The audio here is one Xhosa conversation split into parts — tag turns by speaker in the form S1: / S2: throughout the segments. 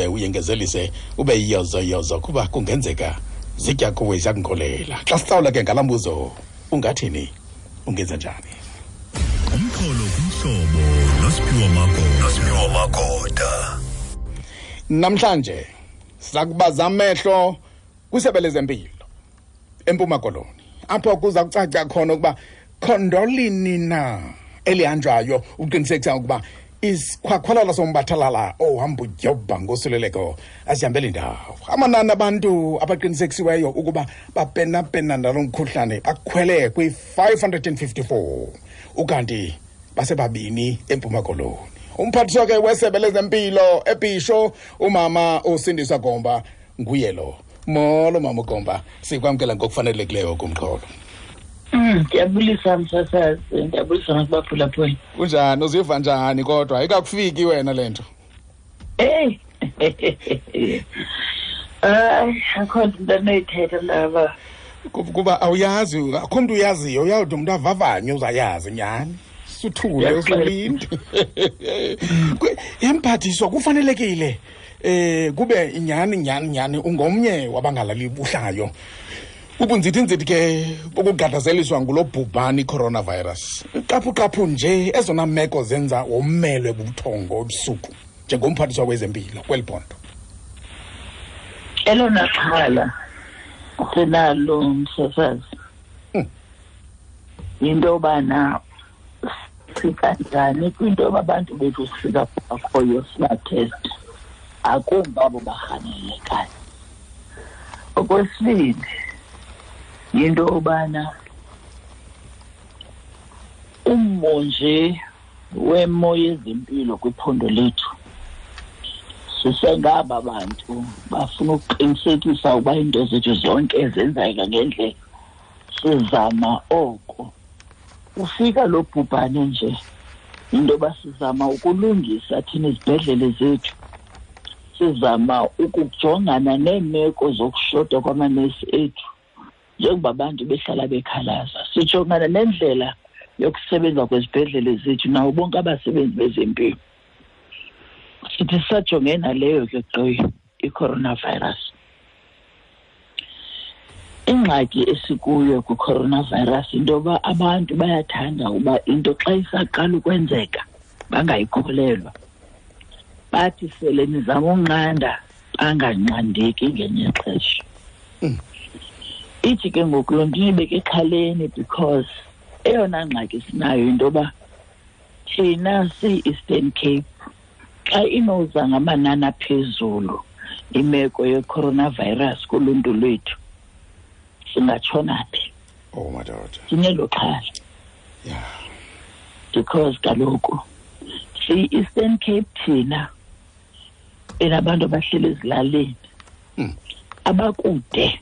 S1: Uyengezelise ube yiyozoyozo kuba kungenzeka zitya kuwe ziyakunkolela. Xa sihlawula ke ngala mbuzo, ungathini, ungenza njani?
S2: Umxholo kumhlobo noSiphiwo Magoda. Nosiphiwo Magoda.
S1: Namhlanje siza kubaza amehlo kwisebe lezempilo eMpuma Koloni, apho kuza kucaca khona ukuba khondolini na elihanjwayo ukuqinisekisa ukuba isikhwakhwalala sombathalala ohamba udyobha ngosuleleko asihambeli ndawo. Amanani abantu abaqinisekisiweyo ukuba bapenapena nalo mkhuhlane akhwele kwi-554, ukanti basebabini eMpuma Koloni. Umphathiswa ke wesebe lezempilo eBhisho, umama uSindiswa Gomba, nguye lo. Molo mama uGomba, sikwamkela ngokufanelekileyo kumxholo.
S3: Ndiyabulisa msasazi, ndiyabulisa nakubaphulaphuli.
S1: Kunjani, uziva njani kodwa? Ayikakufiki wena le nto?
S3: Eyi, hayi, akho nto into anoyithetha mntaba.
S1: Kuba awuyazi, akho mntu uyaziyo, uyawude umntu avavanye uzayazi nyhani. Suthule usulinde. Emphathiswa kufanelekile kube nyhani nyhani nyhani ungomnye wabangalali buhlayo. Ubunzithinzithi ke bokugadazeliswa ngulo bhubhani coronavirus. Qaphu-qaphu nje ezona meko zenza womelwe bubuthongo ebusuku njengomphathiswa wezempilo kweli phondo.
S3: Elona xhala sinalo msasazi yinto yobana sifika njani kwinto yoba abantu bethu sifika bakhoyo sibatheste, akumbi abo barhanelekayo. Okwesibini yinto yobana ummo nje wemo yezempilo kwiphondo lethu, sisengaba bantu bafuna ukuqinisekisa ukuba iinto zethu zonke zenzeka ngendlela, sizama oko. Ufika lo bhubhane nje, into yoba sizama ukulungisa thina izibhedlele zethu, sizama ukujongana neemeko zokushota kwamanesi ethu njengoba abantu behlala bekhalaza, sijongana nendlela yokusebenza kwezibhedlele zethu nawo bonke abasebenzi bezempilo. Sithi sisajongene naleyo ke gqi i-coronavirus. Ingxaki esikuyo kwi-coronavirus into yoba abantu bayathanda uba into xa isaqala ukwenzeka bangayikholelwa, bathi sele nizama unqanda banganqandeki ngenye ixesha. Ithi ke ngoku loo nto inibeke exhaleni, because eyona ngxaki sinayo into yoba thina siyi-Eastern Cape xa inoza ngamanani aphezulu imeko ye-coronavirus kuluntu lwethu, singatshona phi?
S1: Oh madoda.
S3: Sinelo xhala. Because kaloku siyi-Eastern Cape thina enabantu abahleli ezilalini, abakude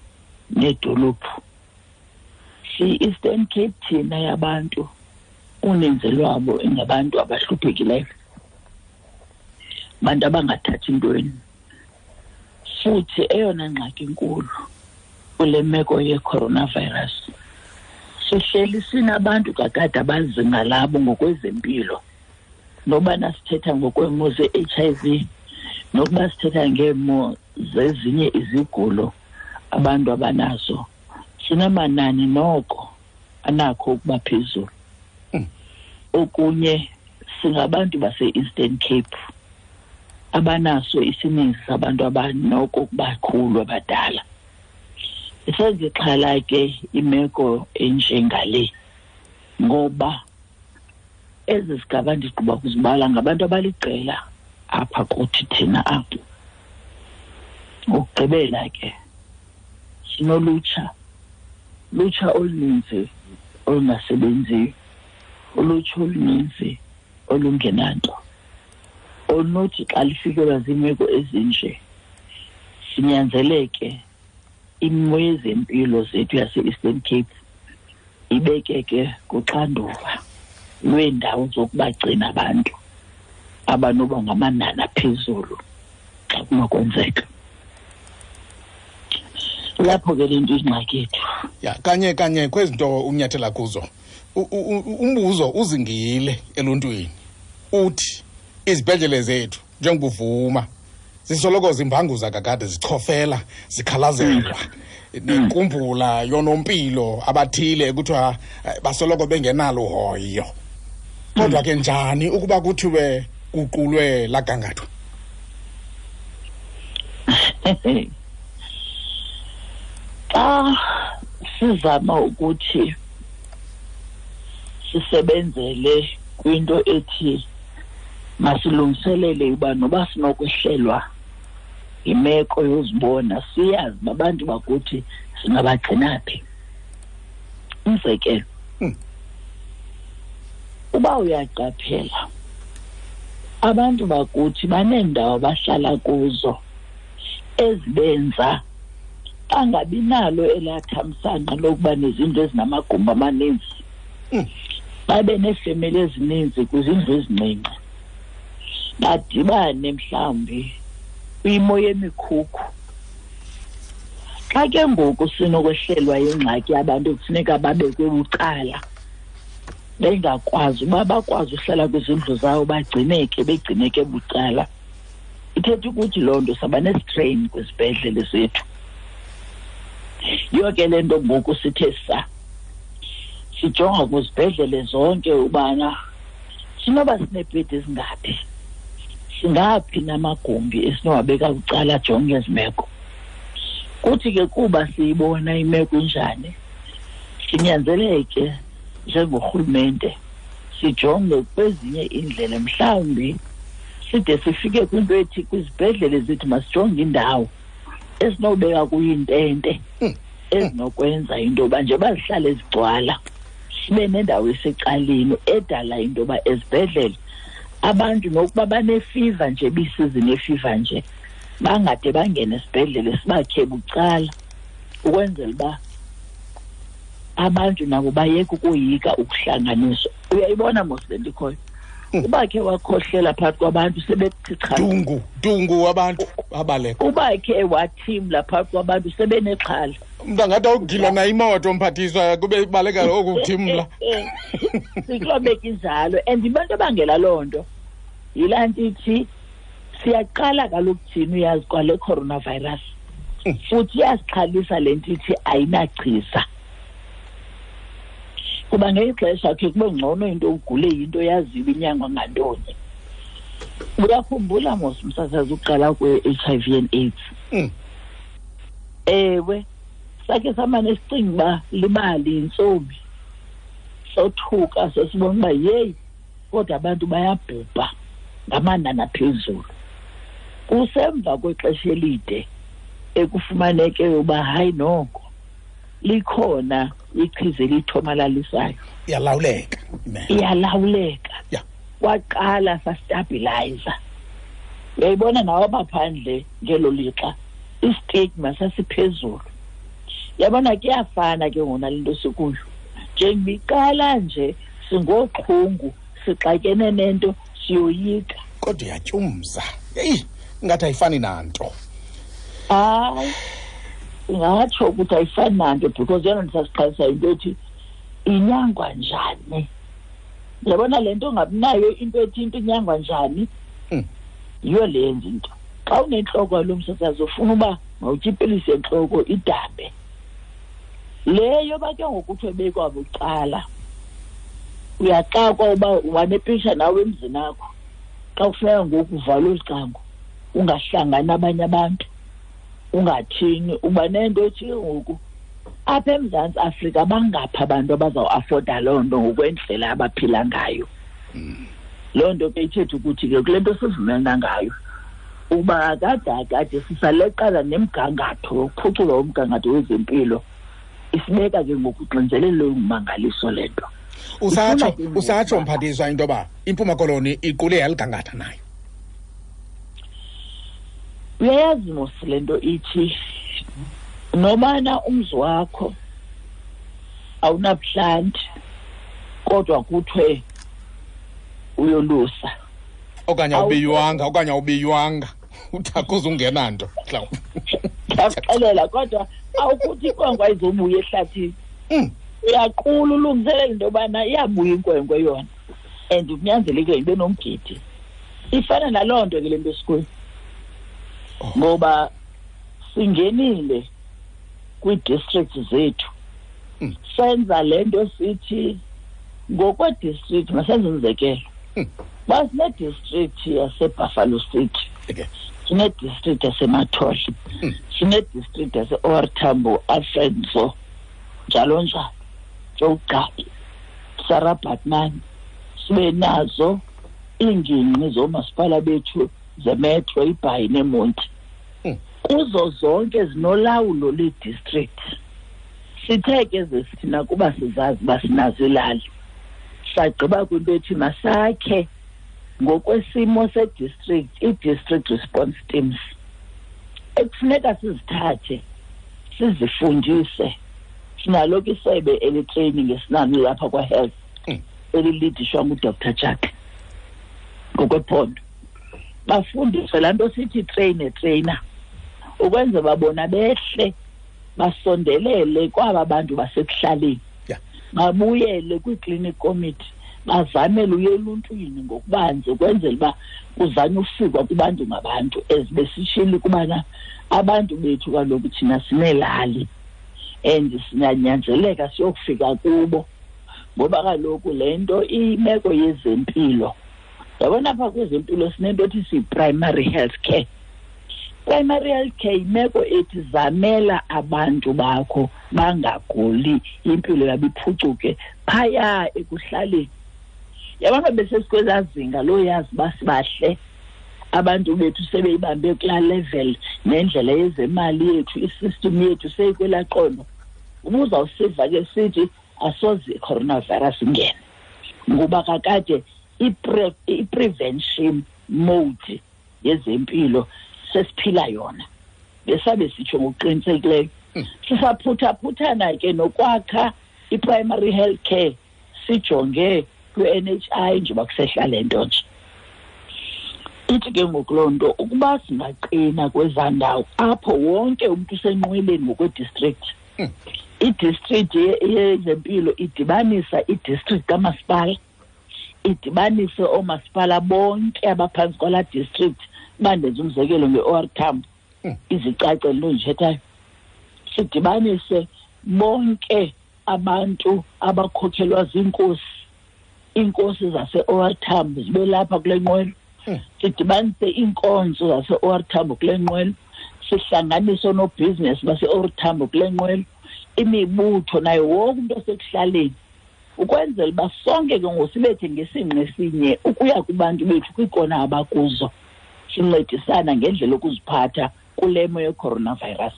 S3: needolophu. Siyi-Eastern Cape thina yabantu uninzi lwabo ingabantu abahluphekileyo, abantu abangathathi ntweni. Futhi eyona ngxaki inkulu kule meko ye-coronavirus, sihleli sinabantu kakade abazinga labo ngokwezempilo, nobana sithetha ngokweemo ze-H I V, nokuba sithetha ngeemo zezinye izigulo abantu abanazo, sinamanani noko anakho ukuba phezulu. Okunye singabantu base-Eastern Cape abanaso isininzi sabantu abanoko ukubakhulu abadala. Isenzixhala ke imeko enjengale, ngoba ezi zigaba ndigqiba kuzibala ngabantu abaliqela apha kuthi thina apha. Ngokugqibela ke sinolutsha, lutsha oluninzi olungasebenziyo, ulutsha oluninzi olungenanto, olunothi xa lifikelwa ziimeko ezinje sinyanzeleke imo yezempilo zethu yase-Eastern Cape ibekeke kuxanduva lweendawo zokubagcina abantu abanoba ngamanani aphezulu xa kunokwenzeka. Lapho ke le nto ingxaki yethu.
S1: Ya, kanye kanye kwezi nto unyathela kuzo, umbuzo uzingile eluntwini uthi izibhedlele zethu njengobuvuma Zisoloko zimbanguza kakade, zichofela, zikhalazelwa. Nenkumbula yonompilo abathile kuthiwa basoloko bengenalo hoyo. Kodwa ke njani ukuba kuthiwe kuqulwe lagangathwa?
S3: Xa sizama ukuthi sisebenzele kwinto ethi masilungiselele uba noba sinokwehlelwa imeko yozibona, siyazi babantu bakuthi singabagcina phi. Umzekelo, uba uyaqaphela abantu bakuthi baneendawo abahlala kuzo ezibenza bangabi nalo elaa thamsanqa lokuba nezindlu ezinamagumbi amaninzi, babe neefemeli ezininzi kwizindlu ezincinci, badibane mhlawumbi kwimo yemikhukhu. Xa ke ngoku sinokwehlelwa yingxaki abantu kufuneka babekwe bucala, bengakwazi uba bakwazi uhlala kwizindlu zawo, bagcineke, begcineke bucala. Ithetha ukuthi loo nto saba nestrain kwizibhedlele zethu. Yiyo ke le nto ngoku sithe sa sijonga kwizibhedlele zonke ubana sinoba sineebhedi ezingaphi, singaphi namagumbi esinowabeka bucala ajonge ezi meko. Kuthi ke kuba siyibona imeko injani, sinyanzeleke njengorhulumente sijonge kwezinye iindlela, mhlawumbi side sifike kwinto ethi kwizibhedlele zethu masijonge indawo esinobeka kuyo iintente ezinokwenza into yoba nje bazihlale zigcwala, sibe nendawo esecaleni edala into yoba ezibhedlele abantu nokuba banefiva nje, bisizini yefiva nje, bangade bangene esibhedlele, sibakhe bucala ukwenzela uba abantu nabo bayeke ukoyika ukuhlanganiswa. Uyayibona mos le nto ikhoyo, uba khe wakhohlela phakathi kwabantu sebethi cha,
S1: dungu dungu, abantu abaleka.
S3: Uba khe wathimla phakathi kwabantu sebenexhala.
S1: Umntu angathi awugilwa na imoto, mphathiswa, kube ibaleka oku kuthimla.
S3: Sikulobeka injalo, and abantu abangela loo nto yilaa nto ithi siyaqala kaloku thina, uyazi kwale coronavirus, futhi iyasixhalisa le nto ithi ayinachiza. Kuba ngexesha khe kube ngcono into ugule yinto yaziwa inyangwa ngantoni. Uyakhumbula mos umsasazi uqala kwe-HIV and AIDS? Ewe, sakhe samane sicinga uba libali yintsomi, sothuka sesibona uba yeyi, kodwa abantu bayabhubha ngamanani aphezulu. Kusemva kwexesha elide ekufumaneke uba hayi noko likhona ichiza elithomalalisayo.
S1: Iyalawuleka.
S3: Iyalawuleka. Kwaqala sastabilizer. Uyayibona nawe abaphandle ngelo lixa istigma sasiphezulu. Yabona kuyafana ke ngona le nto sikuyo. Njengoba nje singoxhungu sixakene nento siyoyika.
S1: Kodwa iyatyumza. Eyi, ingathi ayifani nanto.
S3: Hayi, ingatsho ukuthi ayifani nanto because yona ndisasiqalisa into ethi inyangwa njani. Yabona le nto ungabinayo into ethi into inyangwa njani, yiyo le yenza into. Xa unentloko yalo msasazi ufuna uba mawutye ipilisi yentloko idambe. Le yoba ke ngoku kuthiwe bekwa bucala, uyaxakwa uba wanepisha nawe emzini akho. Xa kufuneka ngoku uvalwe olu cango, ungahlangani abanye abantu, ungathini, uba nento ethi ke ngoku apha eMzantsi Afrika bangaphi abantu abazawuafoda loo nto ngokwendlela abaphila ngayo. Loo nto ke ithetha ukuthi ke kule nto sivumelana ngayo uba akade sisaleqala nemgangatho yokuphucula umgangatho wezempilo, isibeka ke ngokuxinzelelo olungumangaliso le nto.
S1: Usatsho mphathiswa into yoba iMpuma Koloni iqule yaligangatha nayo.
S3: Uyayazi mos le nto ithi nobana umzi wakho awunabuhlanti kodwa kuthiwe uyolusa.
S1: Okanye awubiywanga, uthakuze ungena nto mhlawumbi.
S3: Ndiyakuxelela, kodwa awukuthi inkwenkwe ayizobuya ehlathini. Uyaqula ulungiselela into yobana iyabuya inkwenkwe yona, and kunyanzelekile ibe nomgidi. Ifana naloo nto ke le nto esikuyo. Ngoba singenile kwii-districts zethu, senza le nto sithi ngokwe-district, masenze umzekelo. Uba sine-district yaseBuffalo City, sine-district yaseMathole, sine-district yase-OR Tambo, Alfred Nzo, njalo njalo, Joe Sarah Baartman, sibe nazo iingingqi zoomasipala bethu zemetro, iBhayi neMonti. Kuzo zonke zinolawulo lwe-district. Sithe ke thina kuba sizazi uba sinazo ilali, sagqiba kwinto ethi masakhe ngokwesimo se-district ii-district response teams ekufuneka sizithathe sizifundise. Sinalo ke isebe eli-training esinalo lapha kwa-health elilidishwa nguDr Jack ngokwephondo, bafundiswe laa nto sithi train a trainer, ukwenza babona behle basondelele kwaba bantu basekuhlaleni, babuyele kwii-clinic committee, bazamele uye eluntwini ngokubanzi ukwenzela uba kuzanywe ufikwa kubantu ngabantu. Ezibesishilo ukubana abantu bethu kaloku thina sineelali and sinyanzeleka siyokufika kubo, ngoba kaloku le nto imeko yezempilo, yabona apha kwezempilo sinento ethi siyi-primary health care. Primary health care yimeko ethi zamela abantu bakho bangaguli, impilo yabo iphucuke phaya ekuhlaleni. Yabona besesikwezaa zinga loyazi uba sibahle, abantu bethu sebeyibambe kulaa level nendlela yezemali yethu, i-system yethu seyikwelaa qondo. Ubuzawusiva ke sithi asoze i-coronavirus ingene, ngoba kakade i-prevention mode yezempilo sesiphila yona, besabe sitsho ngokuqinisekileyo. Sisaphutha-phuthana ke nokwakha i-primary health care, sijonge kwi-NHI njengoba kusehla le nto nje. Ithi ke ngoku loo nto ukuba singaqina kwezaa ndawo apho wonke umntu usenqweleni ngokwe-district, i-district yezempilo idibanisa i-district kamasipala, idibanise oomasipala bonke abaphantsi kwalaa district. Uba ndenza umzekelo nge-OR Tambo, izicace le nto ndiyithethayo, sidibanise bonke abantu abakhokhelwa ziinkosi, iinkosi zase-OR Tambo zibe lapha kule nqwelo, sidibanise iinkonzo zase-OR Tambo kule nqwelo, sihlanganise oonobhizinesi base-OR Tambo kule nqwelo, imibutho nayo wonke umntu osekuhlaleni, ukwenzela uba sonke ke ngoku sibethe ngesingqi esinye ukuya kubantu bethu kwiikona abakuzo, sincedisana ngendlela yokuziphatha kule mo ye-coronavirus.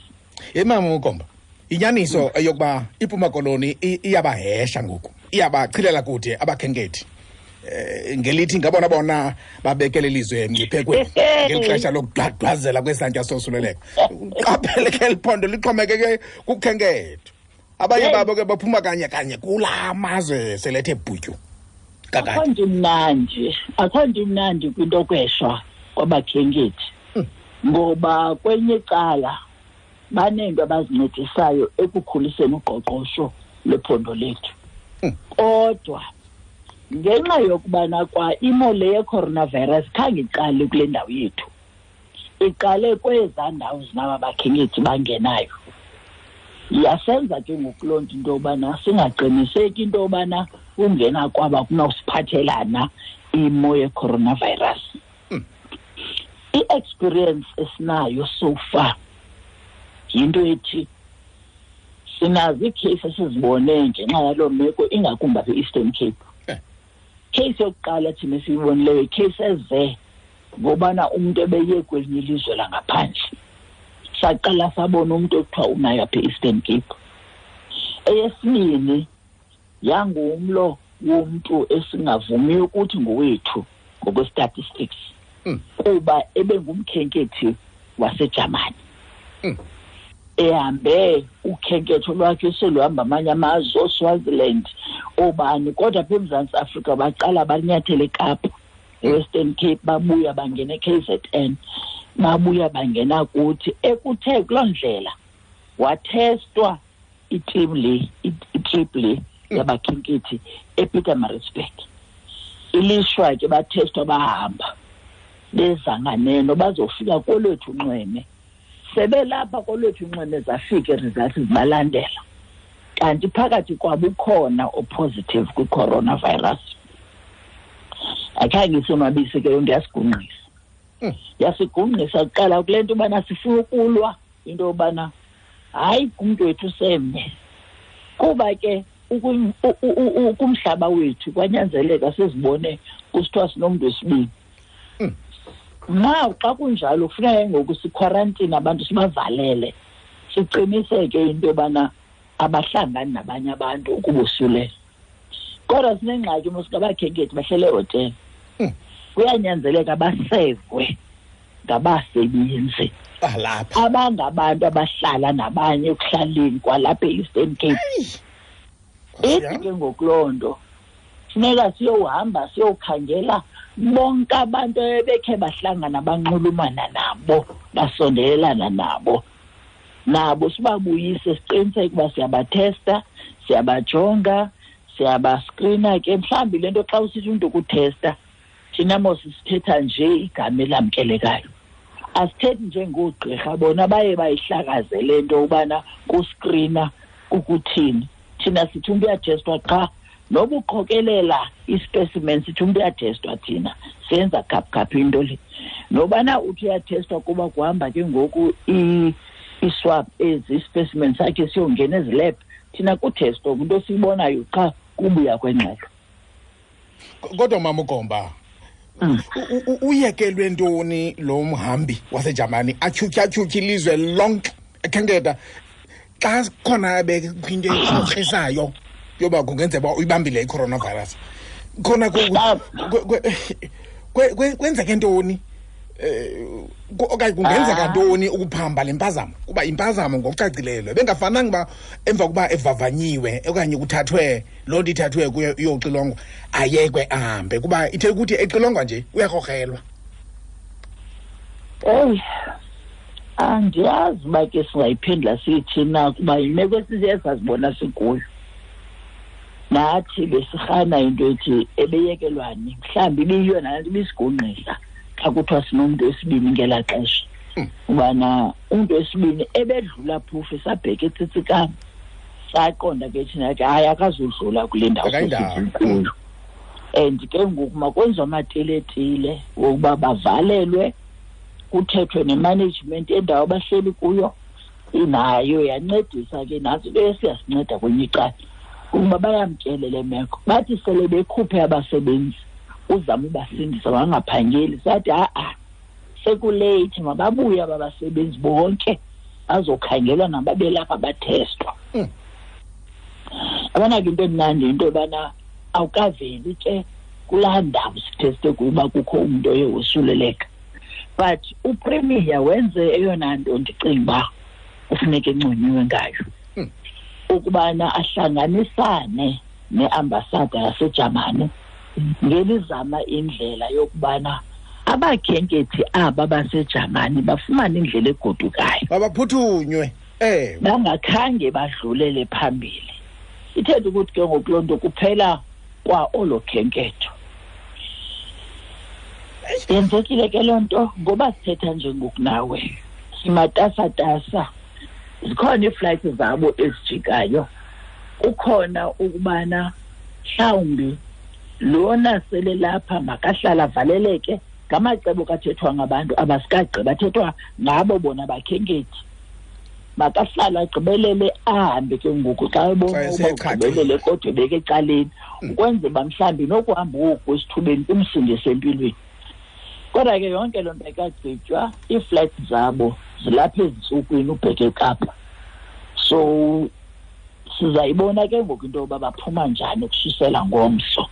S1: Ye mama uGomba, inyaniso eyokuba iMpuma Koloni iyabahesha ngoku, iyabachilela kude abakhenkethi, ngelithi ngabona bona babekele ilizwe emngciphekweni ngeli xesha lokugqagqazela kwesantya sosuleleko. Qaphele ke eli phondo lixhomekeke kukhenketho. Abanye babo ke baphuma kanye kanye kulaa mazwe selethe bhutyu. Kakade.
S3: Akho nto imnandi kwinto yokweshwa kwabakhenkethi, ngoba kwenye icala baneento abazincedisayo ekukhuliseni uqoqosho lwephondo lethu. Kodwa ngenxa yokubana kwa imo le ye-coronavirus khange iqale kule ndawo yethu, iqale kwezaa ndawo zinaba bakhenkethi bangenayo, yasenza ke ngoku loo nto into yobana singaqiniseki into yobana ungena kwaba kunawusiphathelana imo ye-coronavirus. I-experience esinayo so far yinto ethi sinazo iikheyisi esizibone ngenxa yaloo meko, ingakumbi apha e-Eastern Cape. Case yokuqala thina esiyibonileyo yikheyisi eze ngobana umntu ebeye kwelinye ilizwe langaphandle, saqala sabona umntu ekuthiwa unayo apha e-Eastern Cape. Eyesibini yangumlo womntu esingavumiyo ukuthi ngowethu ngokwe-statistics, kuba ebengumkhenkethi waseJamani, ehambe ukhenketho lwakhe seluhamba amanye amazwe, ooSwaziland, oobani, kodwa apha eMzantsi Afrika baqala banyathele eKapa, eWestern Cape, babuya bangena e-KZN, babuya bangena kuthi. Ekuthe kuloo ndlela wathestwa i-team le, i-trip le yabakhenkethi ePietermaritzburg. Ilishwa ke bathestwa bahamba. Beza nganeno bazofika kolwethu unxweme. Sebelapha kolwethu unxweme zafika ii-results zibalandela. Kanti phakathi kwabo ukhona o-positive kwi-coronavirus. Akhange isonwabise ke yonke, yasigungqisa. Yasigungqisa kuqala kule nto ubana sifuna ukulwa into yobana hayi kumntu wethu semnye. Kuba ke kumhlaba wethu kwanyanzeleka sizibone kusithiwa sinomntu wesibini. Now xa kunjalo kufuneka ngoku sikhwarantine abantu sibavalele, siqiniseke into yobana abahlangani nabanye abantu ukubosulela. Kodwa sinengxaki mos ngabakhenkethi bahlele ehotele. Kuyanyanzeleka basevwe ngabasebenzi
S1: balapha
S3: abangabantu abahlala nabanye ekuhlaleni kwalapha e-Eastern Cape. Ithi ke ngoku loo nto funeka siyohamba siyokhangela bonke abantu ebekhe bahlangana banxulumana nabo basondelelana nabo, nabo sibabuyise siqiniseke uba siyabathesta, siyabajonga, siyabaskrina ke. Mhlawumbi le nto xa usithi umntu kuthesta, thina mos sithetha nje igama elamkelekayo, asithethi njengoogqirha bona baye bayihlakaze le nto ubana kuskrina kukuthini. Thina sithi umntu uyathestwa qha, noba uqokelela i-specimen sithi umntu uyathestwa, thina senza khaphukhaphu into le. Nobana uthi uyathestwa kuba kuhamba ke ngoku i-swab ezi, i-specimen sakhe siyongena ezilab, thina kuthestwa kwinto esiyibonayo qha kubuya kwengxelo.
S1: Kodwa mama uGomba, uyekelwe ntoni lo mhambi waseJamani atyhutyha ilizwe lonke ekhenketha xa khona bekwinto ekrokrisayo yoba kungenzeka uba uyibambile i-coronavirus? Khona kwenzeke ntoni? Okanye kungenzeka ntoni ukuphamba le mpazamo? Kuba impazamo ngokucacileyo bengafananga uba emva kokuba evavanyiwe okanye kuthathwe loo nto ithathwe kuyo iyoxilongwa ayekwe ahambe, kuba ithe ukuthi exilongwa nje uyakrokrelwa.
S3: Eyi, andiyazi uba ke singayiphendula sithi na, kuba yimeko esiye sazibona sikuyo. Nathi besirhana into ethi ebeyekelwani, mhlawumbi ibiyiyo nalaa nto ibisigungqisa xa kuthiwa sinomntu wesibini ngelaa xesha. Ubana umntu wesibini ebedlula phofu esabheka eTsitsikama, saqonda ke thina ke hayi akazudlula kule ndawo sikuyo. And ke ngoku makwenziwe amatiletile wokuba bavalelwe, kuthethwe ne-management yendawo abahleli kuyo, inayo yancedisa ke nantsi into esiyasinceda kwenye icala ukuba bayamkele le meko. Bathi sele bekhuphe abasebenzi uzama ubasindisa bangaphangeli, sathi ha-a sekuleyithi, mababuye aba basebenzi bonke bazokhangelwa nababelapha bathestwa. Yabona ke into emnandi into yobana awukaveli ke kulaa ndawo sitheste kuyo uba kukho umntu oye wosuleleka. But uPremier wenze eyona nto ndicinga uba kufuneka enconyiwe ngayo, ukubana ahlanganisane neambasada yaseJamani ngelizama indlela yokubana abakhenkethi aba baseJamani bafumane indlela egodukayo,
S1: babaphuthunywe,
S3: bangakhange badlulele phambili. Ithetha ukuthi ke ngoku loo nto kuphela kwa olo khenketho. Yenzekile ke loo nto ngoba sithetha nje ngoku nawe simatasatasa, zikhona iiflights zabo ezijikayo, kukhona ukubana mhlawumbi lona sele lapha makahlala avaleleke. Ngamacebo kathethwa ngabantu abasikagqiba, athethwa ngabo bona bakhenkethi, makahlala agqibelele ahambe ke ngoku xa ebona uba ugqibelele kodwa ebeke ecaleni, ukwenzela uba mhlawumbi nokuhamba oku esithubeni kumsindise empilweni. Kodwa ke yonke loo nto ayikagqitywa, iiflights zabo zilapha ezintsukwini ubheke eKapa. So sizayibona ke ngoku into yoba baphuma njani ukususela ngomso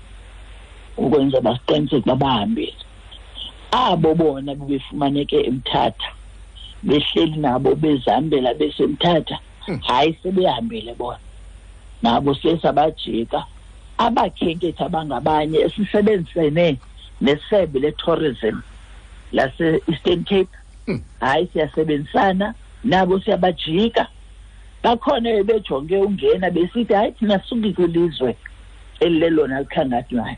S3: ukwenza basiqiniseke uba bahambile. Abo bona bebefumaneke eMthatha behleli nabo bezihambela besemthatha, hayi sebehambile bona nabo sesabajika. Abakhenkethi abangabanye esisebenzisene nesebe le-tourism lase-Eastern Cape, hayi siyasebenzisana nabo siyabajika. Bakhona bejonge ungena besithi hayi thina sisuki kwilizwe elilelona likhangathwayo,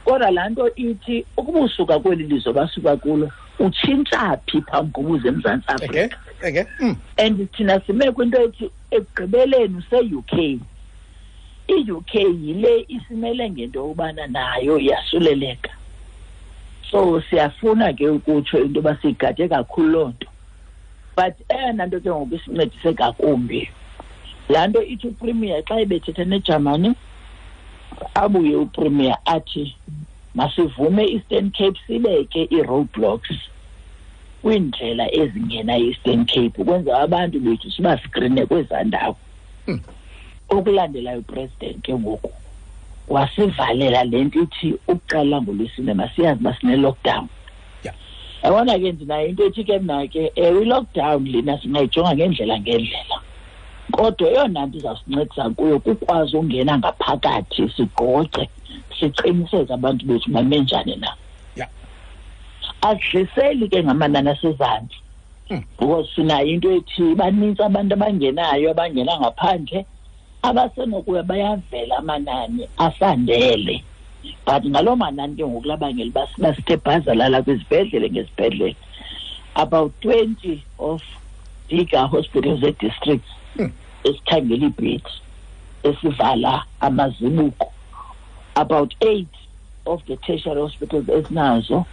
S3: kodwa laa nto ithi ukuba usuka kweli lizwe basuka kulo Utshintsha phi phambi kokuza eMzantsi Afrika? And thina sime kwinto ethi ekugqibeleni use-UK. I-UK yile isimele ngento yobana nayo iyasuleleka. So siyafuna ke ukutsho into yoba siyigade kakhulu loo nto. But eyona nto ke ngoku isincedise ngakumbi, laa nto ithi uPremier xa ebethetha neJamani, abuye uPremier athi masivume i-Eastern Cape sibeke ii-roadblocks kwiindlela ezingena i-Eastern Cape ukwenza abantu bethu sibaskrine kwezaa ndawo. Okulandelayo uPresident ke ngoku wasivalela le nto ithi ukuqala ngoLwesine masiyazi uba sine-lockdown. Yabona ke ndinayo into ethi ke mna ke, ewe, i-lockdown lena singayijonga ngendlela ngendlela, kodwa eyona nto izawusincedisa kuyo kukwazi ungena ngaphakathi sigqogqe siqiniseke abantu bethu bame njani na. Asidliseli ke ngamanani asezantsi, because sinayo into ethi banintsi abantu abangenayo, abangena ngaphandle, abasenokuya bayavela amanani asandele. But ngaloo manani ke ngoku labangela uba basithe bhazalala kwizibhedlele ngezibhedlele. About 20 of bigger hospitals e-districts esikhangela iibhedi esivala amazibuko. About 8 of the tertiary hospitals esinazo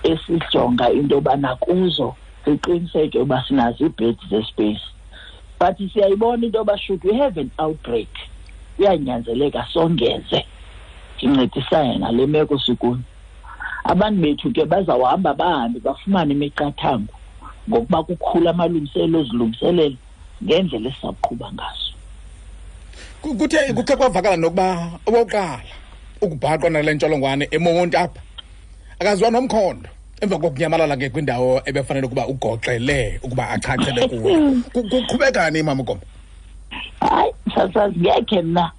S3: esijonga into yobana kuzo siqiniseke uba sinazo iibhedi zespace. But siyayibona into yoba should we have an outbreak, kuyanyanzeleka songeze sincedisane nale meko sikuyo. Abantu bethu ke bazawuhamba bahambe bafumane imiqathango ngokuba kukhula amalungiselelo ozilungiselela ngendlela esizawuqhuba ngaso.
S1: Kuthe kukhe kwavakala nokuba owokuqala ukubhaqwa nale ntsholongwane eMonti apha akaziwa nomkhondo emva kokunyamalala ke kwindawo ebefanele ukuba ugoxele ukuba achachele kuyo. Kuqhubekani, Mama Gomba?
S3: Hayi, sasazi ngekhe mna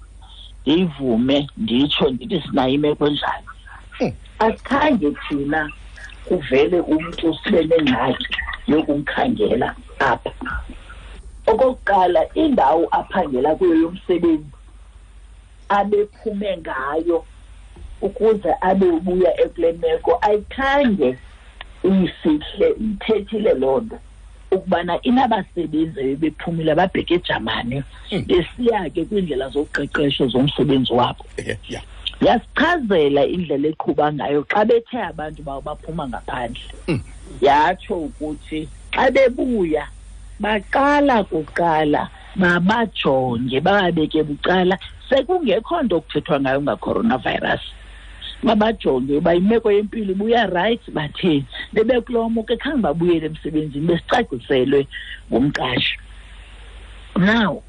S3: ndiyivume nditsho ndithi sinayo imeko enjalo. Asikhange thina kuvele umntu sibe nengxaki yokumkhangela apha. Okokuqala, indawo aphangela kuyo yomsebenzi abephume ngayo ukuze abe ubuya ekule meko ayikhange iyifihle, ithethile loo nto ukubana inabasebenzi bebephumile babheke eJamani besiya ke kwiindlela zoqeqesho zomsebenzi wabo. Yasichazela indlela eqhuba ngayo xa bethe abantu babo baphuma ngaphandle. Yatsho ukuthi xa bebuya baqala kuqala babajonge bababeke bucala, sekungekho nto kuthethwa ngayo nga-coronavirus. Babajonge uba imeko yempilo ibuya right, batheni. Bebekulomo ke khange babuyele emsebenzini, besicaciselwe ngumqashi. Now,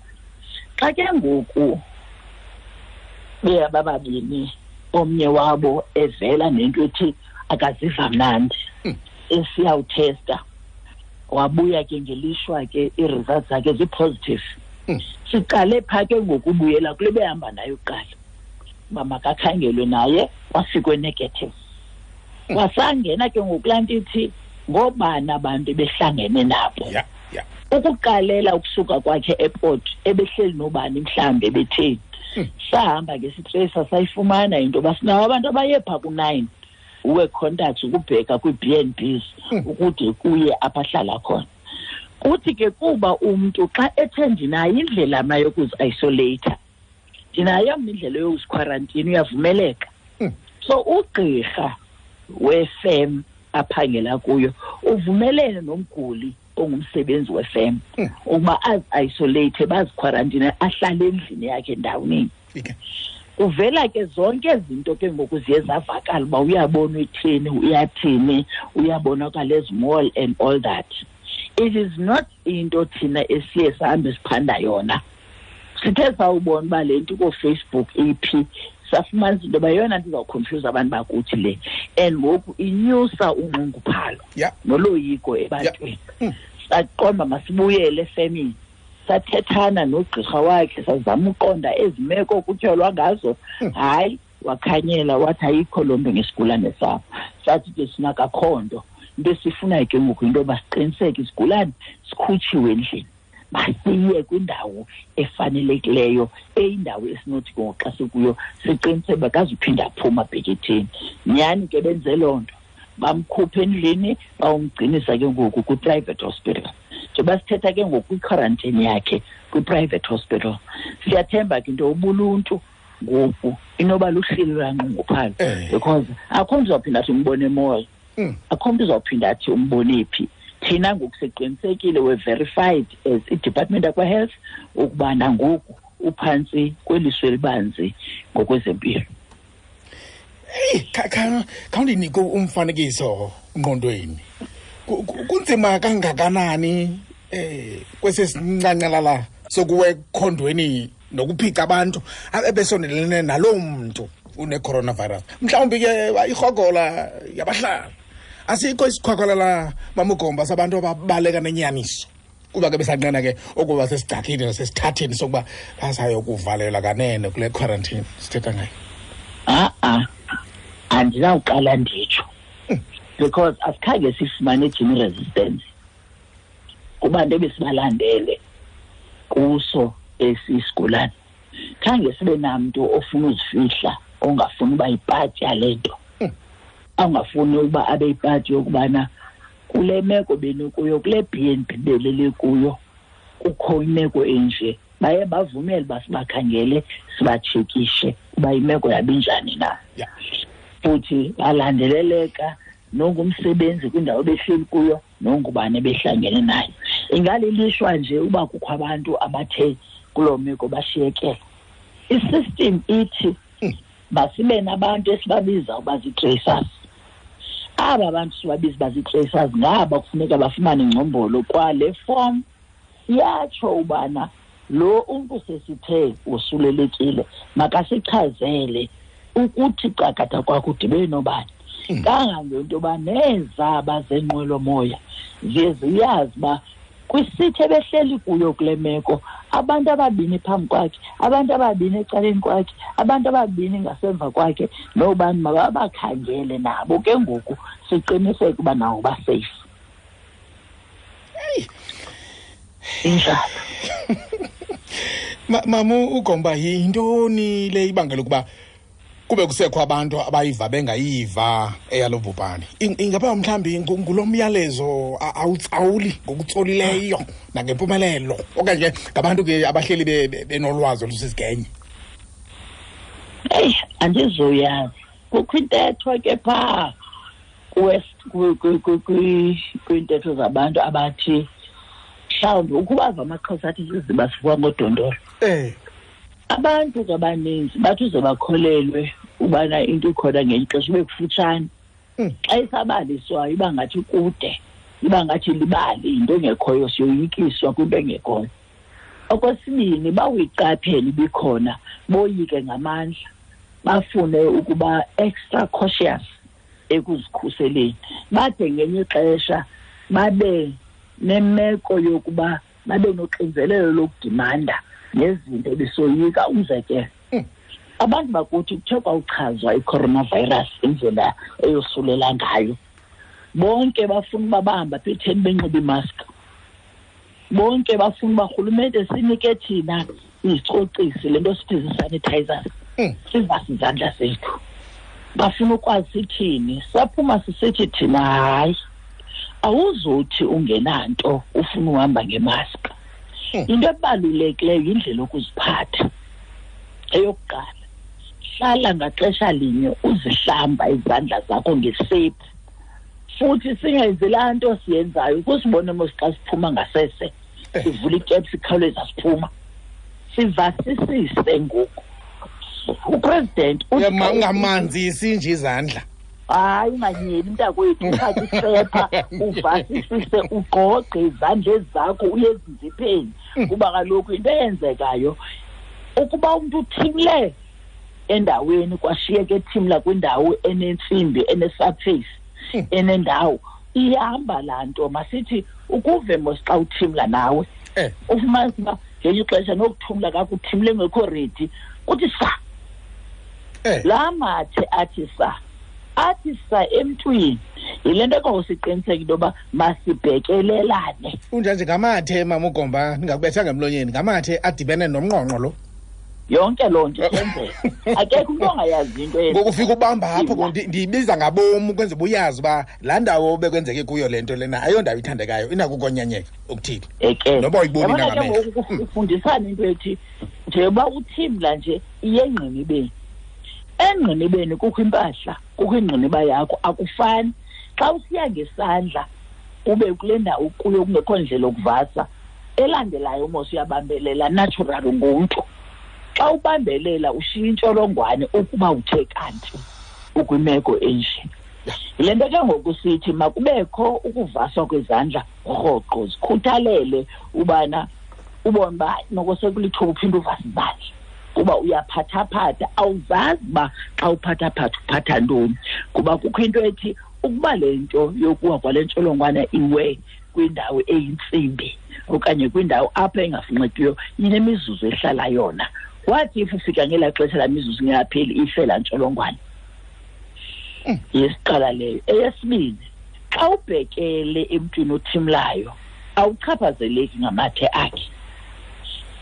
S3: xa ke ngoku beyabababini, omnye wabo evela nento ethi akaziva mnandi, esiyawuthesta, wabuya ke ngelishwa ke ii-results zakhe zi-positive. Siqale phaa ke ngokubuyela kule behamba nayo kuqala, uba makakhangelwe naye, wafikwe negative. Wasangena ke ngokulaa nto ithi ngoobani abantu ebehlangene nabo. Ukuqalela ukusuka kwakhe e-airport, ebehleli nobani mhlawumbi ebetheni. Sahamba ke sitreyisa sayifumana into yoba sinawo abantu abaye phaa ku-9 wee-contacts ukubheka kwii-B and Bs ukude kuye apho ahlala khona. Kuthi ke kuba umntu xa ethe ndinayo indlela mna yokuzi-isolate, ndinayo mna indlela yokuzikhwarantina, uyavumeleka. So ugqirha wefem aphangela kuyo uvumelene nomguli ongumsebenzi wefem ukuba azi-isolate, bazikhwarantine, ahlale endlini yakhe ndawoningi. Kuvela ke zonke izinto ke ngoku ziye zavakala uba uyabona uthini, uyathini, uyabonakala ezimall and all that. It is not into thina esiye sahambe siphanda yona. Sithe sawubona uba le nto kooFacebook iphi, safumanisa into yoba yeyona nto izawukhonfyuza abantu bakuthi le. And ngoku inyusa unxunguphalo noloyiko ebantwini. Saqonda masibuyele efemini. Sathethana nogqirha wakhe, sazama uqonda ezi meko kutyholwa ngazo. Hayi, wakhanyela wathi ayikho loo nto ngesigulane sabo. Sathi ke sinakakho nto. Into esifunayo ke ngoku yinto yoba siqiniseke isigulane sikhutshiwe endlini, masiye kwindawo efanelekileyo, eyindawo esinothi ke ngoku xa sikuyo siqiniseke uba akazuphinda aphuma abheke etheni. Nyhani ke benze loo nto, Bamkhupha endlini, bawumgcinisa ke ngoku kwi-private hospital. Njengoba sithetha ke ngoku kwi-quarantine yakhe kwi-private hospital. Siyathemba ke into ubuluntu ngoku inoba luhleli lwanqunguphalo, because akho mntu uzawuphinda athi umbone e-mall, akho mntu uzawuphinda athi umbone phi. Thina ngoku siqinisekile, we're verified as i-Department yakwa-Health ukuba nangoku uphantsi kweliso elibanzi ngokwezempilo.
S1: Eyi, khawundinike umfanekiso ngqondweni. Kunzima kangakanani kwesi sincancelala sokuwa ekhondweni nokuphica abantu ebesondelene naloo mntu une-coronavirus? Mhlawumbi ke irhogola yabahlala. Asikho isikhwakhwalala, Mamugomba, sabantu ababaleka nenyaniso, kuba ke besanqena ke ukuba sesigcakini nasesithatheni sokuba basayokuvalelwa kanene kule quarantine sithetha ngayo.
S3: A-a, andinawuqala nditsho, because asikhange sifumane gene resistance kubantu ebesibalandele kuso esi sigulane. Khange sibe namntu ofuna uzifihla, ongafuni uba yipati yale nto, angafuni ukuba abe yipati yokubana kule meko benikuyo, kule B&B belele kuyo, kukho imeko enje. Baye bavumele uba sibakhangele, sibatshekishe uba imeko yabo injani na. Futhi balandeleleka nongumsebenzi kwindawo behleli kuyo, nongubani ebehlangene naye. Ingalilishwa nje uba kukho abantu abathe kuloo meko bashiyekela. I-system ithi masibe nabantu esibabiza uba zii-tracers. Aba bantu sibabiza uba zii-tracers ngaba kufuneka bafumane ingcombolo kwale form iyatsho ubana lo umntu sesithe wosulelekile makasichazele ukuthi cakatha kwakho udibene nobani. Kangangento yoba nezaba zenqwelomoya ziye ziyazi uba kwisithi ebehleli kuyo kule meko abantu ababini phambi kwakhe, abantu ababini ecaleni kwakhe, abantu ababini ngasemva kwakhe, nobani mababakhangele nabo ke ngoku siqiniseke uba nawo basafe. Injalo.
S1: Mamu uGomba, yintoni le ibangela ukuba kube kusekho abantu abayiva bengayiva eyalo bhubhane? Ingaba mhlawumbi ngulo myalezo awutsawuli ngokutsolileyo nangempumelelo, okanye ngabantu ke abahleli benolwazi olusisigenya?
S3: Eyi, andizoyazi. Kukho intetho ke phaa kwiintetho zabantu abathi mhlawumbi ukubava amaXhosa athi siziba sivuka ngodondolo. Abantu ke abaninzi bathi uze bakholelwe ubana into ikhona ngelinye ixesha ibe kufutshane. Xa isabaliswayo iba ngathi kude, iba ngathi libali, yinto engekhoyo, siyoyikiswa kwinto engekhoyo. Okwesibini, bawuyiqaphele ibikhona, boyike ngamandla, bafune ukuba extra cautious ekuzikhuseleni. Bade ngelinye ixesha babe nemeko yokuba babe noxinzelelo lokudimanda nezinto besoyika. Umzekelo, abantu bakuthi kuthe kwawuchazwa i-coronavirus indlela eyosulela ngayo, bonke bafuna uba bahamba apha etheni benxibe imask, bonke bafuna uba rhulumente sinike thina izicocisi, le nto sithi zii-sanitizers, sivase izandla zethu. Bafuna ukwazi sithini. Saphuma sisithi thina hayi, awuzothi ungenanto ufuna uhamba ngemask. Into ebalulekileyo yindlela yokuziphatha. Eyokuqala, hlala ngaxesha linye uzihlamba izandla zakho ngesephu. Futhi singenzi laa nto siyenzayo kusibone mos xa siphuma ngasese, sivula itephu sikhawuleza siphuma. Sivasisise ngoku. Upresident uthi
S1: Ungamanzisi nje izandla.
S3: Hayi, unganyeli mntakwethu, uthathe isepha uvasisise, ugqogqe izandla zakho uye ezinzipheni. Kuba kaloku into eyenzekayo ukuba umntu uthimle endaweni kwashiyeka ethimla kwindawo enentsimbi, ene-surface, enendawo, ihamba laa nto. Masithi ukuve mos xa uthimla nawe, ufumanise uba ngelinye ixesha nokuthumla kakuthimle ngekho ready, kuthi sa. Laa mathe athi sa, athi sa emntwini. Yile nto ke siqiniseke into yoba masibhekelelane.
S1: Unjanje ngamathe, Mama uGomba, ndingakubethanga emlonyeni, ngamathe adibene nomnqonqo lo.
S3: Yonke loo nto yenzeka, akekho umntu ongayazi into.
S1: Ngoku ufika ubamba apho, ndiyibiza ngabom ukwenzela uba uyazi uba laa ndawo bekwenzeke kuyo le nto lena ayondawo ithandekayo, inako ukonyanyeka okuthile.
S3: Eke
S1: noba uyiboni
S3: nangamehlo. Ufundisana into ethi njengoba uthimla nje iye engqinibeni. Engqinibeni kukho impahla, kukho ingqiniba yakho, akufani. Xa usiya ngesandla ube kule ndawo kuyo kungekho ndlela okuvasa, elandelayo mos uyabambelela natural ngumntu. Xa ubambelela ushiya intsholongwane ukuba uthe kanti ukwimeko enje. Yile nto ke ngoku sithi makubekho ukuvaswa kwezandla rhoqo, zikhuthalele ubana ubone uba noko sekulithuba uphinde uvase izandla, kuba uyaphathaphatha, awuzazi uba xa uphathaphatha uphatha ntoni, kuba kukho into ethi ukuba le nto yokuwa kwale ntsholongwane iwe kwindawo eyintsimbi okanye kwindawo apho engafunxikiyo inemizuzu ehlala yona. Wathi if ufika ngelaa xesha laa mizuzu ingapheli ife laa ntsholongwane. Yesiqala leyo. Eyesibini, xa ubhekele emntwini othimlayo awuchaphazeleki ngamathe akhe.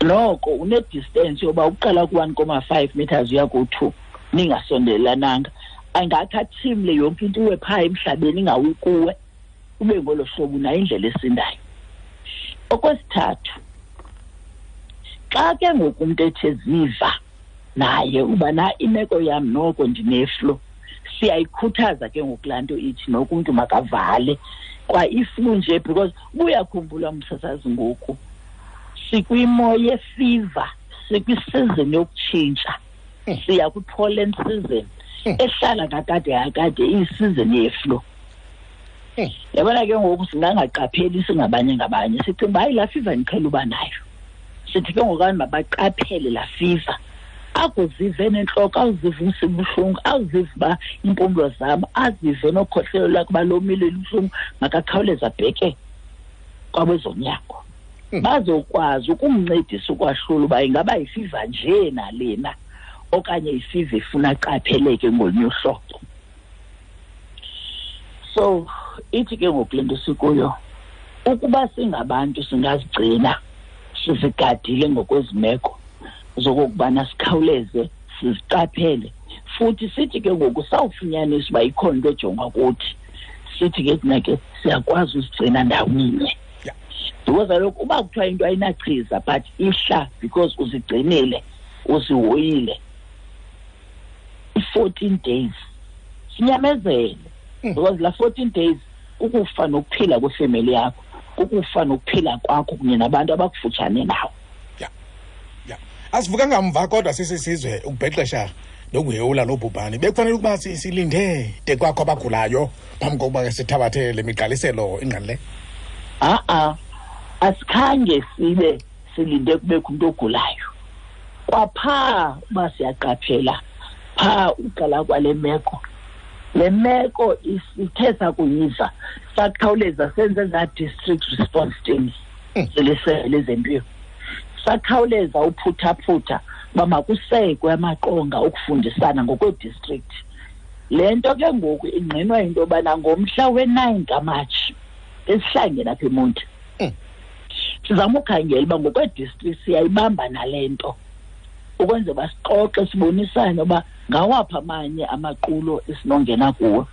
S3: Noko une-distance yoba uqala ku-1.5 meters uya ku-2, ningasondelananga. Angathi athimle yonke into iwe phaa emhlabeni ingawi kuwe, ube ngolo hlobo unayo indlela esindayo. Okwesithathu, xa ke ngoku umntu ethe ziva naye uba na imeko yam noko ndineflu, siyayikhuthaza ke ngoku laa nto ithi noko umntu makavale kwa iflu nje, because ubuyakhumbula umsasazi ngoku sikwimo yefiva, sikwisizini yokutshintsha, siya kwi-pollen season ehlala kakade kakade iyisizini yeflu. Yabona ke ngoku singangaqapheli singabanye ngabanye, sicinga uba hayi laa fiva ndiqhela uba nayo. Sithi ke ngoku abantu mabaqaphele laa fiva, akuzive nentloko, awuzive umsibuhlungu, awuzive uba iimpumlo zam, azive nokhohlelo lwakhe uba lomile lubuhlungu, makakhawuleze abheke kwabezonyango. Bazokwazi ukumncedisa ukwahlula uba ingaba yifiva nje nalena okanye ifiva efuna aqapheleke ngolunye uhlobo. So ithi ke ngoku le nto sikuyo, ukuba singabantu singazigcina sizigadile ngokwezimeko zokokubana sikhawuleze siziqaphele, futhi sithi ke ngoku sawufunyanisa uba ikhona into ejongwa kuthi, sithi ke thina ke siyakwazi uzigcina ndawoninye. Because kaloku uba kuthiwa into ayinachiza but ihla because uzigcinile, uzihoyile i-14 days, sinyamezele. Because la 14 days kukufa nokuphila kwefemeli yakho, kukufa nokuphila kwakho kunye nabantu abakufutshane nawe.
S1: Asivuka ngamva kodwa sisisizwe ukubhexesha nokuhewula lo bhubhane. Bekufanele ukuba silinde de kwakho abagulayo phambi kokuba ke sithabathe le migqaliselo ingqalileyo.
S3: Asikhange sibe silinde kubekho umntu ogulayo. Kwaphaa uba siyaqaphela phaa uqala kwale meko, le meko isithe sakuyiva sakhawuleza senze ezaa district response teams zelisebe lezempilo, sakhawuleza uphuthaphutha uba makusekwe amaqonga okufundisana ngokwedistrict. Le nto ke ngoku ingqinwa into yobana ngomhla we-9 kaMatshi esihlangene apha eMonti, sizama ukhangela uba ngokwedistrict siyayibamba nale nto, ukwenzela uba sixoxe sibonisane uba ngawaphi amanye amaqulo esinongena kuwo,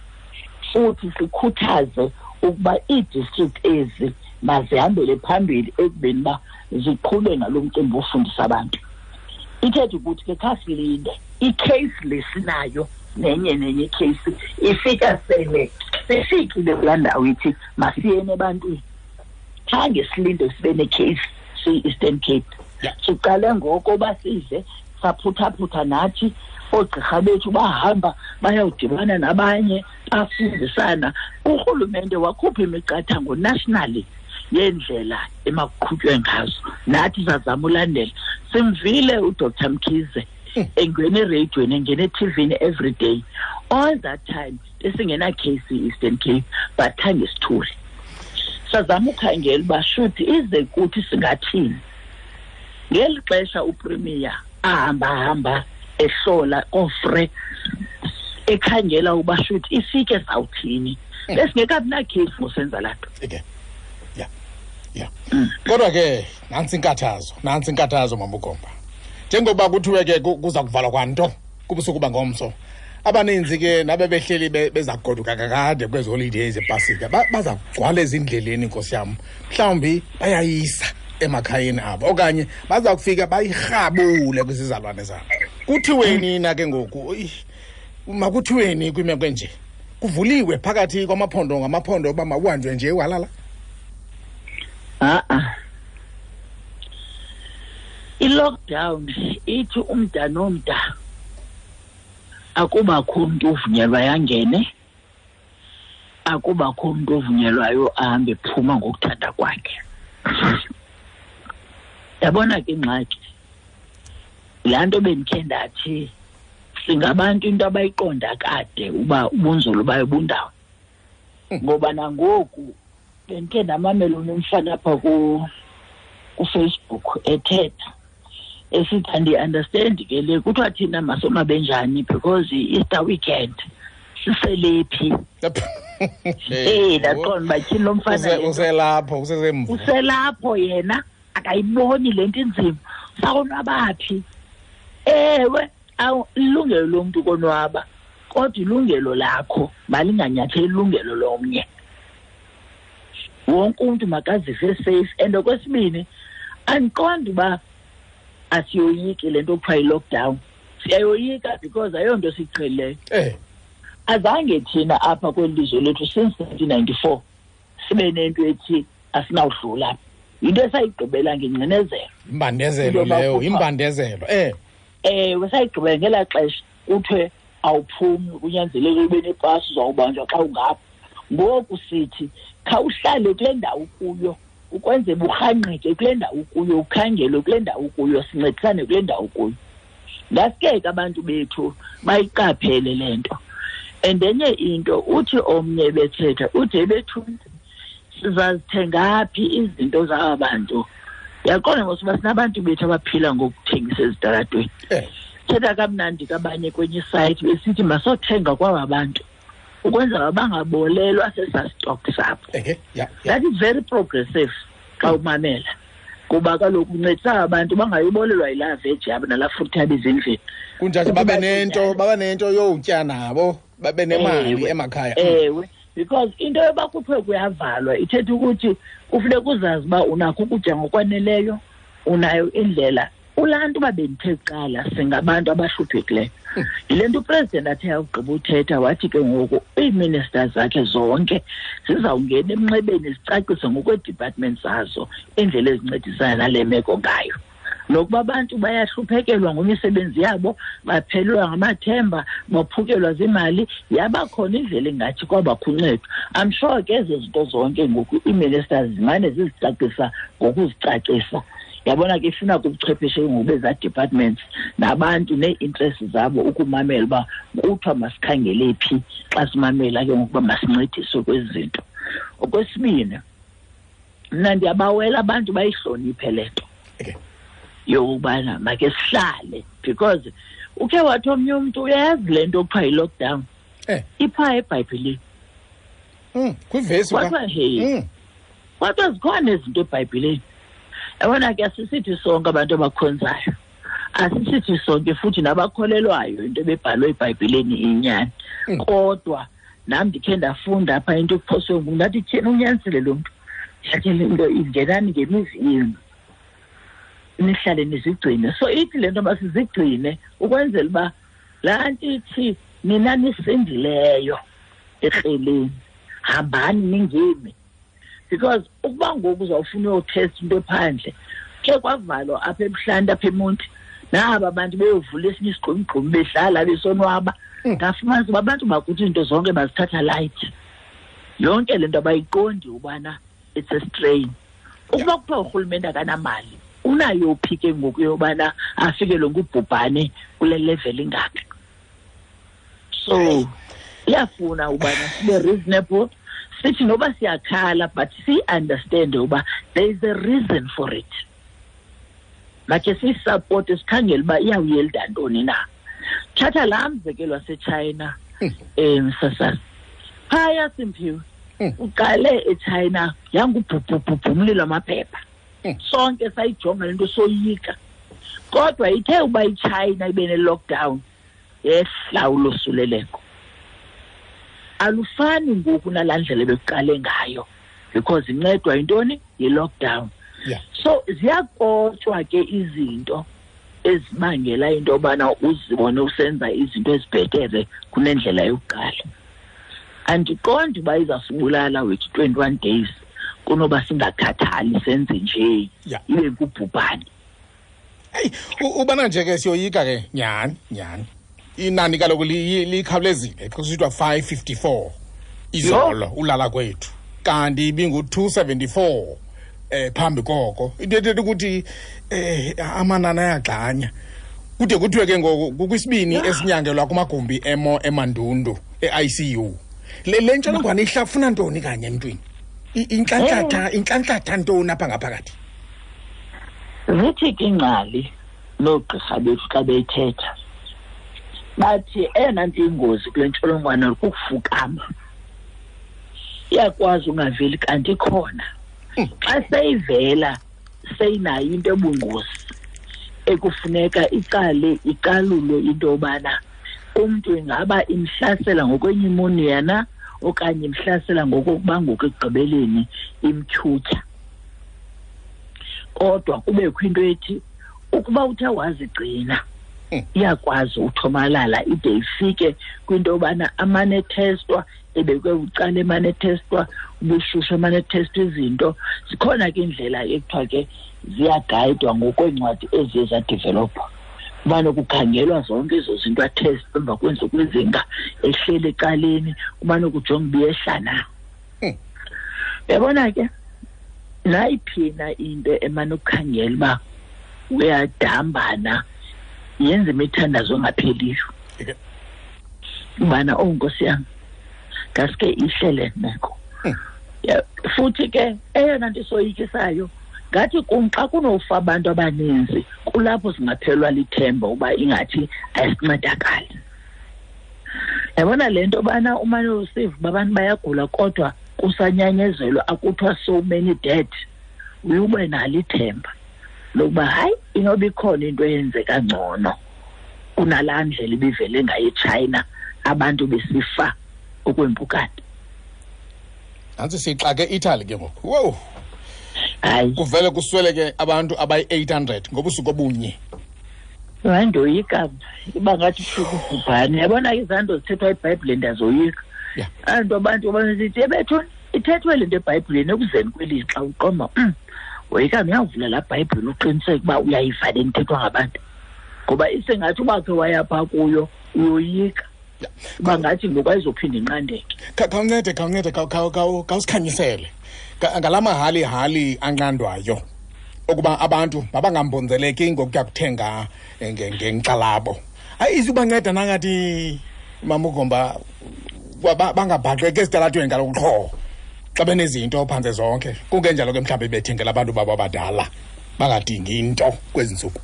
S3: futhi sikhuthaze ukuba ii-district ezi mazihambele phambili ekubeni uba ziqhube ngalo mcimbi wofundisa abantu. Ithetha ukuthi ke khasilinde i-case lesinayo nenye nenye i-case ifika sele sifikile kulaa ndawo ithi masiyeni ebantwini. Khange silinde sibe ne-case siyi-Eastern Cape. Siqale ngoko uba size saphuthaphutha nathi, oogqirha bethu bahamba bayawudibana nabanye bafundisana. Urhulumente wakhupha imiqathango nationally yendlela emakuqhutywe ngazo, nathi sazama ulandela. Simvile uDr Mkhize engena ereyidweni, engena ethivini every day. All that time besingena case e-Eastern Cape, but khange sithule. Sazama ukhangela uba shuthi ize kuthi singathini. Ngeli xesha uPremier ahamba-hamba ehlola koofre ekhangela uba shuthi ifike sawuthini, besingekabi nakhesi ngosenza laa nto.
S1: Okay. Yeah. Kodwa ke nantsi inkathazo, nantsi inkathazo Mama uGomba. Njengoba kuthiwe ke kuza kuvalwa kwanto kubusuku bangomso, abaninzi ke nabebehleli beza kugoduka kakade kwezi holidays zepasika baza kugcwala ezindleleni, nkosi yam. Mhlawumbi bayayisa emakhayeni abo okanye baza kufika bayirhabule kwizizalwane zabo. Kuthiweni na ke ngoku? Makuthiweni kwimeko enje? Kuvuliwe phakathi kwamaphondo ngamaphondo uba makuhanjwe nje walala?
S3: A-a. I-lockdown ithi umda nomda akubakho umntu ovunyelwayo angene, akubakho umntu ovunyelwayo ahambe phuma ngokuthanda kwakhe. Yabona ke ingxaki, laa nto bendikhe ndathi singabantu into abayiqonda kade uba ubunzulu bayo bundawo. Ngoba nangoku bendikhe ndamamela umfana apha kuFacebook ethetha esithi andiunderstand ke le kuthiwa thina masonwabe njani because i-Easter weekend siselephi. Ndaqonda uba tyhini lo mfana
S1: uselapho, usesemva.
S3: Uselapho yena, akayiboni le nto inzima. Sakonwaba phi? Ewe, ilungelo lomntu konwaba, kodwa ilungelo lakho malinganyatheli ilungelo lomnye. Wonke umntu makazive safe. And okwesibini, andiqondi uba asiyoyiki le nto kuthiwa yi-lockdown. Siyayoyika because ayonto siyiqhelileyo. Azange thina apha kweli lizwe lethu since 1994 sibe nento ethi asinawudlula. Yinto esayigqibela ngengcinezelo.
S1: Imbandezelo leyo, imbandezelo.
S3: Ewe, sayigqibela ngelaa xesha kuthiwe awuphumi, kunyanzeleke ube nepasi, uzawubanjwa xa ungapha. Ngoku sithi khawuhlale kule ndawo kuyo, ukwenzela urhangqeke kule ndawo kuyo, ukhangelwe kule ndawo kuyo, sincedisane kule ndawo kuyo. Ngaske ke abantu bethu bayiqaphele le nto. And enye into, uthi omnye bethetha, uthi ebethuni sizazithenga phi izinto zaba bantu? Uyaqonda ngoba sinabantu bethu abaphila ngokuthengisa ezitalatweni. Thetha kamnandi kabanye kwenye site besithi masothenga kwaba bantu ukwenzela bangabolelwa sesa stock sabo. That is very progressive xa umamela, kuba kaloku uncedisa abantu bangayibolelwa yilaa veji yabo nalaa fruit yabo ezindlini.
S1: Kunjalo babe nento yotya nabo, babe nemali emakhaya.
S3: Ewe, because into yoba kuthiwe kuyavalwa ithetha ukuthi kufuneka uzazi uba unakho ukutya ngokwaneleyo, unayo indlela. Kulaa nto uba bendithe kuqala singabantu abahluphekileyo. Yile nto upresident athe awugqiba uthetha wathi ke ngoku ii-ministers zakhe zonke zizawungena emnxebeni zicacise ngokweedepartment zazo indlela ezincedisana nale meko ngayo. Nokuba abantu bayahluphekelwa ngemisebenzi yabo, baphelelwa ngamathemba, baphukelwa ziimali, yabakhona indlela engathi kwabakho uncedo. I'm sure ke ezo zinto zonke ngoku ii-ministers zimane zizicacisa ngokuzicacisa. Yabona ke ifuna kubuchwepheshe ngoku bezaa departments nabantu nee-interests zabo ukumamela uba kuthiwa masikhangele phi xa simamela ke ngokuba masincediswe kwezi zinto. Okwesibini, mna ndiyabawela abantu bayihloniphe le nto yokubana make sihlale, because ukhe wathi omnye umntu uyayazi le nto kuthiwa yi-lockdown. Iphaa eBhayibhileni.
S1: Kwivesi
S3: Kwathiwa zikhona izinto eBhayibhileni. Yabona ke asisithi sonke abantu abakhonzayo, asisithi sonke futhi nabakholelwayo into ebebhalwe eBhayibhileni inyani. Kodwa nam ndikhe ndafunda apha into ekuphoswe ngumntu, ndathi tyhini unyanisile lo mntu, ndathi le nto ingenani ngemizi yenu, nihlale nizigcine. So ithi le nto masizigcine ukwenzela uba laa nto ithi nina nisindileyo ekreleni, hambani ningemi. Because ukuba ngoku uzawufuna uyothesta into ephandle, ke kwavalwa apha ebuhlanti apha eMonti, naba abantu beyovula esinye isigqumgqumi bedlala besonwaba. Ndafumanisa uba abantu bakuthi iinto zonke bazithatha light. Yonke le nto abayiqondi ubana it's a strain. Ukuba kuthiwa urhulumente akanamali, unayo phi ke ngoku yobana afikelwe ngubhubhane kule level ingaka? So iyafuna ubana sibe reasonable, sithi noba siyakhala but si-understand uba there is a reason for it. Makhe siyisupport, sikhangele uba iyawuyelda ntoni na. Thatha laa mzekelo waseChina, msasana. Phaya Simphiwe, uqale eChina yangubhubhubhubhu umlilo wamaphepha. Sonke sayijonga le nto soyika. Kodwa ithe uba iChina ibe ne-lockdown, yehla ulosuleleko. Alufani ngoku nalaa ndlela ebekuqale ngayo, because incedwa yintoni? Yi-lockdown. So ziyakotshwa ke izinto ezibangela into yobana uzibone usenza izinto ezibhetere kunendlela yokuqala. Andiqondi uba izasibulala wethu 21 days kunoba singakhathali senze nje, ibe ngubhubhane.
S1: Hey, ubana nje ke siyoyika ke nyhani nyhani. Inani kaloku likhawulezile, kusithiwa 554 izolo ulala kwethu, kanti ibingu-274 phambi koko. Into ethetha ukuthi amanani ayagxanya. Kude kuthiwe ke ngoku kukwisibini esinyangelwa kumagumbi emo emandundu e-ICU. Le ntsholongwane ihlafuna ntoni kanye emntwini? Intlantlatha ntoni apha ngaphakathi?
S3: Zithi ke ingcali noogqirha bethu xa beyithetha, bathi eyona nto ingozi kule ntsholongwane kukufukama. Iyakwazi ungaveli kanti ikhona. Xa seyivela seyinayo into ebungozi ekufuneka iqale iqalulwe into yobana umntu ingaba imhlasela ngokwenyumonia na okanye imhlasela ngokokuba ngoku ekugqibeleni imtyhutyha. Kodwa kubekho into ethi ukuba uthe wazigcina iyakwazi uthomalala ide ifike kwinto yobana amane ethestwa, ebekwe bucala emane ethestwa, ubushushu emane ethestwa izinto. Zikhona ke indlela ekuthiwa ke ziyagayidwa ngokweencwadi eziye zadevelopha. Kumane kukhangelwa zonke ezo zinto, athestwe emva kweentsuku ezinga, ehleli ecaleni, kumane kujonga uba iyehla na. Uyabona ke, nayiphina into emane ukukhangela uba uyadambana, yenza imithandazo engapheliyo. Ubana, oh Nkosi yam, ngaske ihle le meko. Futhi ke eyona nto isoyikisayo, ngathi kum xa kunofa abantu abaninzi, kulapho singaphelwa lithemba uba ingathi ayisincedakali. Yabona le nto bana umane usiva uba abantu bayagula kodwa kusanyanyezelwa, akuthiwa so many dead, uye ube nalo ithemba lokuba hayi, inoba ikhona into eyenzeka ngcono kunalaa ndlela ibivele ngayo eChina, abantu besifa okwempukane.
S1: Nantsi siyixake e-Italy ke ngoku. Wow.
S3: Hayi.
S1: Kuvele kusweleke abantu abayi-800 ngobusuku obunye.
S3: Hayi, ndoyika iba ngathi ubhubhane. Yabona izanto zithethwa eBhayibhileni ndiyazoyika. Anto abantu abasithi ebethuni ithethwe le nto eBhayibhileni ekuzeni kwelixa uqoma. Woyika uyavula laa Bhayibhile uqiniseke uba uyayiva le nto ithethwa ngabantu. Ngoba isengathi uba khe waya phaa kuyo uyoyika. Uba ngathi ngoku ayizophinda inqandeke.
S1: Khawuncede, khawuncede, khawusikhanyisele. Ngala mahali-hali anqandwayo ukuba abantu mabangambonzeleki ngokuya kuthenga ngenkxalabo. Hayi, izubanceda nangathi Mama uGomba bangabhaqeki esitalatweni kaloku qho xa benezinto phantse zonke. Kungenjalo ke mhlawumbi bethengela abantu babo abadala bangadingi into kwezi ntsuku.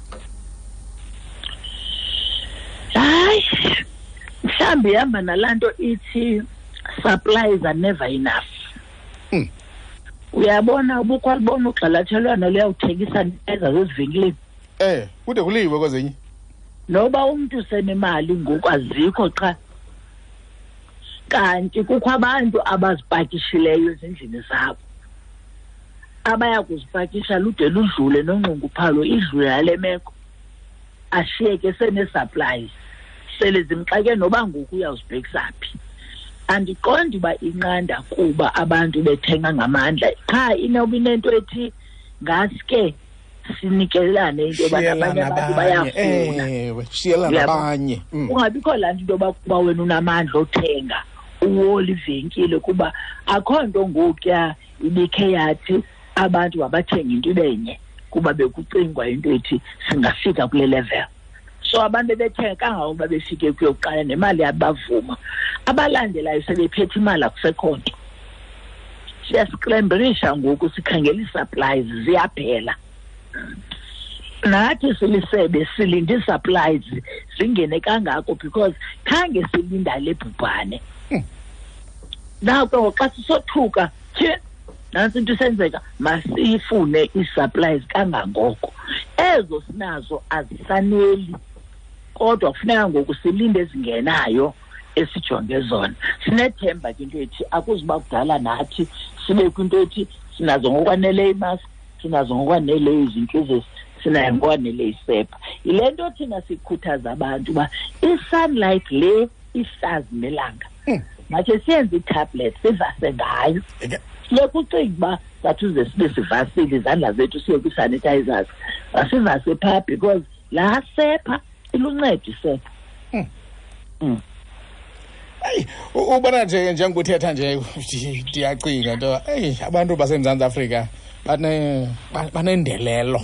S3: Hayi, mhlawumbi ihamba nalaa nto ithi supplies are never enough. Uyabona ubukwalibona ugxalathelwano luyawuthengisa neza zezivenkileni.
S1: Kude kuliwe kwezinye.
S3: Noba umntu senemali ngoku azikho qha. Kanti kukho abantu abazipakishileyo ezindlini zabo. Abaya kuzipakisha lude ludlule nonxunguphalo, idlule yale meko. Ashiyeke sene-supplies. Sele zimxake noba ngoku uyawuzibhekisa phi. Andiqondi uba inqanda kuba abantu bethenga ngamandla. Qha inoba inento ethi ngaske sinikelane into yoba
S1: Shiyelana
S3: abanye abantu
S1: abanye.
S3: bayafuna.
S1: Ewe, shiyelana
S3: Uyabo?
S1: abanye.
S3: Kungabikho laa nto into yoba kuba wena unamandla othenga uwole ivenkile, kuba akho nto ngokuya ibikhe yathi abantu mabathenge into ibe nye, kuba bekucingwa into ethi singafika kule level. So abantu bebethenga kangangokuba befike kuyokuqala nemali yabavuma. Abalandelayo sebephethe imali, akusekho nto. Siyasikremberisha ngoku, sikhangela ii-supplies ziyaphela. Nathi silisebe silinde ii-supplies zingene kangako because khange silinda le bhubhane. Nako xa sisothuka, tyhe, nantsi into isenzeka, masiyifune ii-supplies kangangoko. Ezo sinazo azisaneli, kodwa kufuneka ngoku silinde ezingenayo esijonge zona. Sinethemba ke into ethi akuzuba kudala nathi sibe kwinto ethi sinazo ngokwaneleyo imask, sinazo ngokwaneleyo izintlizisi, sinayo ngokwaneleyo isepha. Yile nto thina sikhuthaza abantu uba i-sunlight le ihlazi nelanga makhe siyenze itablet sivase ngayo. Silokhu ucinga uba sathi uze sibe sivasile izandla zethu siye kwi-sanitizers, masivase phaa because laa sepha iluncedo isepha.
S1: Eyi, ubona nje njengokuthetha nje ndiyacinga into, eyi, abantu baseMzantsi Afrika banendelelo.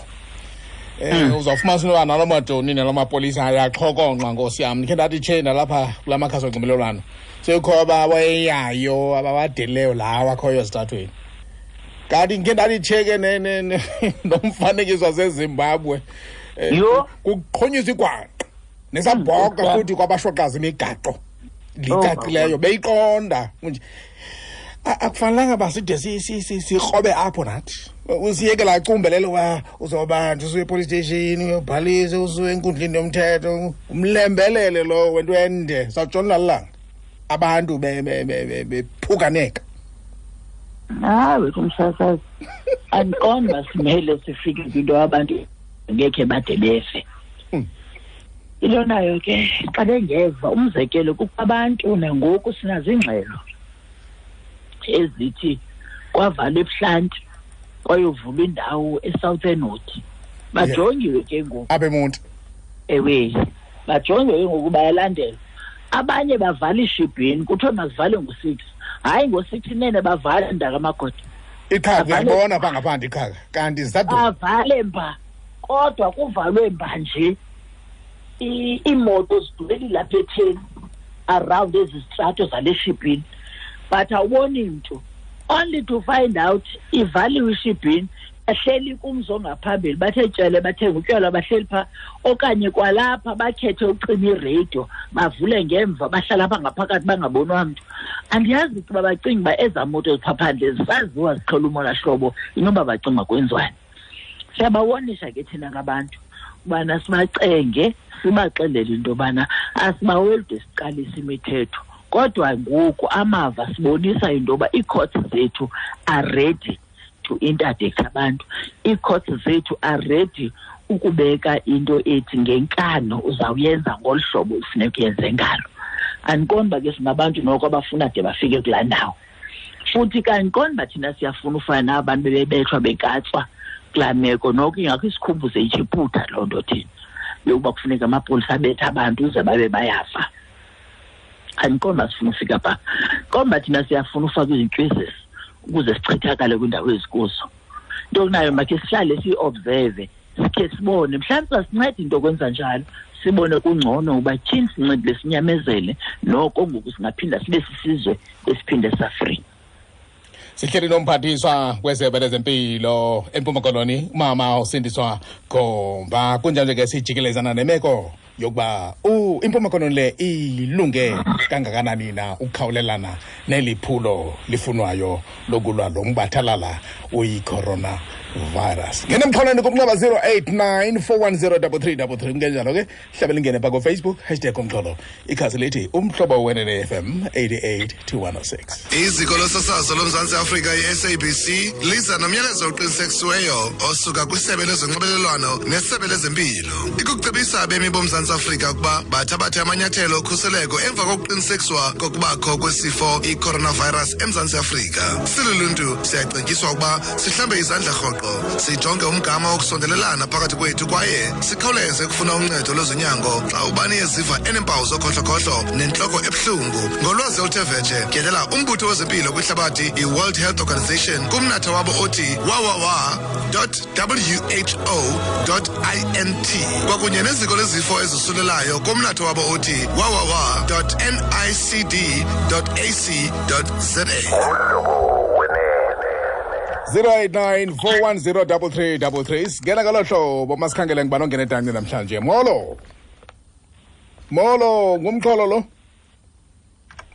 S1: Uzawufumanisa into yoba naloo majoni naloo mapolisa ayaxhokonxa, nkosi yam. Ndikhe ndathi tshe nalapha kula makhasi onxibelelwano sekukho abawayeyayo abawadeleyo lawo akhoyo ezitratweni. Kanti ndikhe ndathi tshe ke nomfanekiso waseZimbabwe, kuqhonyiswa igwangqa nesabhoka futhi kwabashoqaza imigaqo licacileyo, beyiqonda nje. Akufanelanga uba side sikrobe apho nathi. Usiyeke laa cumbelelo uba uzawubanjwa usuye epolice station, uyobhalisa, usuye enkundleni yomthetho, umlembelele lowo wento ende. Sawutshona lilanga abantu bephukaneka.
S3: Hayi wethu umsasazi, andiqondi uba simele sifike kwinto abantu ngekhe bade befe. Into nayo ke xa bengeva, umzekelo kukho abantu nangoku sinazo iingxelo ezithi kwavalwa ebuhlanti kwayovulwa indawo eSouthern Wood. Bajongiwe ke ngoku.
S1: Apha eMonti.
S3: Ewe, bajongiwe ke ngoku, bayalandelwa. Abanye bavala ishibhini, kuthiwe mazivale ngo-6. Hayi, ngo-6 inene bavale mntakamagoda.
S1: Iqhaka uyalibona phaa ngaphandle iqhaka, kanti zisaduma.
S3: Bavale mba, kodwa kuvalwe mba nje. Iimoto zidubeli lapha etheni around ezi zitrato zale shibhini, but awuboni mntu. Only to find out ivaliwe ishibhini, bahleli kumzi ongaphambili, bathe tshele, bathenga utywala, bahleli phaa, okanye kwalapha bakhethe ucima iradio, bavule ngemva, bahlala apha ngaphakathi bangabonwa mntu. Andiyazi ukuba bacinga uba ezaa moto ziphaa phandle zisaziwa ziqhela umona hlobo, inoba bacinga kwenziwani. Siyabawonisha ke thina ngabantu ubana sibacenge, sibaxelele into yobana asibaweli de siqalise imithetho. Kodwa ngoku amava sibonisa into yoba ii-courts zethu are ready to interdict abantu. Ii-courts zethu are ready ukubeka into ethi ngenkano uzawuyenza ngolu hlobo ufuneka uyenze ngalo. Andiqondi uba ke singabantu noko abafuna de bafike kulaa ndawo. Futhi ke andiqondi uba thina siyafuna ufana naba bantu bebebethwa bekatswa kulaa meko. Noko ingakho isikhumbuze iJiphutha loo nto thina yokuba kufuneka amapolisa abethe abantu uze babe bayafa. Andiqondi uba sifuna ufika phaa. Qonda uba thina siyafuna ufaka izintyizisi ukuze sichithakale kwiindawo ezikuzo. Into kunayo makhe sihlale siyi-observe, sikhe sibone, mhlawumbi sasinceda into yokwenza njalo, sibone kungcono uba tyhini sincedile sinyamezele, noko ngoku singaphinda sibe sisizwe esiphinde safree.
S1: Sihleli nomphathiswa wesebe lezempilo eMpuma Koloni, umama uSindiswa Gomba. Kunjalo ke sijikelezana nemeko yokuba iMpuma Koloni le ilunge kangakanani na ukukhawulelana neli phulo lifunwayo lokulwa lo mbathalala uyi-coronavirus. Ngena emxholweni kumnxeba 089 410 3333. Kungenjalo ke hlabela ingene pha ku-Facebook, hashtag umxholo, ikhasi lithi Umhlobo Wenene FM 88 to 106.
S4: Iziko losasazo loMzantsi Afrika i-SABC liza nomyalezo oqinisekisiweyo osuka kwisebe lezonxibelelwano nesebe lezempilo. Ikucebisa abemi boMzantsi Afrika ukuba bathabathe amanyathelo okhuseleko emva kokuqinisekiswa kokubakho kwesifo i-coronavirus eMzantsi Afrika. Siluluntu siyacetyiswa ukuba sihlambe izandla rhoqo, sijonge umgama wokusondelelana phakathi kwethu kwaye sikhawuleze ukufuna uncedo lwezonyango xa ubani eziva eneempawu zokhohlokhohlo nentloko ebuhlungu. Ngolwazi oluthe vetshe, tyelela umbutho wezempilo kwihlabathi i-World Health Organization kumnatha wabo othi www.who.int kwakunye neziko lezifo ezisulelayo kumnatha wabo othi www.nicd.ac.za.
S1: 089 410 3333. Singena ngolo hlobo, masikhangele ngubani ongena edanci namhlanje. Molo. Molo, ngumxholo lo.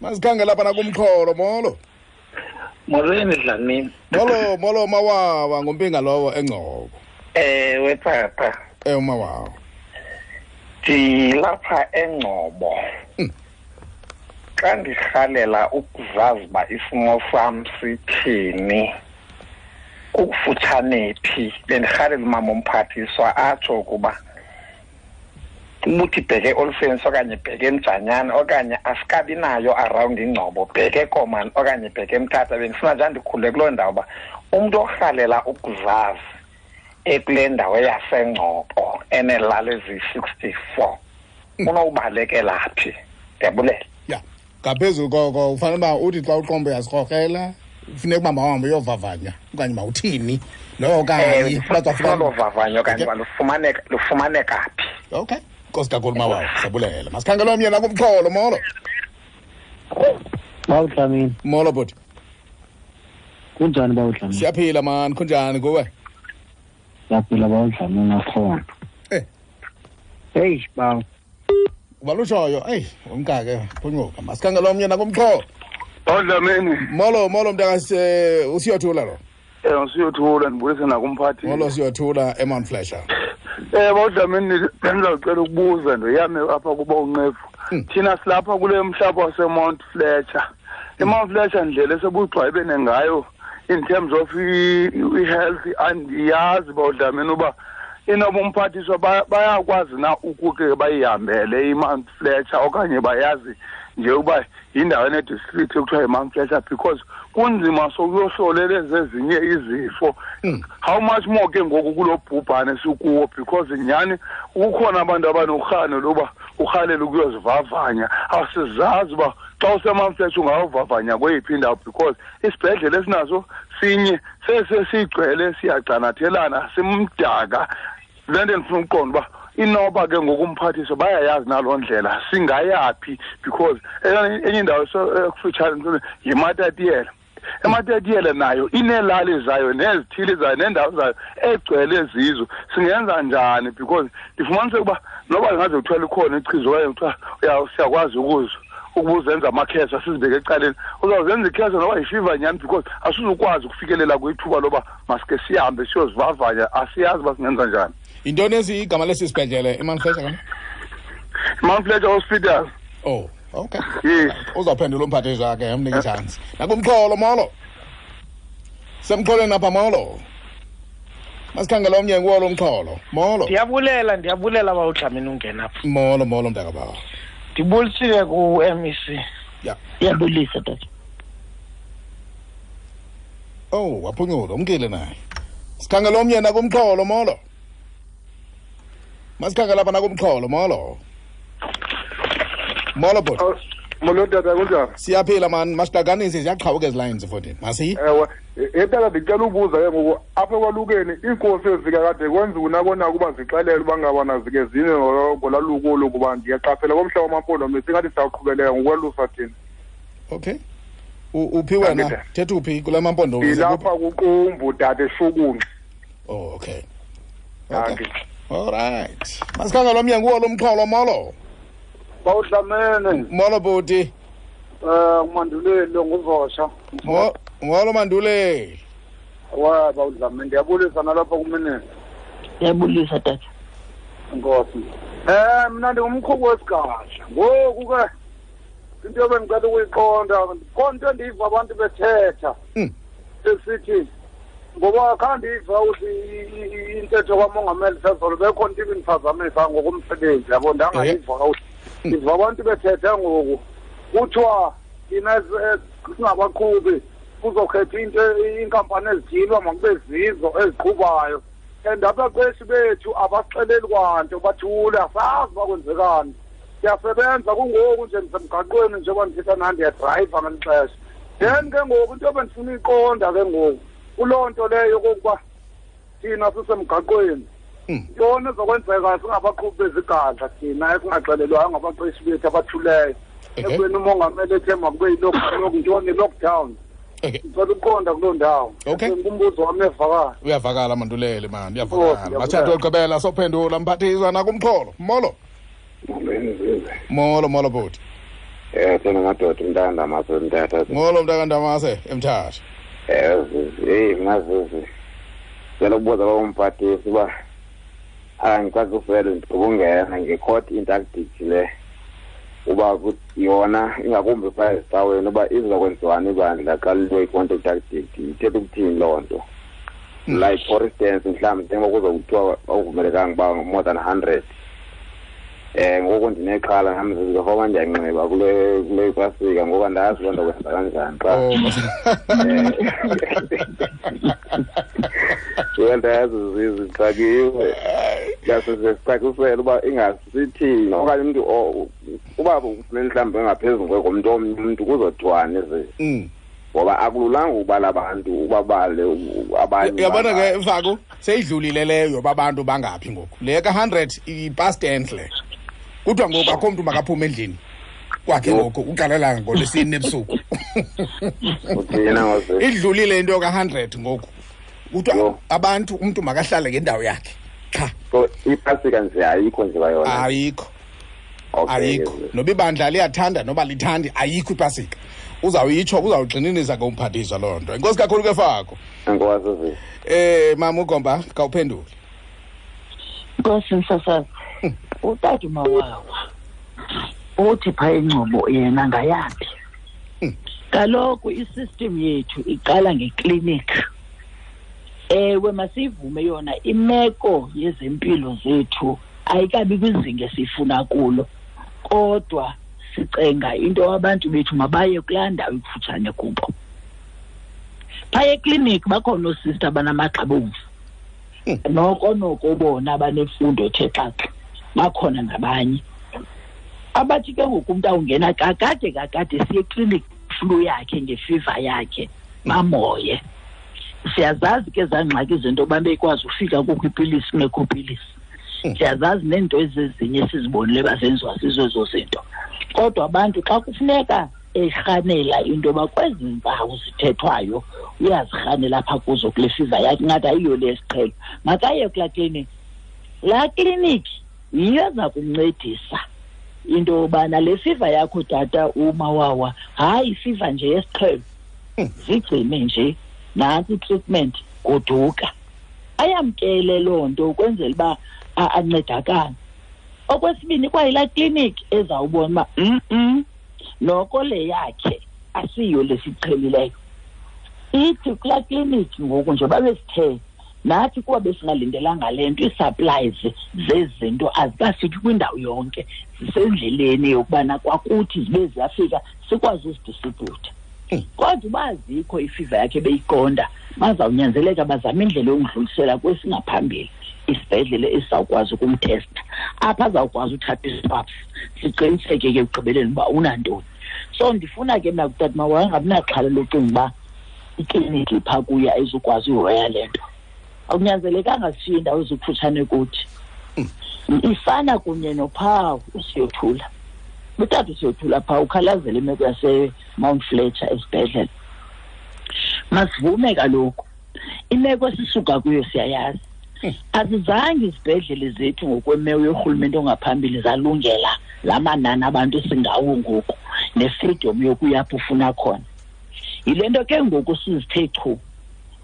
S1: Masikhangele lapha nakumxholo, molo.
S5: Molweni Dlamini.
S1: Molo, molo Mawawa, ngumpinga lowo eNgcobo.
S5: Ewe papa.
S1: Umawawo.
S5: Ndilapha eNgcobo. Xa ndirhalela ukuzazi uba isimo sam sithini, kukufutshane phi, bendirhalela umama umphathiswa atsho ukuba ubuthi bheke Olifants okanye bheke eMjanyana okanye asikabi nayo around iNgcobo, bheke Komani okanye bheke eMthatha. Bendifuna nje ndikhule kuloo ndawo uba umntu orhalela ukuzazi ekule ndawo yaseNgcobo eneelali eziyi-64 unowubalekela phi? Ndiyabulela.
S1: Ya, ngaphezulu koko ufanele uba uthi xa uqombo uyazikrokrela, funeka uba mawuhambe uyovavanya okanye mawuthini lowo okanye
S5: olo vavanyo okanye uba lufumaneka phi.
S1: Okay, nkosi kakhulu mawawo, siyabulela. Masikhangele omnye nakumxholo. Molo.
S6: Bawudlamini.
S1: Molo bhuti.
S6: Kunjani bawudlamini?
S1: Siyaphila mani, kunjani kuwe?
S6: Siyaphila bawudlamini akhona. Hey bawo.
S1: Ubalutshoyo, eyi umkake phunyuka. Masikhangele omnye nakumxholo.
S7: Bawudlamini.
S1: Molo, molo mntakase, uSiyothula lo.
S7: Usiyothula, ndibulise nakumphathi.
S1: Molo Siyothula eMount Fletcher.
S7: Bawudlamini, bendizawucela ukubuza ndoyame apha kuba unqevu. Thina silapha kule mhlaba waseMount Fletcher. IMount Fletcher ndlela esebugxwayibene ngayo in terms of i-health, andiyazi bawudlamini uba inoba umphathiswa bayakwazi na ukuke bayihambele iMount Fletcher okanye bayazi nje uba yindawo enedistrict ekuthiwa yiMount Fletcher, because kunzima sokuyohlolela ezinye izifo. How much more ke ngoku kulo bhubhane sikuwo, because nyhani kukhona abantu abanorhano loba urhalela ukuyozivavanya. Asizazi uba xa useMount Fletcher ungawuvavanya kweyiphi indawo, because isibhedlele esinaso sinye sesigcwele, siyagcanathelana, simdaka. Le nto ndifuna ukuqonda uba inoba ke ngoku umphathiswa bayayazi naloo ndlela singayaphi, because enye indawo ekufutshane yiMatatiyela. eMatatiyela nayo ineelali zayo nezithili zayo neendawo zayo egcwele zizo. Singenza njani? Because ndifumanise ukuba noba ingaze kuthiwa likhona ichiza okanye kuthiwa siyakwazi ukuzenza amakhesa sizibeke ecaleni, uzawuzenza ikhesa noba yifiva nyhani, because asizukwazi ukufikelela kwithuba loba masike sihambe siyozivavanya. Asiyazi uba singenza njani.
S1: Yintoni esi igama lesi sibhedlele eMount Fletcher kanye?
S7: Mount Fletcher Hospital.
S1: Oh, okay.
S7: Yes.
S1: Uzawuphendula umphathiswa ke, umnike itshansi. Nakumxholo, molo. Semxholweni apha, molo. Masikhangele omnye nguwo lo mxholo. Molo.
S8: Ndiyabulela bawudlamini ungena apha.
S1: Molo, molo mntakabawo.
S8: Ndibulisile ku-MEC.
S1: Ya.
S3: Ndiyabulisa tata.
S1: Oh, waphunyula, umkile naye. Sikhangele omnye nakumxholo, molo. Masikhangele apha nakumxholo, molo. Molo bhuti.
S7: Molo tata, kunjani?
S1: Siyaphila man, masiqakanise ziyaqhawuka ezi lines futhi. Masi?
S7: Ewe, tata ndicela ubuza ke ngoku apha ekwalukeni iinkosi ezikakade kwenziwa nakona ukuba zixelele uba ngabana zike zine ngolwaluko olu, kuba ndiyaqaphela komhla wamaMpondomise ingathi siyaqhubeleka ngokwalusa thina.
S1: Okay. Uphi wena? Thetha uphi kula maMpondomise?
S7: Ndilapha kuQumbu tata, eShukunxa.
S1: Oh, okay. Okay. All right. Masikhangele omnye nguwo lo mxholo, molo.
S9: Bawudlamene.
S1: Molo bhuti.
S9: Manduleli nguvosha.
S1: Molo Manduleli.
S9: Wa bawudlamene, ndiyabulisa nalapha kuminister.
S3: Ndiyabulisa tata.
S9: Nkosi. Mina ndingumqhubi wesigadla. Ngoku ke into ebendicela ukuyiqonda, khona into endiyiva abantu bethetha. Esithi ngoba khandiva uthi intetho kamongameli sezolo bekhona into ibindiphazamisa ngokomsebenzi, yabo, ndangayiva kakuhle. Ndiva abantu bethetha ngoku kuthiwa thina singabaqhubi kuzokhetha into iinkampani ezithile makube zizo eziqhubayo, and abaqeshi bethu abasixeleli kwanto, bathule, asazi uba kwenzekani. Siyasebenza kungoku nje ndisemgaqweni njengoba ndithetha nani, ndiyadrayiva ngeli xesha. Then ke ngoku into ebendifuna uyiqonda ke ngoku kuloo nto leyo yokokuba thina sisemgaqweni, ntoni ezokwenzeka singabaqhubi bezigadla thina esingaxelelwayo ngabaqeshi bethu abathuleyo, ekubeni umongameli ethe makube yintoni i-lockdown. Ndicela ukuqonda kuloo ndawo.
S1: Okay.
S9: Ngumbuzo wam uyavakala.
S1: Uyavakala Manduleli mani, uyavakala. Bathathe ogqibela sophendula mphathiswa nakumxholo. Molo. Molo, molo bhuti.
S10: Thina madoda, umntakandamase eMthatha.
S1: Molo mntakandamase eMthatha.
S10: Hey mna Zizi, ndicela ukubuza uba umphathisi uba Angicacisele ndibungena nge-court interdict le uba yona ingakumbi phaa ezicaweni uba izokwenziwani ibandla xa liwe i-court interdict ithetha ukuthini loo nto. Like for instance mhlawumbi njengoba kuzokuthiwa akuvumelekanga uba more than 100 ngoku ndinexhala nam zizofoma ndiyanxiba kule pasika ngoba ndazi loo nto kwenza kanjani xa ndayazi zixakiwe yasesicacisele uba ingasithini okanye umntu uba ufumene mhlawumbi engaphezulu komntu omnye umntu kuzothiwani ze ngoba akululanga ukubala abantu ubabale abanye.
S1: Uyabona ke Mfaku seyidlulile leyo babantu bangaphi ngoku le ka-100 i-past tense le kuthiwa ngoku akho mntu makaphume endlini kwakhe ngoku uqalela ngolwesine ebusuku. Idlulile into ka-100 ngoku kuthiwa abantu umntu makahlale ngendawo yakhe qha.
S10: So ipasika nje ayikho nje bayona
S1: ayikho. Ayikho noba ibandla liyathanda noba lithandi ayikho ipasika. Uzawuyitsho uzawugxininisa ke umphathiswa loo nto. Enkosi kakhulu ke Fako.
S10: Enkosi.
S1: Mama uGomba khawuphendule.
S3: Nkosi msasazi. Utata uMawawa uthi phaa eNgcobo yena ngayaphi? Kaloku isystem yethu iqala ngeklinikhi. Ewe masivume yona imeko yezempilo zethu ayikabi kwizinga esifuna kulo. Kodwa sicenga into abantu bethu mabaye kulaa ndawo ikufutshane kubo. Phaya ekliniki bakhona oosista abanamagxa abomvu. Noko bona abanemfundo ethe xaxa bakhona nabanye. Abathi ke ngoku umntu awungena kakade siye ekliniki flu yakhe ngefiva yakhe bamoye. Siyazazi ke ezaa ngxaki zento yoba bekwazi ufika kukho ipilisi kungekho pilisi. Siyazazi neento ezezinye esizibonile bazenziwa zizo ezo zinto. Kodwa abantu xa kufuneka erhanela into yoba kwezi mpawu zithethwayo uyazirhanela apha kuzo kule fiva yakhe ingathi ayiyo le yesiqhelo makaye kulaa kliniki. Laa kliniki yiyo eza kumncedisa into yobana le fiva yakho tata uMawawa hayi ifiva nje yesiqhelo zigcine nje nantsi i-treatment goduka. Ayamkele loo nto ukwenzela uba ancedakane. Okwesibini kwayilaa kliniki ezawubona uba noko le yakhe asiyo lesiqhelileyo. Ithi kulaa kliniki ngoku njengoba besithe nathi kuba besingalindelanga le nto ii-supplies zezinto azikafiki kwindawo yonke zisendleleni yokubana kwakuthi zibe ziyafika sikwazi uzidistribhutha. Kodwa uba azikho ifiva yakhe beyiqonda bazawunyanzeleka bazame indlela yokudlulisela kwesingaphambili isibhedlele esizawukwazi ukumtesta apha azawukwazi uthatha iswabs siqiniseke ke ekugqibeleni uba unantoni. So ndifuna ke mna kutata Mawawa angabi naxhala locinga uba ikliniki phaa kuye ayizukwazi uhoya le nto. Akunyanzelekanga sishiye indawo ezikufutshane kuthi. Ifana kunye nophawu uSiyothula. Utata uSiyothula phaa ukhalazela imeko yaseMount Fletcher esibhedlele. Masivume kaloku imeko esisuka kuyo siyayazi. Azizange izibhedlele zethu ngokwemeko yorhulumente ongaphambili zalungela la manani abantu esingawo ngoku ne-freedom yokuya apho ufuna khona. Yile nto ke ngoku sizithe chu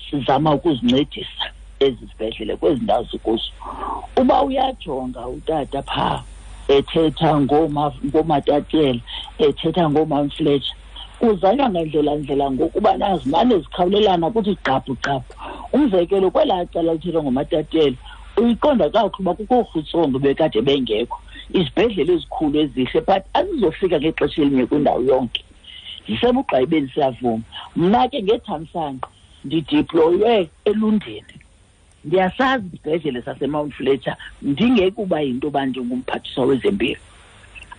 S3: sizama ukuzincedisa ezi zibhedlele kwezi ndawo zikuzo. Uba uyajonga utata phaa ethetha ngooMatatiele ethetha ngooMount Fletcher kuzanywa ngandlela ngokuba nazimane zikhawulelana kuthi gqaphu gqaphu. Umzekelo kwelaa cala lithethwa ngoMatatiele uyiqonda kakuhle uba kukho oorhutsongo bekade bengekho izibhedlele ezikhulu ezihle but azizofika ngexesha elinye kwindawo yonke. Zisebugqayibeni siyavuma. Mna ke ngethamsanqa ndidiploywe eLundini. Ndiyasazi isibhedlele saseMount Fletcher ndingekuba yinto yoba ndingumphathiswa wezempilo.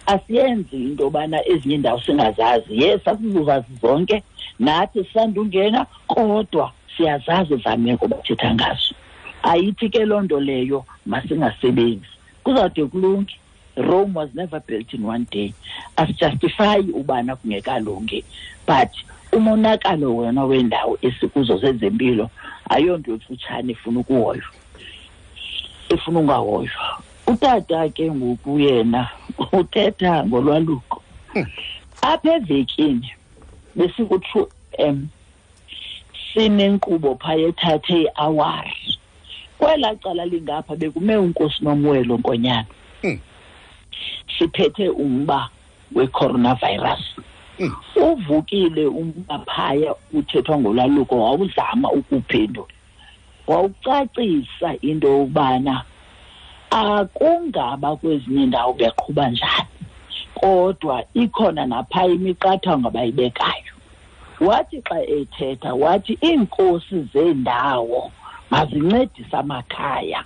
S3: Asiyenzi into yobana ezinye iindawo singazazi. Yes, asizuzazi zonke nathi sisandungena kodwa siyazazi ezaa meko bathetha ngazo. Ayithi ke loo nto leyo masingasebenzi. Kuzawude kulunge. Rome was never built in one day. Asijustifyi ubana kungekalungi but umonakalo wona wendawo esikuzo zezempilo ayonto emfutshane efuna ukuhoywa, efuna ungahoywa. Utata ke ngoku yena uthetha ngolwaluko. Apha evekini besiku-True M sinenkqubo phaya ethathe iawari Kwelaa cala lingapha bekume uNkosi Nomwelo Nkonyana. Siphethe umba we-coronavirus. Uvukile umba phaya uthethwa ngolwaluko, wawuzama ukuphendula, wawucacisa into yokubana akungaba kwezinye indawo beqhuba njani, kodwa ikhona naphaya imiqathango abayibekayo. Wathi xa ethetha wathi iinkosi zeendawo mazincedise amakhaya.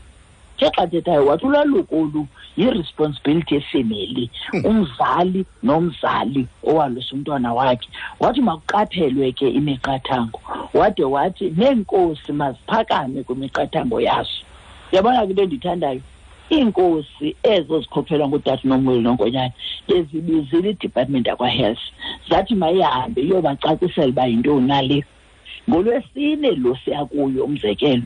S3: Ke xa thethayo wathi ulwaluko olu yi-responsibility yefemeli, umzali nomzali owalusa umntwana wakhe. Wathi makuqaphelwe ke imiqathango, wade wathi neenkosi maziphakame kwimiqathango yazo. Uyabona ke into endiyithandayo, iinkosi ezo zikhokhelwa ngutata Nomweli Nonkonyana bezibizile i-department yakwa-health, zathi mayihambe iyobacacisela uba yintoni nale. NgoLwesine lo siya kuyo, umzekelo,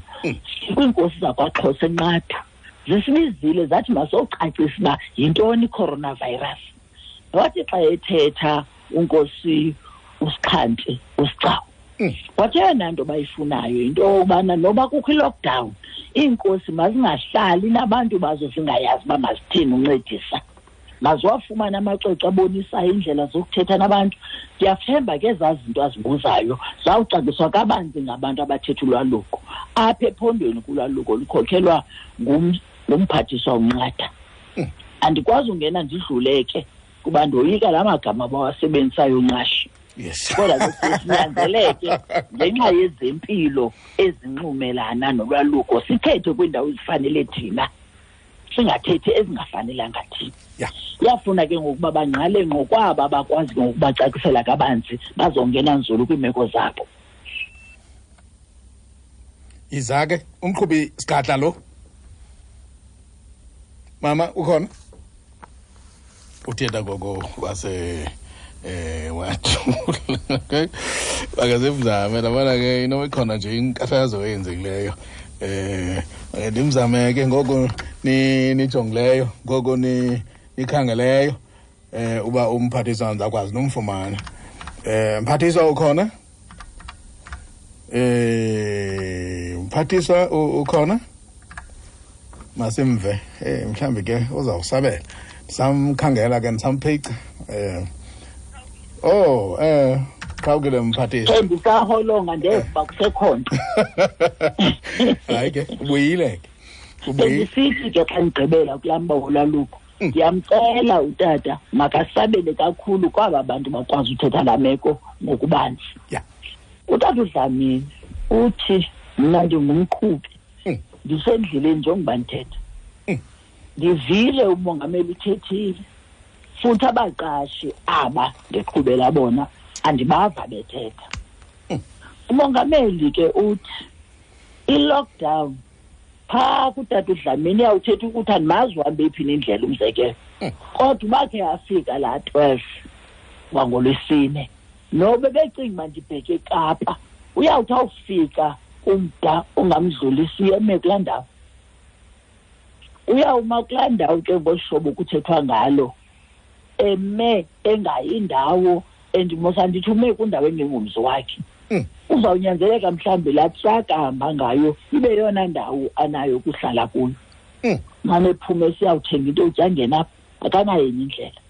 S3: kwiinkosi zakwaXhosa eNqatha zisibizile zathi masocacisa uba yintoni i-coronavirus. Wathi xa ethetha uNkosi uSixhanti uSigcawu, wathi eyona nto bayifunayo yinto yokubana noba kukho i-lockdown, iinkosi mazingahlali nabantu bazo zingayazi uba mazithini uncedisa, maziwafumane amacwecwe abonisayo iindlela zokuthetha nabantu. Ndiyathemba ke ezaa zinto azibuzayo zawucaciswa kabanzi ngabantu abathetha ulwaluko apha ephondweni. Kulwaluko lukhokhelwa ngumphathiswa uNqatha. Andikwazi ungena ndidlule ke kuba ndoyika la magama bawasebenzisayo nqashi. Kodwa ke sinyanzeleke ngenxa yezempilo ezinxumelana nolwaluko sithethe kwiindawo ezifanele thina, singathethi ezingafanelanga thina. Iyafuna ke ngokuba bangqale ngqo kwaba bakwazi ngokubacacisela kabanzi, bazongena nzulu kwiimeko zabo.
S1: Iza ke umqhubi sigadla lo. Mama ukhona? Uthetha gogo wase wathula. Akazimzame labana ke inoba ikhona nje inkathazo eyenzekileyo. Ndimzame ke ngoko nijongileyo, ngoko nikhangeleyo uba umphathiswa ndizakwazi nomfumana. Mphathiswa ukhona? Mphathiswa ukhona? Masimve mhlambi ke uzawusabela. Samkhangela ke ndisamphica. Qhawukile mphathiswa.
S3: Ndisaholonga ndeva kusekhona.
S1: Hayi ke ubuyile ke.
S3: Bendisithi ke xa ndigqibela kulaa mba wolwaluko, ndiyamcela utata makasabele kakhulu kwaba bantu bakwazi uthetha laa meko ngokubanzi. Utata uDlamini uthi mna ndingumqhubi, ndisendleleni njengoba ndithetha. Ndivile umongameli uthethile, futhi abaqashi aba ndiqhubela bona andibava bethetha. Umongameli ke uthi i-lockdown phaa kutata uDlamini iyawuthetha ukuthi andimazi uhambe phi nendlela, umzekelo. Kodwa bakhe afika laa 12 wangolwesine, nobe becinga uba ndibheke eKapa, uyawuthi awufika umda ongamdlulisiyo eme kulaa ndawo. Uyawuma kulaa ndawo ke ngohlobo kuthethwa ngalo, eme engayindawo endimosa ndithi ume kwindawo engengomzi wakhe. Uzawunyanzeleka mhlawumbi laa traka ahamba ngayo ibe yona ndawo anayo ukuhlala kuyo. Mane ephume siyawuthenga into yotya angena apha, akanayo enye indlela.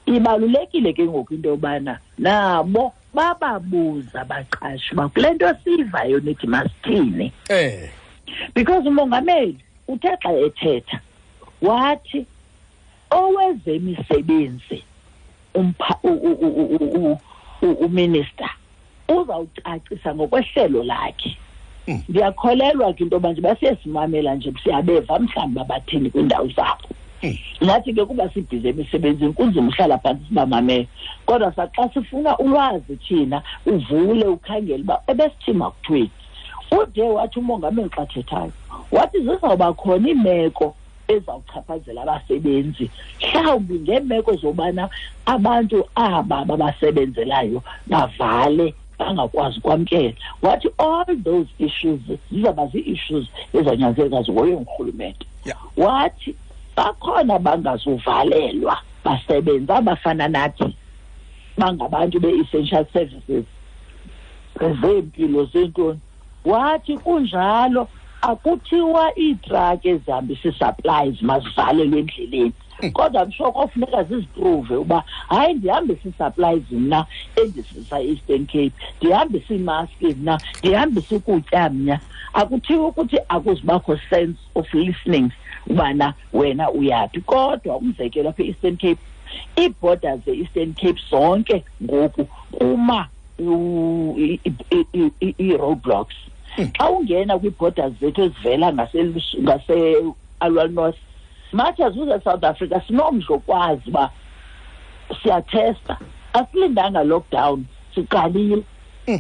S3: Ibalulekile ke ngoku into yobana nabo bababuza abaqashi uba kule nto siyivayo nithi masithini. Because umongameli uthe xa ethetha wathi owezemisebenzi uminister uzawucacisa ngokwehlelo lakhe. Ndiyakholelwa ke into yoba nje basiyesimamela nje siyabeva mhlawumbi babathini kwiindawo zabo. Nathi ke kuba sibhizi emisebenzini kunzima uhlala phantsi sibamamele, kodwa saxa sifuna ulwazi thina uvule ukhangele uba ebesithini makuthweni. Ude wathi umongameli xa thethayo wathi zizawuba khona iimeko ezawuchaphazela abasebenzi, mhlawumbi ngeemeko zobana abantu aba babasebenzelayo bavale bangakwazi ukwamkela. Wathi all those issues zizawuba zii-issues ezanyanzeleka zihoywe ngurhulumente. Wathi bakhona bangazuvalelwa basebenza abafana nathi bangabantu be-essential services zempilo zentoni. Wathi kunjalo Akuthiwa iitraki ezihambisa ii-supplies mazivalelwe endleleni, kodwa msho kofuneka ziziprove uba hayi, ndihambisa ii-supplies mna endisisa e-Eastern Cape, ndihambisa iimaski mna, ndihambisa ukutya mna. Akuthiwa ukuthi akuzubakho sense of listening ubana wena uyaphi. Kodwa umzekelo apha e-Eastern Cape, ii-borders ze-Eastern Cape zonke ngoku kuma ii-roadblocks. Xa ungena kwii-borders zethu ezivela ngase-Aliwal North, much as uze South Africa sinomdla okwazi uba siyathesta, asilindanga lockdown, siqalile.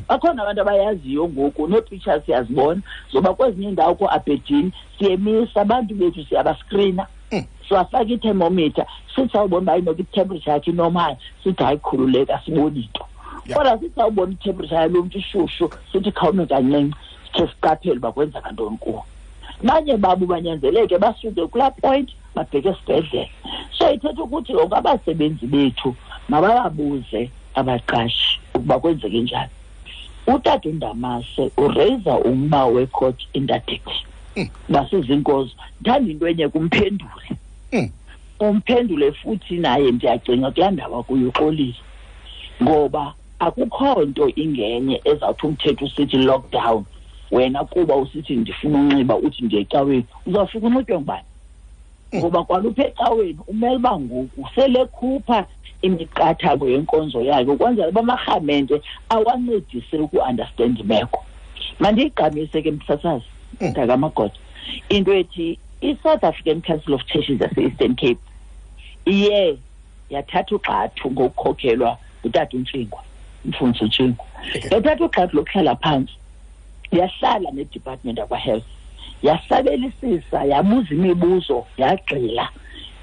S3: Bakhona abantu abayaziyo ngoku, nee-pictures siyazibona zoba kwezinye iindawo kooAberdeen siyemisa abantu bethu, siyabaskrina, siwafaka i-thermometer, sithi sawubona uba inoba i-temperature yakhe inormal, sithi hayi khululeka, sibone into. Kodwa sithi sawubona i-temperature yalo mntu ishushu, sithi khawume kancinci, sikhe siqaphele uba kwenzeka ntoni kuwo. Banye babo banyanzeleke basuke kulaa point babheke esibhedlele. So ithetha ukuthi ngoku abasebenzi bethu mabababuze abaqashi ukuba kwenzeke njani. Utata uNdamase ureyisa umba we-court interdict. Basizinkozo. Ndithanda into enye kumphendule. Umphendule futhi naye ndiyacinga kulaa ndaba kuyo uxolile, ngoba akukho nto ingenye ezawuthi umthetho usithi lockdown, wena kuba usithi ndifuna unxiba uthi ndiye ecaweni, uzawufika unxitywe ngubani? Ngoba kwalupha ecaweni umele uba ngoku selekhupha imiqathango yenkonzo yakhe ukwenzela uba amarhamente awancedise uku-understand imeko. Mandiyigqamise ke msasazi, mntakamagoda, into ethi i-South African Council of Churches yase-Eastern Cape iye yathatha ugxathu ngokukhokhelwa ngutata uNtshingwa, umfundisi uNtshingwa. Yathatha ugxathu lokuhlala phantsi, yahlala ne-department yakwa-health, yasabelisisa, yabuza imibuzo, yagxila,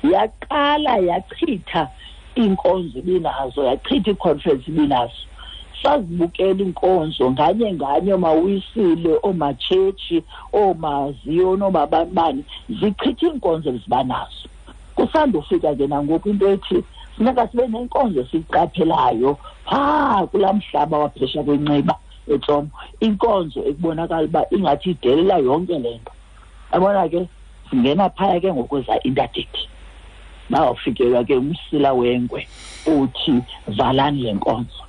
S3: yaqala yachitha iinkonzo ibinazo, yachitha ii-conference ibinazo. Sazibukela iinkonzo nganye nganye, oomawisile, oomatshetshi, oomaziyoni, oomabanibani, zichitha iinkonzo ezibanazo. Kusandufika ke nangoku into ethi funeka sibe nenkonzo esiyiqaphelayo phaa kulaa mhlaba waphesha kweNciba eTsomo, inkonzo ekubonakala uba ingathi idelela yonke le nto. Yabona ke singena phaya ke ngokweza interdict, bawufikelwa ke umsila wengwe uthi valani le nkonzo.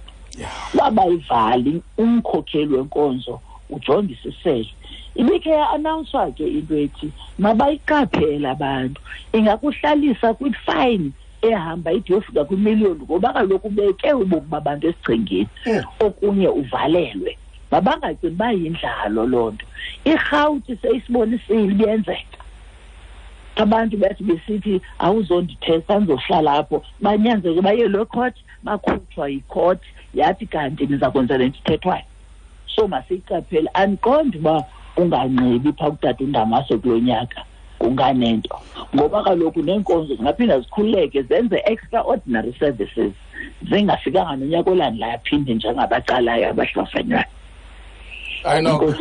S3: Wabayivali umkhokheli wenkonzo ujongisisele. Ibikhe ya-announcwa ke into ethi mabayiqaphele abantu, ingakuhlalisa kwi-fine ehamba ide yofika kwimiliyoni, ngoba kaloku ubeke ubomi babantu esichengeni, okunye uvalelwe. Mabangacingi uba yindlalo loo nto. IRhawuti seyisibonisile ibiyenzeka. Abantu bathi besithi awuzondithesta ndizohlala apho, banyanzeleke baye loo court, bakhutshwa yicourt, yathi kanti niza kwenza le nto ithethwayo. So masiyiqaphele. Andiqondi uba unganxibi phaa kutata uNdamase kulo nyaka kunganento, ngoba kaloku neenkonzo zingaphinda zikhululeke zenze extraordinary services zingafikanga nonyaka olandelayo aphinde njengabaqalayo abahlafanywayo.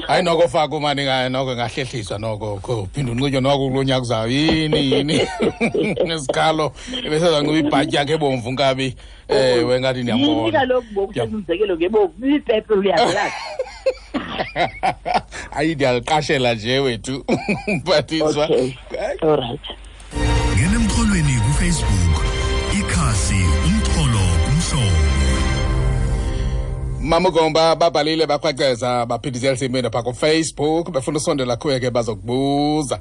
S1: Hayi noko faka umani, noko ngahlehliswa noko phinde unxitywe noko kulo nyaka uzayo. Yini nesikhalo ebesezanxiba ibhatyi yakhe ebomvu nkabi. Ewe ngathi ndiyambona.
S3: Yini kaloku ngoku sezumzekelo ngebomvu, ipepe uyazelazi.
S1: Hayi ndiyaliqashela nje wethu mphathiswa.
S3: Okay. All right.
S2: Ngena emxholweni kuFacebook, ikhasi Umxholo Kumhlobo.
S1: Mama Gomba babhalile bakhwaceza baphindisela imini pha kuFacebook, befuna usondela kuye ke bazokubuza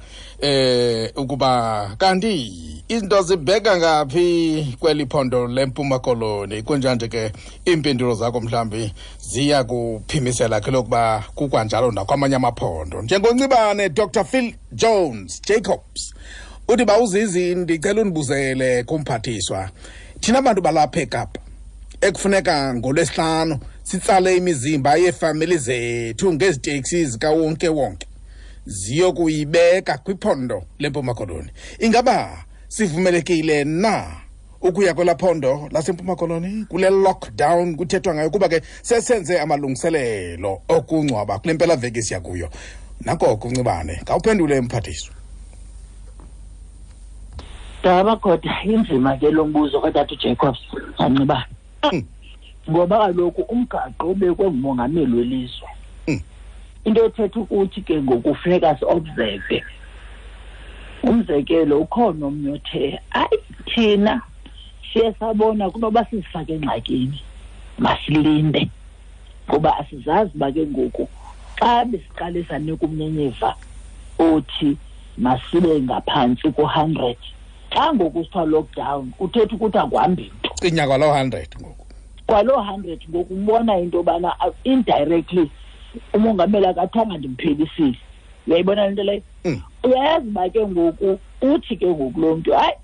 S1: ukuba kanti izinto zibheka ngaphi kweli phondo leMpuma Koloni. Kunjanje ke iimpendulo zakho mhlambi ziya kuphimisela ke lokuba kukwanjalo nakwamanye amaphondo. Njengoncibane Dr Phil Jones Jacobs uthi bawuzizi, ndicela undibuzele kumphathiswa, thina bantu balapha eKapa ekufuneka ngolwesihlanu sitsale imizimba yeefamili zethu ngeziteksi zikawonke wonke ziyokuyibeka kwiphondo leMpuma Koloni, ingaba sivumelekile na ukuya kwelaa phondo laseMpuma Koloni kule lockdown kuthethwa ngayo, kuba ke sesenze amalungiselelo okungcwaba kule mpelaveki siya kuyo? Nako kuncibane, khawuphendule mphathiswa.
S3: Daba kodwa inzima ke lo mbuzo katata uJacobs ancibane, ngoba kaloku umgaqo ubekwe ngumongameli welizwe. Into ethetha ukuthi ke ngoku funeka si-observe. Umzekelo, ukhona omnye othe hayi, thina siye sabona kunoba sizifake engxakini, masilinde, ngoba asizazi uba ke ngoku xa besiqale sanika umnyenyiva othi masibe ngaphantsi ku-100, xa ngoku sithiwa lockdown kuthetha ukuthi akuhambi nto.
S1: Cinya kwaloo 100 ngoku.
S3: Kwaloo 100 ngoku umbona into yobana indirectly umongameli akathanga ndimphelisile. Uyayibona le nto leyo? Uyayazi uba ke ngoku uthi ke ngoku lo mntu hayi,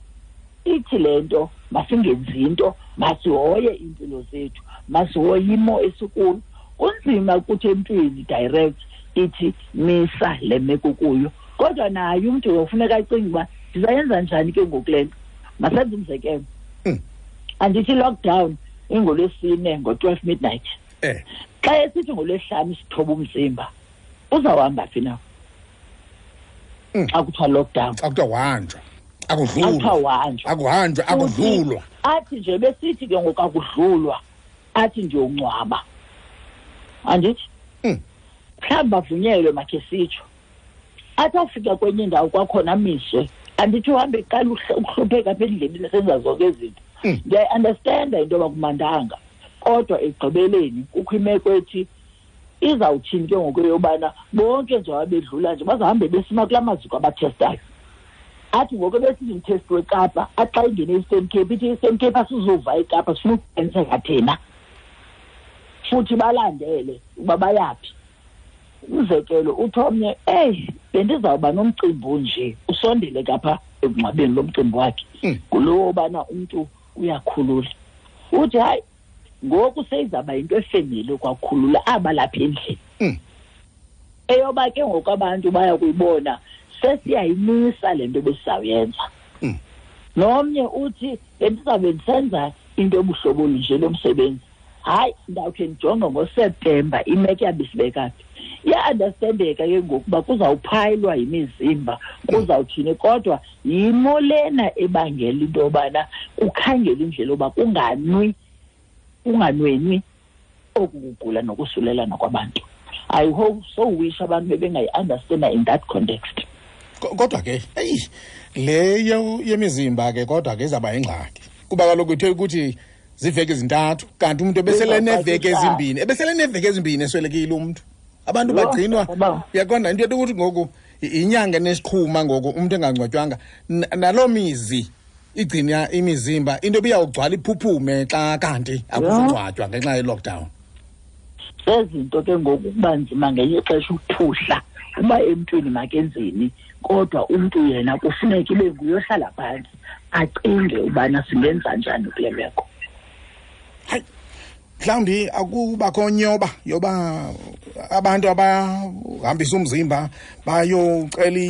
S3: ithi le nto masingenzi into, masihoye iimpilo zethu, masihoye imo esikuyo. Kunzima ukuthi emntwini direct ithi misa le meko kuyo, kodwa naye umntu uyofuneka acinge uba ndizayenza njani ke ngoku le nto. Masenze umzekelo. Andithi lockdown ingolwesine ngo-12 midnight. Xa esithi ngolwesihlanu sithoba umzimba, uzawuhamba phi na? Xa kuthiwa lockdown.
S1: Xa kuthiwa uhanjwa, akudlulwa.
S3: Xa kuthiwa uhanjwa.
S1: Akuhanjwa, akudlulwa.
S3: Athi nje besithi ke ngoku akudlulwa, athi nje ungcwaba. Andithi? Mhlawumbi bavunyelwe makhe sitsho. Athi afika kwenye indawo kwakhona amiswe. Andithi uhambe eqala ukuhlupheka apha endleleni esenza zonke izinto. Ndiyayi-understanda into yoba kumandanga, kodwa ekugqibeleni kukho imeko ethi izawuthini ke ngoku yobana bonke nje abedlula nje bazahambe besima kulaa maziko abathestayo. Athi ngoku besithi mthesti weKapa, athi xa ingene e-Eastern Cape, ithi i-Eastern Cape asizuva eKapa, sifuna ukuqiniseka thina. Futhi balandele uba bayaphi. Umzekelo uthi omnye, eyi, bendizawuba nomcimbi onje, usondele kapha ekungcwabeni lo mcimbi wakhe. Ngulowo ubana umntu uyakhulula. Uthi hayi, ngoku seyizawuba yinto efemeli kwakhulula aba lapha endlini. Eyoba ke ngoku abantu baya kuyibona, sesiyayimisa le nto besizawuyenza. Nomnye uthi bendizawube ndisenza into yobuhlobo olunje lomsebenzi. Hayi, ndawukhe ndijonge ngoSeptemba imeko yabe isibeka phi. Iya-understandeka ke ngoku uba kuzawuphayilwa yimizimba, kuzawuthini, kodwa yimo lena ebangela into yobana kukhangele indlela yoba kunganwenwi oku kugula nokusulelana kwabantu. I hope so wish abantu bebengayi-understanda in that context.
S1: Kodwa ke, eyi, le yemizimba ke kodwa ke izawuba yingxaki. Kuba kaloku ithe ukuthi ziiveki ezintathu, kanti umntu ebesele neeveki ezimbini, ebesele neeveki ezimbini eswelekile umntu. Abantu bagcinwa, uyaqonda into yokuthi ngoku inyanga enesiqhuma ngoku umntu engangcwatywanga. Naloo mizi igcina imizimba, into ebiyawugcwala iphuphume xa kanti akuzungcwatywa ngenxa ye-lockdown.
S3: Zezinto ke ngoku kuba nzima ngenye ixesha ukuphuhla uba emntwini makenzeni, kodwa umntu yena kufuneka ibe nguye ohlala phantsi acinge ubana singenza njani kule meko.
S1: Hayi, mhlawumbi akubakho nyoba yoba abantu abahambisa umzimba bayocela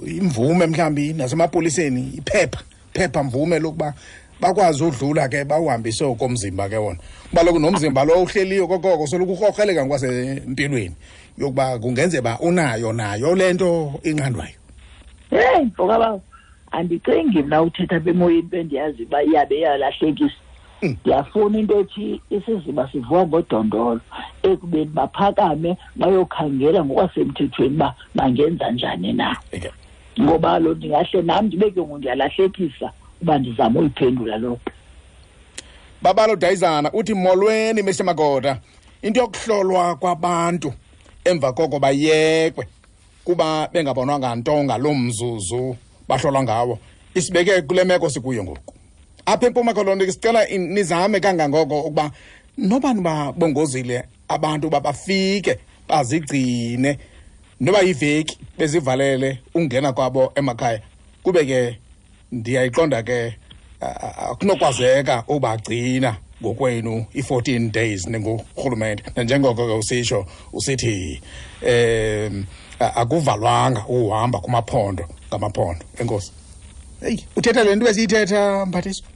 S1: imvume mhlawumbi nasemapoliseni, iphepha mvume lokuba bakwazi udlula ke bawuhambise okomzimba ke wona. Kuba kaloku nomzimba lo uhleliyo kokoko soloko urhorheleka ngokwasempilweni yokuba kungenzeka uba unayo nayo le nto inqandwayo.
S3: Heyi, mfokabawo, andicingi mna uthetha apha emoyeni into endiyazi uba iyabe iyalahlekisa. Ndiyafuna into ethi isiziba sivuka ngodondolo ekubeni baphakame bayokhangela ngokwasemthethweni uba bangenza njani na. Ngoba lo ndingahle nam ndibe ke ngoku ndiyalahlekisa uba ndizama uyiphendula loo nto.
S1: Babalo Dayizana uthi molweni Mister Magoda, into yokuhlolwa kwabantu emva koko bayekwe kuba bengabonwanga nto ngaloo mzuzu bahlolwa ngawo, isibeke kule meko sikuyo ngoku. Apha eMpuma Koloni sicela nizame kangangoko ukuba noba nibabongozile abantu uba bafike bazigcine noba yiveki bezivalele ungena kwabo emakhaya, kube ke ndiyayiqonda ke akunokwazeka ubagcina ngokwenu i-14 days ningurhulumente. Nanjengoko ke usitsho usithi akuvalwanga uhamba kumaphondo ngamaphondo. Enkosi. Hey, uthetha le nto esiyithetha Mphathiswa?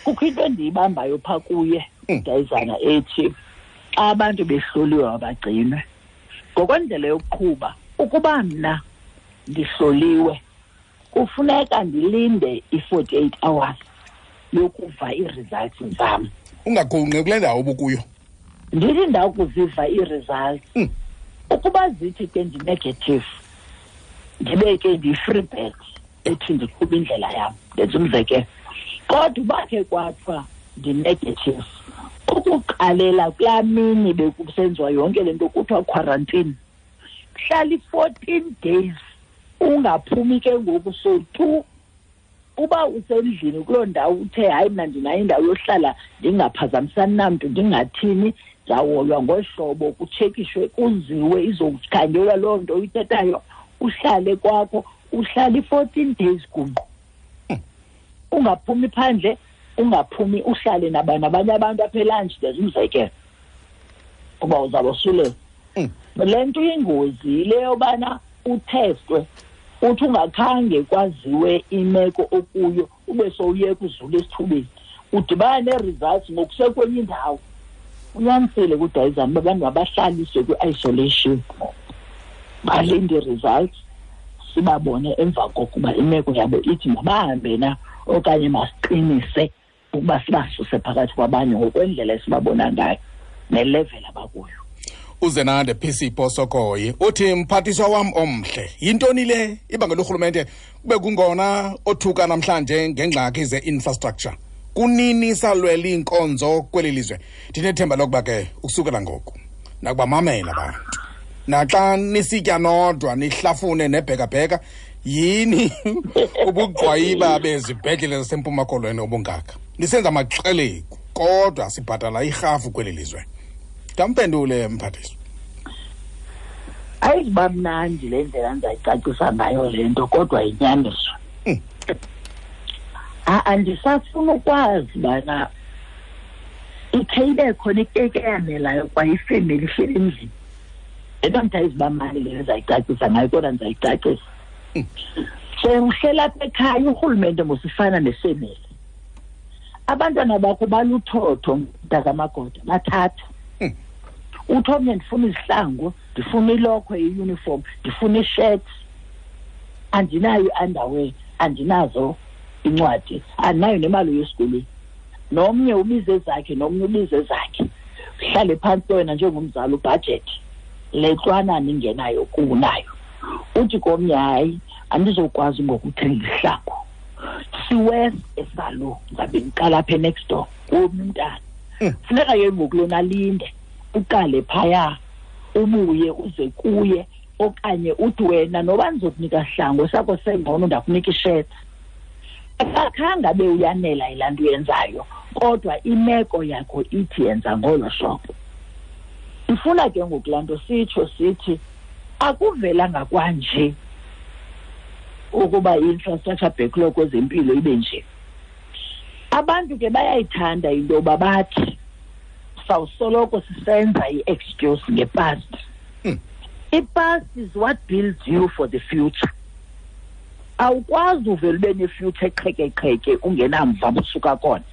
S3: Kukho into endiyibambayo phaa kuye, Dayizana, ethi xa abantu behloliwe mabagcinwe. Ngokwendlela yokuqhuba, ukuba mna ndihloliwe kufuneka ndilinde i-48 hours yokuva ii-results zam.
S1: Ungagungqi kule ndawo ubukuyo.
S3: Ndithi ndakuziva ii-results, ukuba zithi ke ndi-negative, ndibe ke ndiyi-free bird ethi ndiqhuba indlela yam, ndenza umzekelo. Kodwa uba ke kwathiwa ndi-negative, ukuqalela kulaa mini bekusenziwa yonke le nto kuthiwa quarantine, hlala i-14 days ungaphumi ke ngoku. So tu uba usendlini kuloo ndawo uthe hayi mna ndinayo indawo yohlala ndingaphazamisani namntu ndingathini, ndizawuhoywa ngohlobo kutshekishwe kuziwe izokukhangelwa loo nto uyithethayo, uhlale kwakho, uhlale i-14 days gungqu. Ungaphumi phandle, ungaphumi, uhlale nabanye abantu apha elantshi, ndenza umzekelo uba uzawubosulela. Le nto iyingozi yile yobana uthestwe, uthi ungakhange kwaziwe imeko okuyo ube sowuyeka uzula esithubeni, udibana nee-results ngokusekwenye indawo. Unyanisile kudayizana uba abantu mabahlaliswe kwi-isolation, balinde ii-results sibabone emva kokuba imeko yabo ithi mabahambe na okanye masiqinise ukuba sibasuse phakathi kwabanye ngokwendlela esibabona ngayo nelevel abakuyo.
S1: Uzenande PC Posokoyi uthi, mphathiswa wam omhle, yintoni le ibangela urhulumente kube kungona othuka namhlanje ngengxaki ze-infrastructure? Kunini salwela iinkonzo kweli lizwe? Ndinethemba lokuba ke ukusukela ngoku nakubamamela abantu, naxa nisitya nodwa nihlafune nebhekabheka, yini ubugqwayiba bezibhedlele zaseMpuma Koloni obungaka? Nisenza amaxelegu kodwa sibhatala irhafu kweli lizwe. Ndampendule mphathiswa.
S3: Ayizuba mnandi le ndlela ndizayicacisa ngayo le nto, kodwa yinyaniso. Andisafuna ukwazi bana ikhe ibe khona ikeke eyanelayo kwaye ifemeli ihleli endlini. Le nto ndithi ayizuba mnandi le ndizayicacisa ngayo, kodwa ndizayicacisa. Sewuhlela apha ekhaya, urhulumente mosifana nefemeli. Abantwana bakho baluthotho mntakamagoda, bathathu. Uthi omnye ndifuna izihlangu, ndifuna ilokhwe, i-uniform, ndifuna ishirt, andinayo i-underwear, andinazo incwadi, andinayo nemali yesikolweni. Nomnye ubize ezakhe, nomnye ubize ezakhe. Uhlale phantsi wena njengomzali ubhajethi le ntwanana ingenayo kunayo. Uthi komnye hayi, andizokwazi ngokuthenga izihlangu. Siwes esalo, ndizabe ndiqala apha next door komnye umntana. Funeka ke ngoku lona alinde, uqale phaya, ubuye uze kuye, okanye uthi wena noba ndizokunika sihlangu sakho sengcono ndakunika ishirt. Akakhange abe uyanela yilaa nto uyenzayo, kodwa imeko yakho ithi yenza ngolo hlobo. Ifuna ke ngoku laa nto sitsho sithi akuvelanga kwanje ukuba i-infrastructure backlog kwezempilo ibe nje. Abantu ke bayayithanda into yoba bathi sawusoloko sisenza i-excuse nge-past. I-past is what builds you for the future. Awukwazi uvele ube ne-future eqhekeqheke ungenamva busuka khona.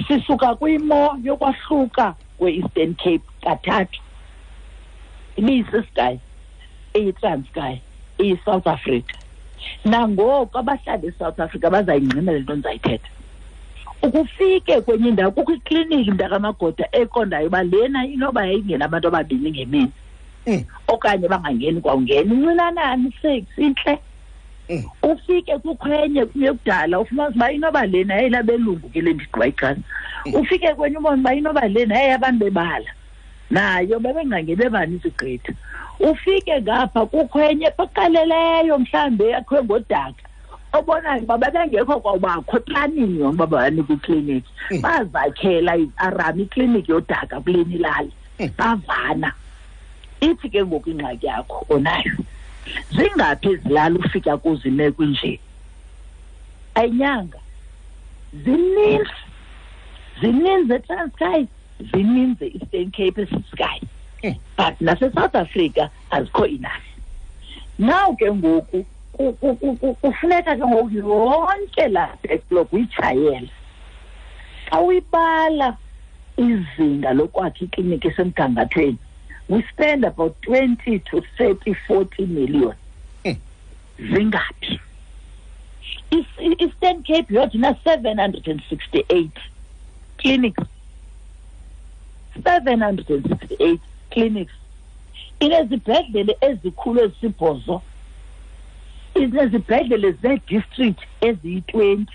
S3: Sisuka kwimo yokwahluka kwe-Eastern Cape kathathu. IbiyisiSky, iyiTranskei, iyiSouth Africa. Nangoku abahlali eSouth Africa bazayingqina le nto ndizayithetha. Ukufike kwenye indawo kukho ikliniki mntakamagoda eqondayo uba lena inoba yayingena abantu ababini ngemini. Okanye bangangeni kwawungena incinanani 6 intle. Ufike kukho enye kudala ufumanise uba inoba lena yayilabelungu ke le ndigqiba ixesha. Ufike kwenye ubone uba inoba lena yayabantu bebala. Nayo bebengangeni bebanintsi gqitha. Ufike ngapha kukho enye eqaleleyo mhlawumbi yakhiwe ngodaka. Obonayo uba bebengekho kwawubakho eplanini yona uba banikwe ikliniki. Bazakhela i-aram ikliniki yodaka kule ilali. Bavana. Ithi ke ngoku ingxaki yakho onayo. Zingaphi izilali ufika kuzo imeko inje? Ayinyanga. Zininzi. Zininzi eTranskei, zininzi e-Eastern Cape, eSky. But nase-South Africa azikho enough. Now ke ngoku kufuneka ke ngoku yonke laa backlog uyitshayele. Xa uyibala izinga lokwakha ikliniki esemgangathweni, we spend about 20 to 30, 40 million. Zingaphi? Eastern Cape yodwa ina 768 clinics. 768 clinics, inezibhedlele ezikhulu ezisibhozo, inezibhedlele zee-district eziyi-20.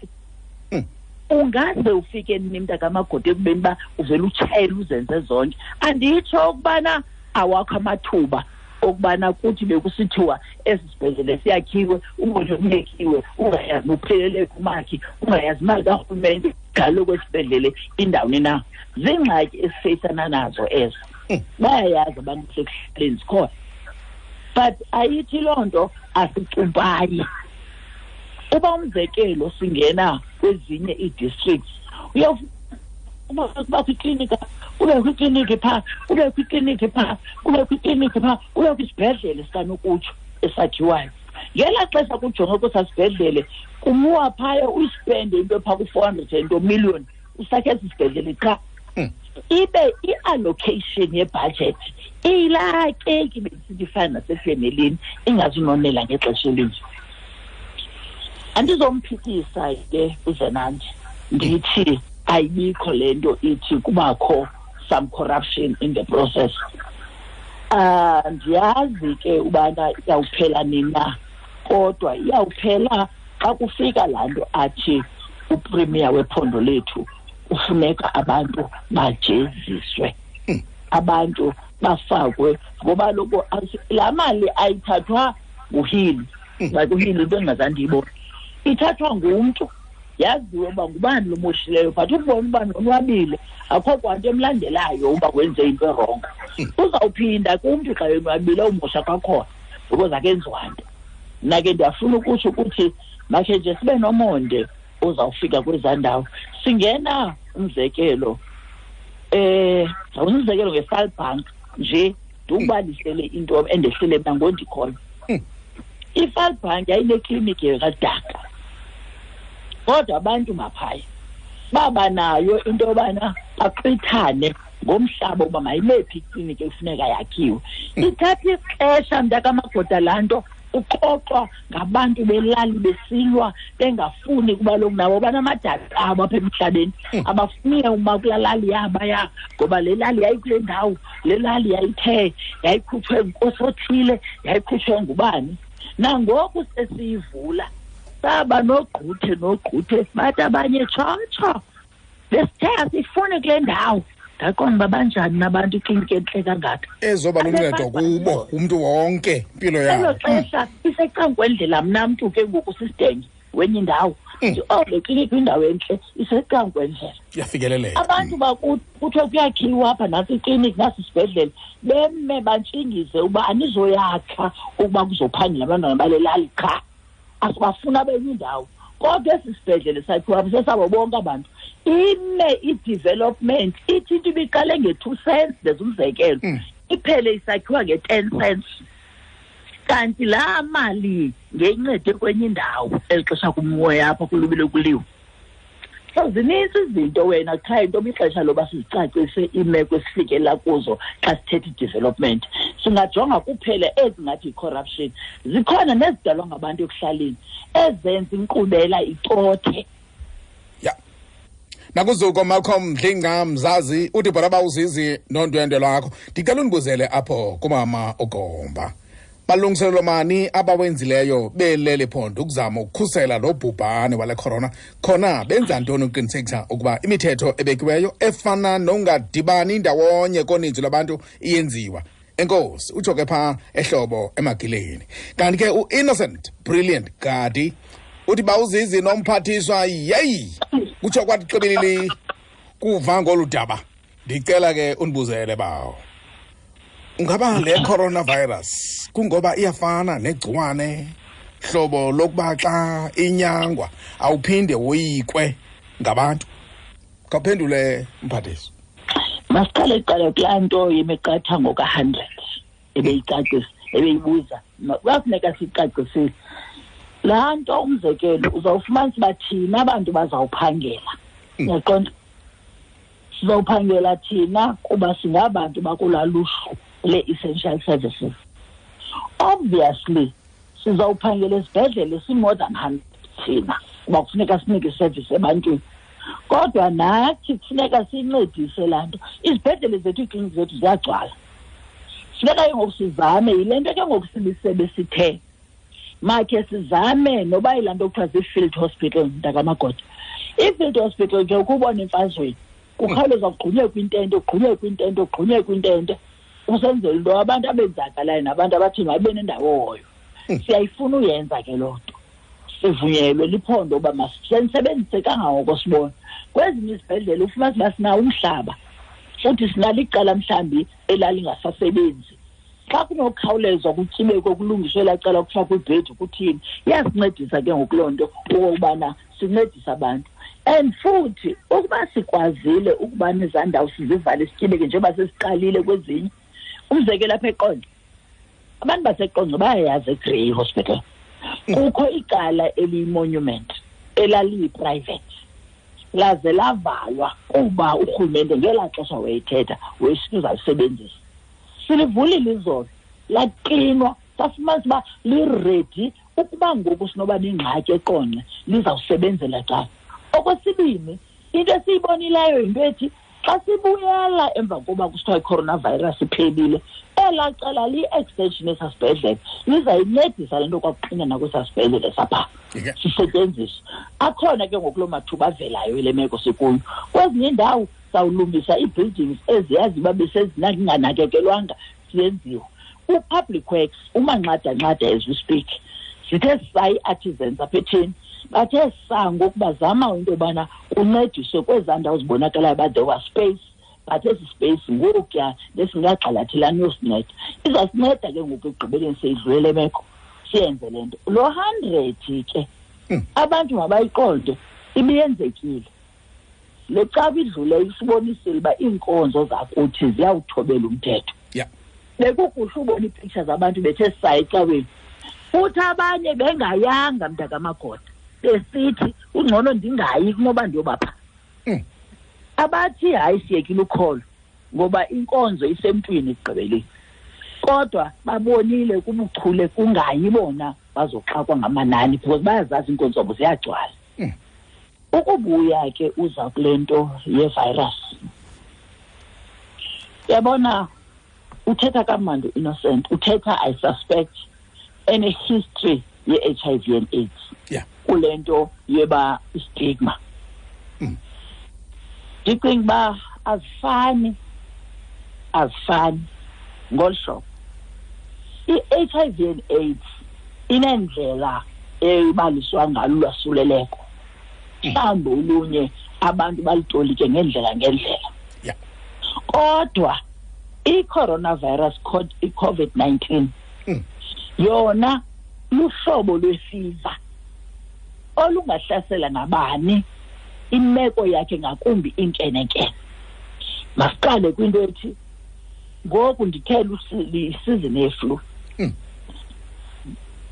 S3: Ungaze ufike nini mntakamagodi ekubeni uba uvele utshayele uzenze zonke? Anditsho ukubana awakho amathuba okubana kuthi bekusithiwa esi sibhedlele siyakhiwe, ubone kuyekiwe, ungayazi uphelele kumakhi, ungayazi imali karhulumente galo kwesibhedlele indawuni na. Ziingxaki esifeyisana nazo ezo. Bayayazi abantu sekuhlaleni zikhona, but ayithi loo nto asicumpayi. Uba umzekelo singena kwezinye ii-districts, uyawuba kwikliniki, kubekho ikliniki phaa, kubekho ikliniki phaa, kubekho ikliniki phaa, kubekho isibhedlele sikanokutsho esakhiwayo. Ngelaa xesha kujongwe kwesaa sibhedlele, kumuwa phaya uyispende into phaa ku-400 and million usakhe esi sibhedlele qha. Ibe i-allocation yebudget iyilaa keki bendisithi ifana nasefemelini, ingazunonela ngexesha elinje. Andizomphikisa ke uZenandi, ndithi ayibikho le nto ithi kubakho some corruption in the process. Ndiyazi ke ubana iyawuphela nini na, kodwa iyawuphela xa kufika laa nto athi upremier wephondo lethu kufuneka abantu bajeziswe, abantu bafakwe, ngoba loko laa mali ayithathwa nguHili. Like uHili into endingazange ndiyibone, ithathwa ngumntu, yaziwe uba ngubani lo moshileyo, but ukubona uba nonwabile akho kwanto emlandelayo uba wenze into erongo. Uzawuphinda kumntu xa yonwabile umosha kwakhona because akenziwa nto. Mna ke ndiyafuna ukutsho ukuthi makhe nje sibe nomonde uzawufika kwezaa ndawo. Singena umzekelo, umzekelo ngeFalbank nje, ndikubalisele into endehlele mna ngondikhoyo. IFalbank yayinekliniki yakadaka, kodwa abantu maphaya baba nayo into yobana baqithane ngomhlaba uba mayimephi ikliniki ekufuneka yakhiwe. Ithatha ixesha mntakamagoda laa nto, uxoxwa ngabantu belali besilwa bengafuni kuba loku nabo banamadada abo apha emhlabeni, abafuni uma kulaa lali yabaya, ngoba le lali yayikule ndawo, le lali yayithe yayikhutshwe ngunkosi othile, yayikhutshwe ngubani. Nangoku sesiyivula saba nogquthe nogquthe, bathi abanye tshotsho besithe asifuni kule ndawo. Ndaqonda uba banjani nabantu ikliniki entle kangaka
S1: ezoba luncedo kubo umntu wonke impilo yabo.
S3: Elo xesha isecankwendlela mna mntu ke ngoku sisidenge wenye indawo. Oh, le kliniki kwindawo entle isecankwendlela,
S1: iyafikeleleka.
S3: Abantu kuthiwe kuyakhiwa apha, nantsi ikliniki, nasi isibhedlele, beme bantshingize uba anizoyakha ukuba kuzophangela abantwana bale lali qha, asibafuna benye indawo. Kodwa esi sibhedlele sakhiwa apha sesabo bonke abantu. Ime i-development ithi into ibiqale nge-2 cents, ndenza umzekelo, iphele isakhiwa nge-10 cents. Kanti laa mali ngeyincede kwenye indawo eli xesha kumoya apha kulubile kuliwe. So zinintsi izinto wena qha into ixesha loba sizicacise iimeko esifikela kuzo xa sithetha i-development. Singajonga kuphela ezingathi yi-corruption. Zikhona nezidalwa ngabantu ekuhlaleni ezenza inkqubela icothe.
S1: Ya. Nakuzuko Malcolm Dlinga Mzazi uthi bhora uzizi nondwendwe lwakho. Ndicela undibuzele apho kumama uGomba. Balungiselelo mani abawenzileyo belele phondo ukuzama ukukhusela lo bhubhane wale corona, khona benza ntoni ukuqinisekisa ukuba imithetho ebekiweyo efana nongadibani ndawonye koninzi lwabantu iyenziwa? Enkosi, utsho ke phaa ehlobo emagileni. Kanti ke u-Innocent Brilliant Gadi uthi bawuzizi nomphathiswa, yeyi, kutsho kwathi xibilili kuva ngolu daba. Ndicela ke undibuzele bawo, ungaba le coronavirus kungoba iyafana negciwane hlobo lokuba xa inyangwa awuphinde woyikwe ngabantu? Khawuphendule mphathiswa.
S3: Masiqale kuqala kulaa nto yemiqathango ka-100 ebeyicacisa, ebeyibuza. Kuyafuneka siyicacisile laa nto. Umzekelo uzawufumanisa uba thina abantu bazawuphangela, uyaqonda? Sizawuphangela thina kuba singabantu bakulaa luhlu le-essential services. Obviously sizawuphangela esibhedlele si-more than 100 thina kuba kufuneka sinike iservice ebantwini. Kodwa nathi kufuneka sincedise laa nto. Izibhedlele zethu, iikliniki zethu ziyagcwala. Funeka ke ngoku sizame, yile nto ke ngoku silisebe sithe makhe sizame noba yilaa nto kuthiwa zii-field hospital, mntakamagoda. I-field hospital ke ukubona emfazweni kukhawuleza kugqunyekwe intente, kugqunyekwe intente, kugqunyekwe intente, usenzela into abantu abenzakalayo nabantu abathi mababe nendawo hoyo. Siyayifuna uyenza ke loo nto, sivunyelwe liphondo uba masisebenzise kangangoko sibona. Kwezinye izibhedlele ufumanise uba sinawo umhlaba, futhi sinalo icala mhlawumbi elalingasasebenzi. Xa kunokhawulezwa kutyibekwe kulungiswe elaa cala kufakwe ibhedi kuthini, iyasincedisa ke ngoku loo nto okokubana sincedise abantu. And futhi ukuba sikwazile ukuba nezaa ndawo sizivale sityibeke njengoba sesiqalile kwezinye, umzekelo apha eQonce, abantu baseQonce bayayazi eGrey Hospital. Kukho icala eliyi-monument elaliyi-private, laze lavalwa kuba urhulumente ngelaa xesha wayethetha wayesithi uzalisebenzisa. Silivulile izolo, laqinwa, safumanisa uba liredi ukuba ngoku sinoba nengxaki eQonce lizawusebenzela cala. Okwesibini, into esiyibonileyo yinto ethi xa sibuyela emva koba kusithiwa i-coronavirus iphelile, elaa cala liyi-extension yesaa sibhedlele, lizayincedisa le nto kwakuxinana kwesaa sibhedlele sapha sisetyenziswe. Akhona ke ngoku loo mathuba avelayo ile meko sikuyo. Kwezinye iindawo sawulungisa ii-buildings eziyazi uba besezinganakekelwanga, siyenziwa. U-Public Works umanxada-nxada as we speak, sithe sa ii-artisans apha etheni, bathe sa ngoku bazama into yobana kuncediswe kwezaa ndawo zibonakalayo uba there was space, but esi space ngokuya besingagxalathelani yosinceda. Izasinceda ke ngoku ekugqibeleni seyidlule le meko, siyenze le nto. Lo 100 ke, abantu mabayiqonde ibiyenzekile. Le cawa idlule isibonisile uba iinkonzo zakuthi ziyawuthobela umthetho. Bekukuhle ubona iipictures zabantu bethe saa ecaweni, futhi abanye bengayanga mntakamagoda, besithi ungcono ndingayi kunoba ndiyobapha. Abathi hayi siyekile ukholo ngoba inkonzo isemntwini ekugqibeleni, kodwa babonile kubuchule kungayi bona bazoxakwa ngamanani because bayazazi iinkonzo zabo ziyagcwala. Ukubuya ke uza kule nto ye-virus, yabona uthetha kamandi Innocent, uthetha I suspect ene history ye-HIV and AIDS. Kule nto yeba stigma. Ndicinga uba azifani ngolu hlobo. I-HIV and AIDS inendlela ebaliswa ngalo ulwasuleleko. Mhlawumbi olunye abantu balitolike ngendlela ngendlela. Kodwa i-coronavirus, i-COVID-19, yona luhlobo lwefiva olungahlasela nabani, imeko yakhe ngakumbi inkenenkene. Masiqale kwinto ethi ngoku ndithe isizini yeflu.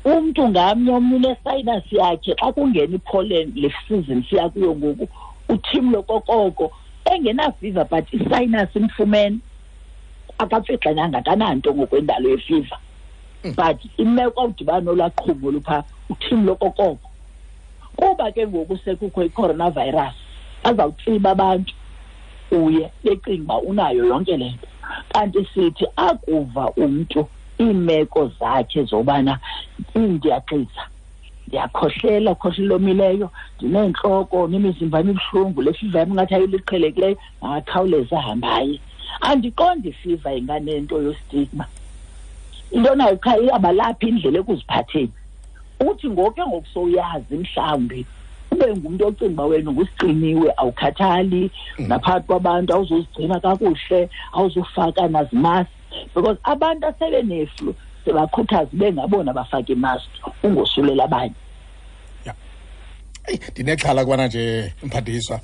S3: Umntu ngamnye omnye unesinus yakhe, xa kungena ipollen le season siya kuyo ngoku, uthimlo kokoko engenafiva but isinus imfumene, akapfixananga akananto ngokwendalo yefiva. But imeko awudibana nolaqhumo lupha uthimlo kokoko. Kuba ke ngoku sekukho i-coronavirus, azawutsiba abantu uye becinga uba unayo yonke le nto. Kanti sithi akuva umntu iimeko zakhe zobana ndiyaxisa, ndiyakhohlela, khohlela omileyo, ndineentloko, nemizimba emibuhlungu, le fiva yam ingathi ayiliqhelekileyo, makakhawuleze ahambe aye. Andiqondi ifiva inganento yostigma. Into nayo qha iyabalapha indlela ekuziphatheni. Uthi ngoku ke ngoku sowuyazi mhlawumbi ube ngumntu ocinga uba wena ngusiqiniwe, awukhathali, naphakathi kwabantu awuzuzigcina kakuhle, awuzufaka nazimaski, because abantu asebeneflu sebakhuthaza bengabona bafake imaski ungosulela abanye.
S1: Eyi, ndinexhala kubana nje mphathiswa,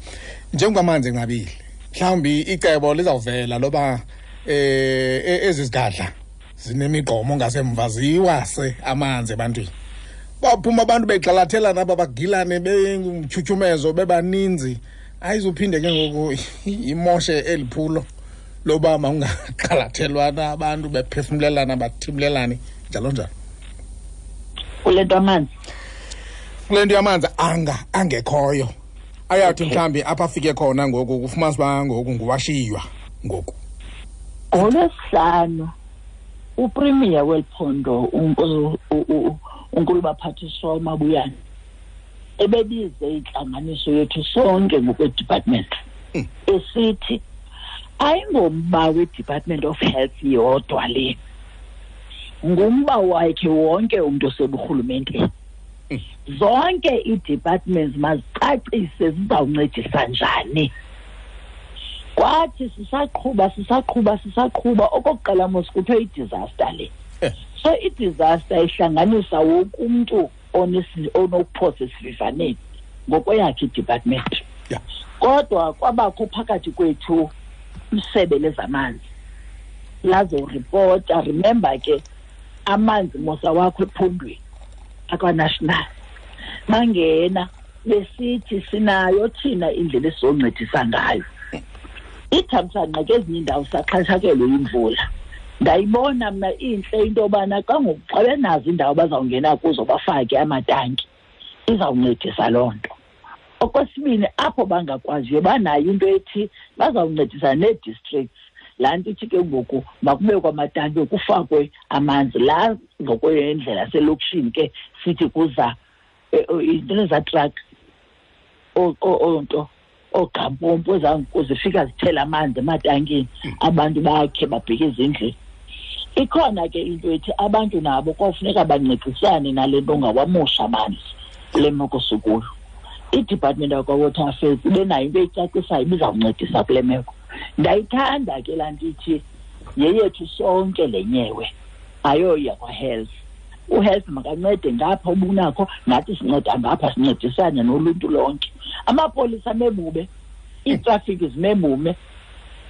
S1: njengoba amanzi enqabile, mhlawumbi icebo lizawuvela loba ezi zigadla zinemigqomo ngasemva ziwase amanzi ebantwini. Baphuma abantu begxalathelana aba bagilane bengumtyhutyhumezo bebaninzi, ayizuphinde ke ngoku imoshe eli phulo loba mawungagxalathelwana abantu bephefumlelana bathimlelane njalo njalo.
S3: Kule nto amanzi?
S1: Kule nto yamanzi angekhoyo. Ayathi mhlambi apha afike khona ngoku kufumanisa uba ngoku nguwashiywa ngoku.
S3: NgoLwesihlanu uPremier weliphondo uNkulubaphathiswa uMabuyane ebebize intlanganiso yethu sonke ngokwe-department esithi ayingomba we-Department of Health yodwa le, ngumba wakhe wonke umntu oseburhulumenteni. Zonke ii-departments mazicacise zizawuncedisa njani. Kwathi sisaqhuba okokuqala mos kuthiwe i-disaster le. So i-disaster ihlanganisa wonke umntu onokuphosa esivivaneni ngokweyakhe i-department. Kodwa kwabakho phakathi kwethu isebe lezamanzi lazoripota. Remember ke amanzi mosa wakho ephondweni akwa-national bangena besithi sinayo thina indlela esizoncedisa ngayo. Ithamsanqa ke ezinye iindawo saxhatshakelwe yimvula. Ndayibona mna intle into yobana xa ngoku xa benazo iindawo bazawungena kuzo bafake amatanki, izawuncedisa loo nto. Okwesibini, apho bangakwaziyo banayo into ethi bazawuncedisa nee-districts. Laa nto ithi ke ngoku makubekwe amatanki kufakwe amanzi. Laa ngokwendlela selokishini ke sithi kuza into ezaa truck onto oogampompo zifika zithela amanzi ematankini, abantu bakhe babheke ezindlini. Ikhona ke into ethi abantu nabo kofuneka bancedisane nale nto ngawamosha amanzi kule meko sikuyo. I-Department yakwa-Water Affairs ibe nayo into eyicacisayo ibizawuncedisa kule meko. Ndayithanda ke laa nto ithi yeyethu sonke le nyewe, ayoya kwa-health. U-health makancede ngapha ubunakho, nathi sinceda ngapha, sincedisane noluntu lonke. Amapolisa amebume, iitrafiki zimebume,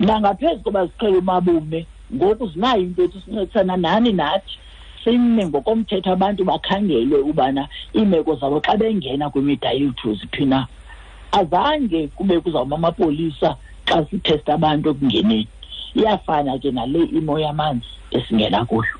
S3: nangaphezu koba ziqhele umabume, ngoku zinayo into ethi sincedisana nani nathi. Sime ngokomthetho abantu bakhangelwe ubana iimeko zabo xa bengena kwimida yethu ziphi na. Azange kube kuzawuma amapolisa xa sithesta abantu ekungeneni. Iyafana ke nale imo yamanzi esingena kuyo.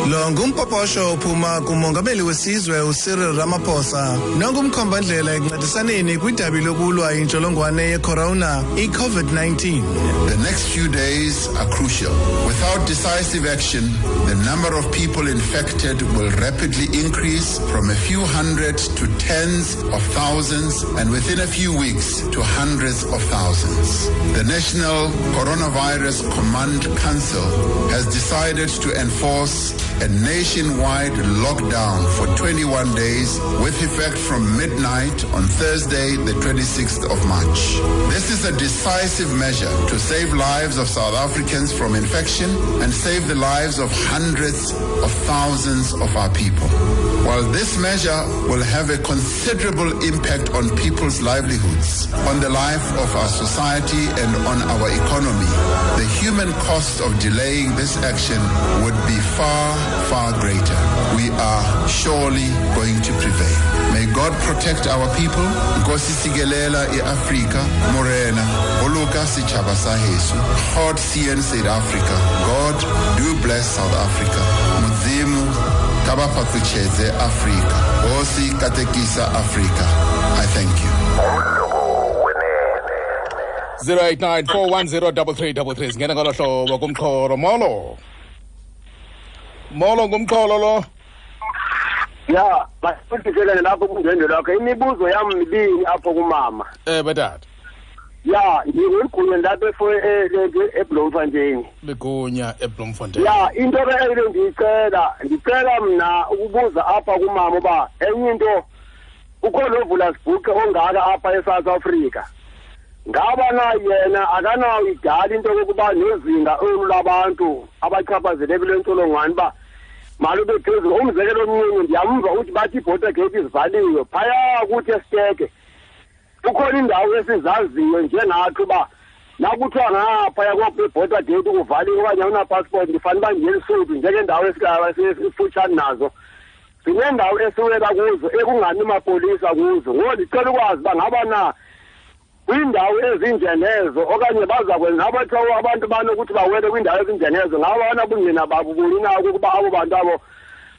S4: Lo ngumpoposho ophuma kumongameli wesizwe uCyril Ramaphosa nongumkhombandlela ekuncedisaneni kwidabi lokulwa intsholongwane yecorona i-COVID-19.
S11: The next few days are crucial. Without decisive action, the number of people infected will rapidly increase from a few hundred to tens of thousands, and within a few weeks to hundreds of thousands. The National Coronavirus Command Council has decided to enforce a nationwide lockdown for 21 days with effect from midnight on Thursday, the 26th of March. This is a decisive measure to save lives of South Africans from infection and save the lives of hundreds of thousands of our people. While this measure will have a considerable impact on people's livelihoods, on the life of our society and on our economy, the human cost of delaying this action would be far, far greater. We are surely going to prevail. May God protect our people. Nkosi sigelela iAfrika, Morena, Boloka setjhaba sa heso. God seën South Africa. God do bless South Africa. Mudzimu ka ba fhaṱutshedze Afrika. Hosi katekisa Afrika. I thank you.
S1: 089 410 3333. Singena ngolo hlobo kumxholo. Molo. Molo ngumxholo lo.
S12: Ya, basifikelele lapho kundwendwe lwakho. Imibuzo yami mibini apho kumama.
S1: Batata.
S12: Ya, ngigunya lapho eBloemfontein.
S1: Ligunya eBloemfontein.
S12: Ya, into ebengiyicela, ngicela mina ukubuza apha kumama uba enye into ukhona ovula sibhuqe ongaka apha eSouth Africa. Ngaba na yena akanayo idala into yokuba nezinga olu labantu abachaphazeleke kule ntsholongwane uba malube phezulu. Umzekelo omncinci ndiyamva uthi bathi iborder gate izivaliwe phaya kuthi esiteke. Kukhona indawo esizaziyo njengathi uba nakuthiwa ngaphaya kwe-border gate kuvaliwe okanye awunapassport ndifanele uba ndiye eLesotho njengendawo esifutshane nazo. Sinendawo esiwela kuzo ekungani mapolisa kuzo. Ngoku ndicela ukwazi uba ngaba na kwindawo ezinjenezo okanye baza kwenza abathiwa abantu banokuthi bawele kwindawo ezinjenezo ngaba banabungqina babo buni na ukuba abo bantu abo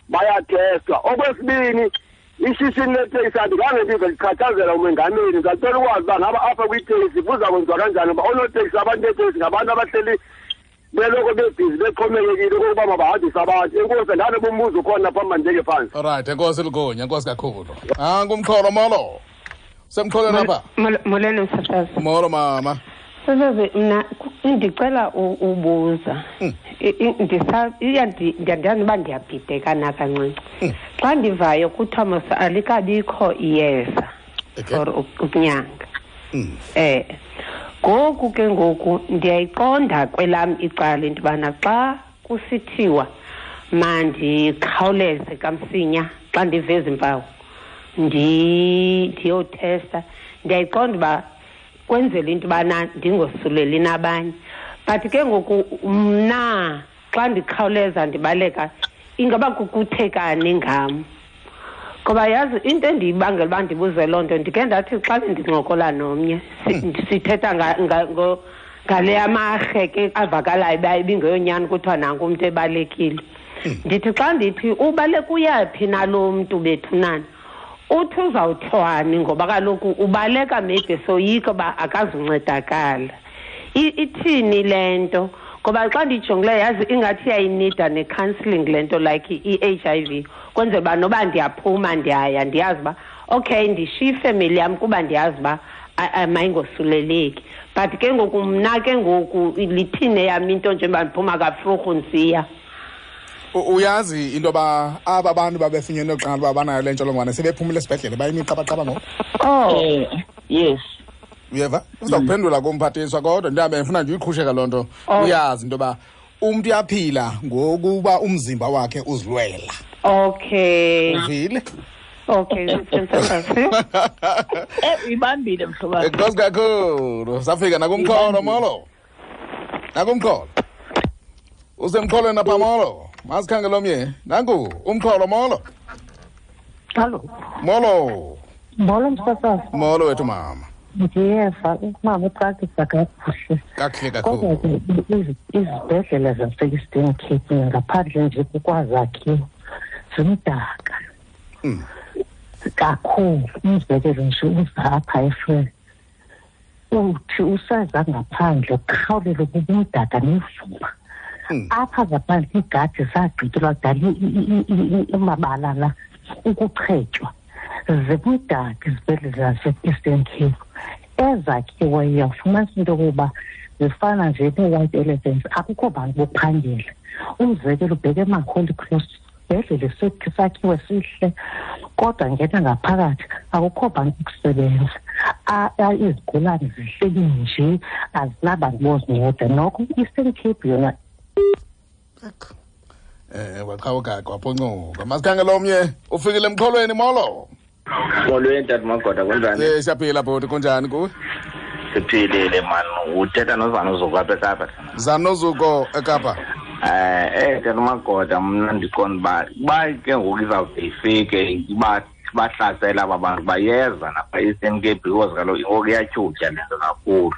S12: bayathestwa. Okwesibini, Ishishini leteksi andikhange ndive ndichathazela umengameli. Ndicela ukwazi uba ngaba apha kwiiteksi kuza kwenziwa kanjani, uba oonoteksi, abantu beeteksi ngabantu abahleli beloko bebhizi bexhomekekile kokuba mabahambise abantu. Enkosi, ndanoba umbuzo ukhona phambi mandibeke phantsi.
S1: Alright, enkosi Lugunya, enkosi kakhulu. Angumxholo, molo. Semxholweni apha.
S13: Molweni msasazi.
S1: Molo mama.
S13: Msasazi, mna ndicela ubuza. Ndiyandiyazi uba ndiyabhideka na kancinci. Xa ndivayo kuthiwa mos alikabikho iyeza for ukunyanga. Ngoku ke ngoku ndiyayiqonda kwelam icala into yobana xa kusithiwa mandikhawuleze kamsinya xa ndive ezi mpawu ndiyothesta, ndiyayiqonda uba kwenzela into yobana ndingosuleli nabanye. But ke ngoku mna xa ndikhawuleza ndibaleka ingaba kukuthekani ngam? Ngoba yazi into endiyibangela uba ndibuze loo nto, ndike ndathi xa bendincokola nomnye sithetha ngale amarhe ke avakalayo uba ibingeyonyani kuthiwa nanku umntu ebalekile. Ndithi xa ndithi ubaleka uyaphi nalo mntu bethunana, uthi uzawuthwani ngoba kaloku ubaleka maybe soyika uba akazuncedakala. Ithini le nto? Ngoba xa ndiyijongileyo yazi ingathi iyayinida ne-counselling le nto, like i-HIV, kwenzela uba noba ndiyaphuma ndiyaya ndiyazi uba okay ndishiye ifemeli yam kuba ndiyazi uba mayingosuleleki. But ke ngoku mna ke ngoku lithini eyam into njengoba ndiphuma kafrurhu ndisiya?
S1: Uyazi into yoba aba bantu babefunyenwe kuqala uba banayo le ntsholongwane sebephumile esibhedlele bayimiqabaqaba ngoku?
S13: Oh.
S3: Yes.
S1: Uyeva? Uza kuphendula kumphathiswa kodwa ndihambe ndifuna nje uyiqhusheka loo nto. Uyazi into yoba umntu uyaphila ngokuba umzimba wakhe uzilwela.
S13: Okay.
S1: Uvile?
S13: Okay,
S3: ibambile mhlobo wam.
S1: Enkosi kakhulu. Safika nakumxholo, molo. Nakumxholo. Usemxholweni apha, molo. Masikhangele omnye. Nanku umxholo, molo.
S14: Hallo.
S1: Molo.
S14: Molo msasazi.
S1: Molo wethu mama.
S14: Ndiyeva umama ucacisa kakuhle.
S1: Kakuhle kakhulu.
S14: Kodwa ke izibhedlele zase-Eastern Cape ngaphandle nje kukwazakhiwo zimdaka kakhulu. Umzekelo nje uza apha eFrere, uthi useza ngaphandle ukhawulele kubumdaka nevumba. Apha ngaphandle iigadi zagqityelwa kudala amabala la ukuchetywa. Zimdaka izibhedlele zase-Eastern Cape. Ezakhiweyo ufumanisa into yokuba zifana nje nee-white elephants, akukho bantu bokuphangela. Umzekelo ubheke emaHoly Cross, isibhedlele sakhiwe sihle, kodwa ngena ngaphakathi akukho bantu bokusebenza. Izigulane zihleli nje azinabantu bozinceda. Noko i-Eastern Cape yona
S1: waqhawuka kwaphoncuka. Masikhangele omnye ufikile emxholweni, molo.
S10: Molweni tata Magoda, kunjani?
S1: Siyaphila bhuti, kunjani kuwe?
S10: Siphilile man. Uthetha noZanozuko apha eKapa.
S1: Zanozuko eKapa.
S10: Tata Magoda, mna ndiqonda uba ke ngoku izawude ifike bahlasela aba bantu bayeza napha e-Eastern Cape because kaloku ngoku iyatyhutyha le nto kakhulu.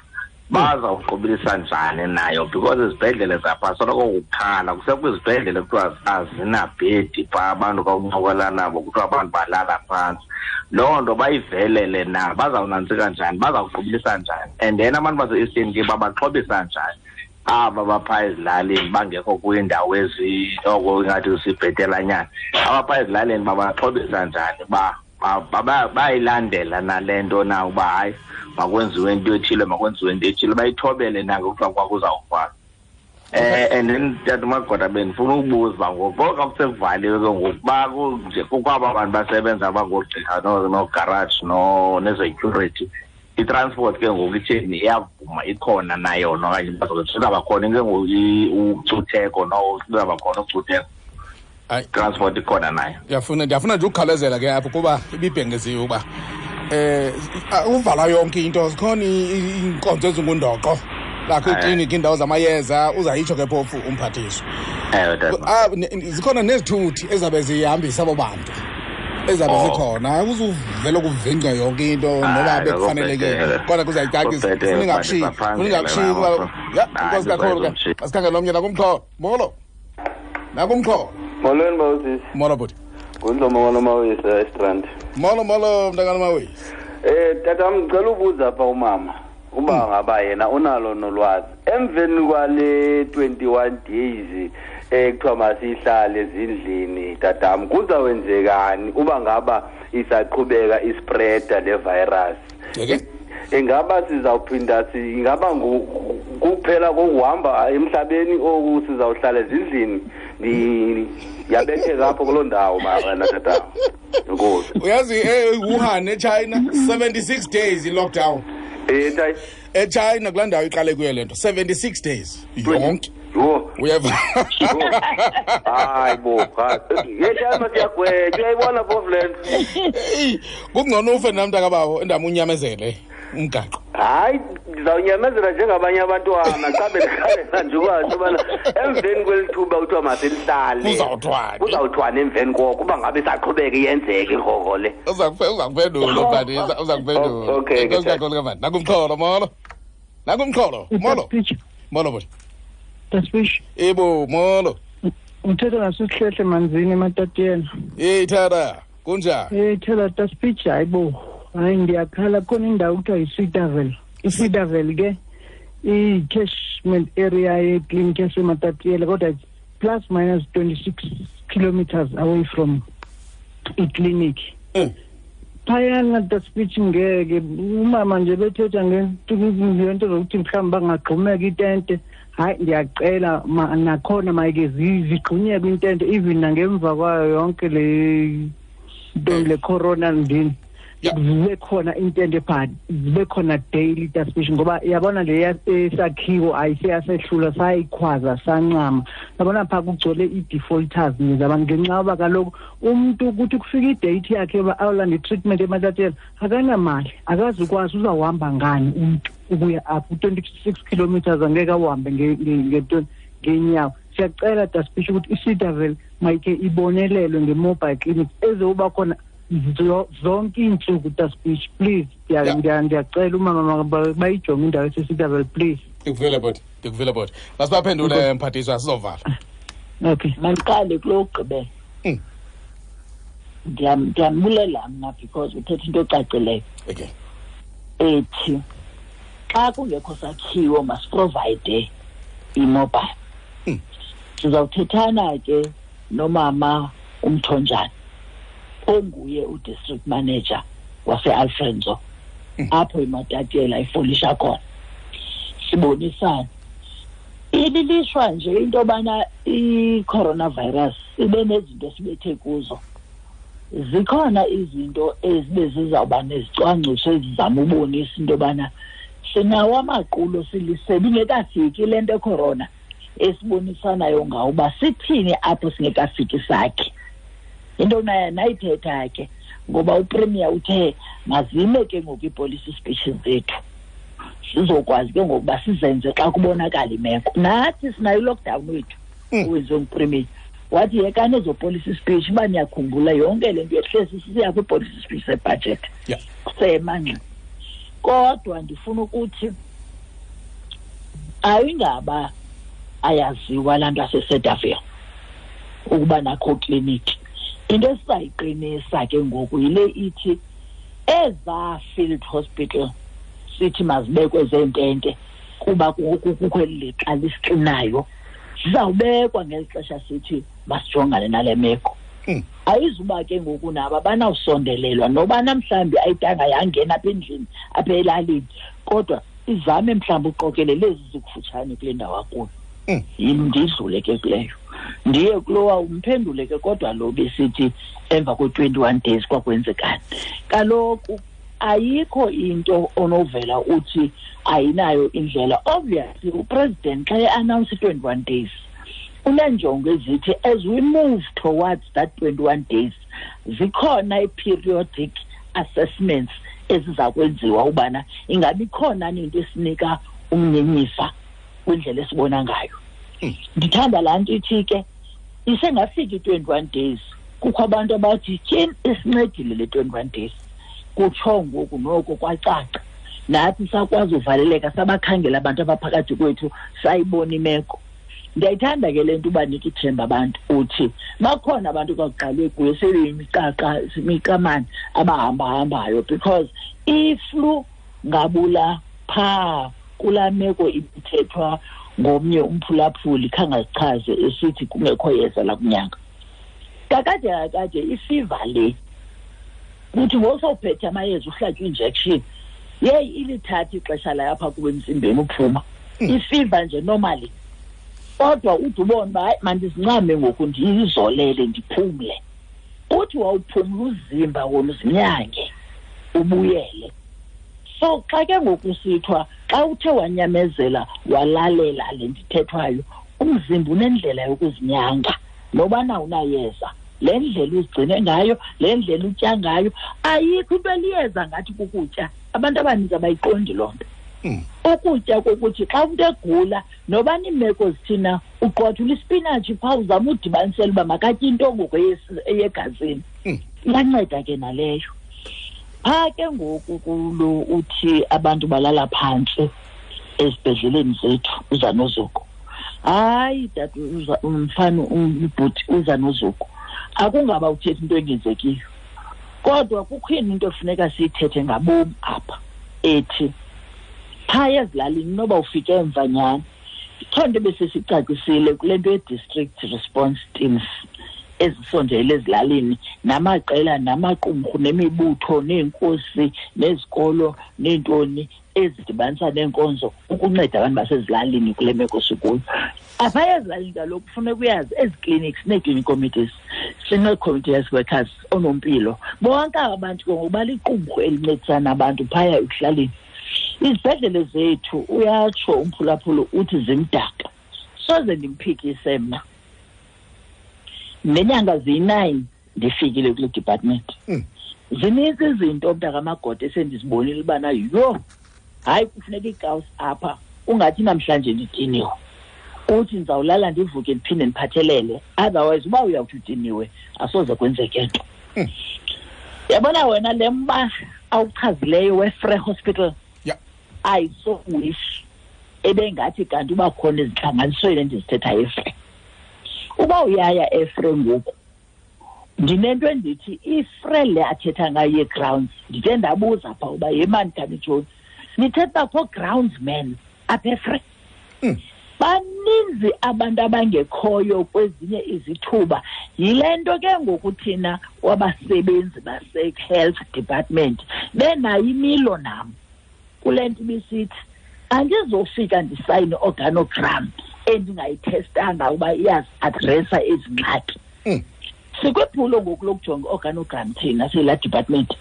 S10: Bazawuqobelisa njani nayo because izibhedlele zapha soloko kukhala kusekwizibhedlele kuthiwa azinabhedi phaa abantu xa uncokola nabo kuthiwa abantu balala phantsi. Loo nto bayivelele na, bazawunantsika njani, bazawuqobelisa njani, and then abantu base-Eastern Cape babaxhobisa njani aba baphaa ezilalini bangekho kwiindawo ezi oko ingathi sibhetelanyana, abaphaa ezilalini babaxhobisa njani bayilandela nale nto na uba hayi makwenziwe into ethile, makwenziwe into ethile, bayithobele na ngokuthiwa kwakuzawufana. And then tata Magoda bendifuna ukubuza ngoku xa kusekuvaliwe ke ngoku nje kukwaba bantu basebenza bangoogqirha noogaraji nezecurity, i-transport ke ngoku itheni, iyavuma ikhona na yona okanye izawuba khona ke ngoku ucutheko izawuba khona ucutheko? Transport ikhona nayo.
S1: Ndiyafuna nje ukukhalezela ke apho kuba ibibhengeziwe uba uvala yonke into, zikhona iinkonzo ezingundoqo lakho iikliniki, iindawo zamayeza, uzayitsho ke phofu umphathiswa. Zikhona nezithuthi ezabe zihambisa abo bantu ezabe zikhona, uzuvele kuvingca yonke into noba bekufanelekile, kodwa kuzayicacisa ningakushiyi. Ya, inkosi kakhulu ke. Asikhangele omnye nakumxholo. Molo. Nakumxholo.
S15: Molweni bawusisi.
S1: Molo bhuti.
S15: Ngundlomo wanomawisa eStrand.
S1: Molo molo mntakanamawisa.
S15: Tata ngicela ubuza apha umama uba ngaba yena unalo nolwazi emveni kwale 21 days ekuthiwa masihlale ezindlini tatam kuzawenzekani uba ngaba isaqhubeka ispreada le virus?
S1: Okay.
S15: Ingaba sizawuphinda ingaba kuphela kokuhamba emhlabeni oku sizawuhlala ezindlini? Ndiyabetheka apho kuloo ndawo mara tata. Enkosi.
S1: Uyazi eWuhan eChina 76 days i-lockdown. eChina kulaa ndawo iqale kuyo le nto 76 days yonke.
S15: Yho.
S1: Uyeva?
S15: Hayi bo, hayi. Yeshama siyagwetha, uyayibona phofu le nto.
S1: Eyi, kungcono ufe nam mntakabawo endam unyamezele umgaqo.
S15: Hayi, ndizawunyamezela njengabanye abantwana xa bendikhalela nje ukwazi ubana emveni kweli thuba kuthiwa masilihlale.
S1: Kuzawuthwani?
S15: Kuzawuthwani emveni koko uba ngabe isaqhubeka iyenzeka irhorho le.
S1: Uza kuphendula Mfandisa, uza kuphendula.
S15: Okay,
S1: Enkosi kakhulu ke mfana. Nakumxholo molo. Nakumxholo, molo. Molo bhuti.
S16: Tasbish.
S1: Ebo, molo.
S16: Uthetha nasisihlehle manzini ematatiyena.
S1: Hey Thara, kunjani?
S16: Hey Thara Tasbish, hayibo. Hayi ndiyakhala khona indawo kuthiwa yiSweetavel. ISweetavel ke i-catchment area yekliniki yaseMatatiyela kodwa plus minus 26 kilometers away from ikliniki. Phayana Tasbish ngeke umama nje bethetha ngento zokuthi mhlawumbi bangagxumeka itente. Hayi ndiyacela nakhona mayike zigxunyekwe intente even nangemva kwayo yonke le nto le corona ndini. Zibe khona intente pha, zibe khona daily Tasbish ngoba yabona le esakhiwo ayiseyasehlula sayikhwaza sancama. Yabona pha kugcwele i-defaulters nje zabantu ngenxa yoba kaloku umuntu ukuthi kufika i-date yakhe yoba awulanda i-treatment eMatatiyela akanamali, akazukwazi uzawuhamba ngani umuntu ukuya apho 26 kilometers angeke awuhambe ngeenyawo. Siyacela Tasbish ukuthi iSweetavel mayike ibonelelwe nge-mobile clinic ezoba khona zonke iintsuku Tasbish, please. Ndiyacela umama bayijonge indawo eseSweetavel, please.
S1: Ndikuvile bhuti, ndikuvile bhuti. Masibaphendule mphathiswa sizovala.
S16: Okay.
S3: Mandiqale kulo wokugqibela. Ndiyambulela mna because uthetha into ecacileyo.
S1: Okay.
S3: Ethi xa kungekho sakhiwo masiprovide i-mobile. Sizawuthethana ke nomama uMthonjana onguye u-district manager wase-Alfrenzo apho iMatatiyela ifolisha khona. Sibonisane. Ililishwa nje into yobana i-coronavirus ibe nezinto esibethe kuzo. Zikhona izinto ezibe zizawuba nezicwangciso ezizama ubonisa into yobana sinawo amaqulo silisebe ingekafiki le nto ecorona esibonisanayo ngawo uba sithini apho singekafiki sakhe. Into naye nayithetha ke ngoba uPremier uthe mazime ke ngoku iipolicy speeches zethu sizokwazi ke ngokuba sizenze xa kubonakala imeko. Nathi sinayo i-lockdown wethu owenziwe nguPremier, wathi yekani ezo policy speech uba niyakhumbula yonke le nto yehlesi sisiya kwipolicy speech sebudget sema ngxi. Kodwa ndifuna ukuthi ayingaba ayaziwa laa nto aseSedavel ukuba nakho kliniki. Into esizayiqinisa ke ngoku yile ithi ezaa field hospital sithi mazibekwe zeentente kuba kukho eli lixa lisixinayo, zizawubekwa ngeli xesha sithi masijongane nale meko. Ayizuba ke ngoku nabo abanawusondelelwa noba namhlawumbi ayidanga yangena apha endlini apha elalini, kodwa izame mhlawumbi uqokelele ezi zikufutshane kule ndawo akuyo. Ndidlule ke kuleyo ndiye kulowa umphendule ke, kodwa lo besithi emva kwe-21 days kwakwenzekani. Kaloku ayikho into onovela uthi ayinayo indlela. Obviously upresident xa e-announce i-21 days unenjongo ezithi as we move towards that 21 days zikhona i-periodic assessments eziza kwenziwa ubana ingabi khona into esinika umnyenyifa kwindlela esibona ngayo. Ndithanda laa nto ithi ke isengafiki i-21 days kukho abantu abathi tyhini isincedile le 21 days, kutsho ngoku noko kwacaca nathi sakwazi uvaleleka sabakhangela abantu abaphakathi kwethu sayibona imeko. Ndiyayithanda ke le nto ubanika ithemba abantu, uthi bakhona abantu kwakuqalwe kuyo sebeyimiqaqa imiqamane abahambahambayo, because iflu ngabula phaa kulaa meko ibithethwa ngomnye umphulaphuli khangazichaze esithi kungekho yeza lakunyanga. Kakade ifiva le kuthi ngosawuphethe amayeza uhlatywe injection, yeyi ilithatha ixesha layo apha kuba emzimbeni uphuma ifiva nje normally, kodwa ude ubone uba hayi mandizincame ngoku ndiyizolele ndiphumle. Uthi wawuphumla uzimba wona uzinyange ubuyele. So xa ke ngoku sithwa xa uthe wanyamezela walalela le ndithethwayo, umzimba unendlela yokuzinyanga nobana unayeza. Le ndlela uzigcine ngayo, le ndlela utya ngayo, ayikho into eliyeza ngathi kukutya. Abantu abaninzi abayiqondi loo nto. Ukutya kokuthi xa umntu egula nobana iimeko zithina, uqwathula ispinatshi phaa uzama udibanisela uba makatye into ngoku eyegazini. Iyanceda ke naleyo. Phaa ke ngoku kulo uthi abantu balala phantsi ezibhedleleni zethu, uza nozuko. Hayi tata, umfana ubhuti uza nozuko. Akungaba uthetha into engenzekiyo, kodwa kukho into efuneka siyithethe ngabom apha ethi phaa ezilalini noba ufike emva nyhani. Ikho nto ebesesicacisile kule nto ye-district response teams ezisondele ezilalini namaqela namaqumrhu nemibutho neenkosi nezikolo neentoni ezidibanisa neenkonzo ukunceda abantu basezilalini kule meko sikuyo. Apha ezilalini kaloku kufuneka uyazi ezi clinics nee-clinic committees, sinee-community health workers, oonompilo, bonke aba bantu ke ngoku baliqumrhu elincedisana abantu phaya ekuhlaleni. Izibhedlele zethu uyatsho umphulaphula uthi zimdaka, soze ndimphikise mna. Nenyanga ziyi-9 ndifikile kule department. Zininzi izinto mntakamagoda esendizibonile ubana yho, hayi kufuneka iikawusi apha, ungathi namhlanje ndidiniwe, uthi ndizawulala ndivuke ndiphinde ndiphathelele, otherwise uba uyawuthi udiniwe asoze kwenzeke nto. Yabona wena le mba awuchazileyo weFrey Hospital, I so wish ebengathi kanti uba khona ezintlanganisweni endizithethayo eFrey. Uba uyaya eFrey ngoku, ndinento endithi iFrey le athetha ngayo ye-grounds, ndithe ndabuza phaa uba yemani kani John, nithetha uba kho groundsman apha eFrey. Baninzi abantu abangekhoyo kwezinye izithuba. Yile nto ke ngoku thina wabasebenzi base-health department benayo imilo nam kule nto ibisithi andizofika ndisayine organogram endingayithestanga uba iyaziadresa ezi ngxaki. Sikwiphulo ngoku lokujonga organogram thina siyilaa department.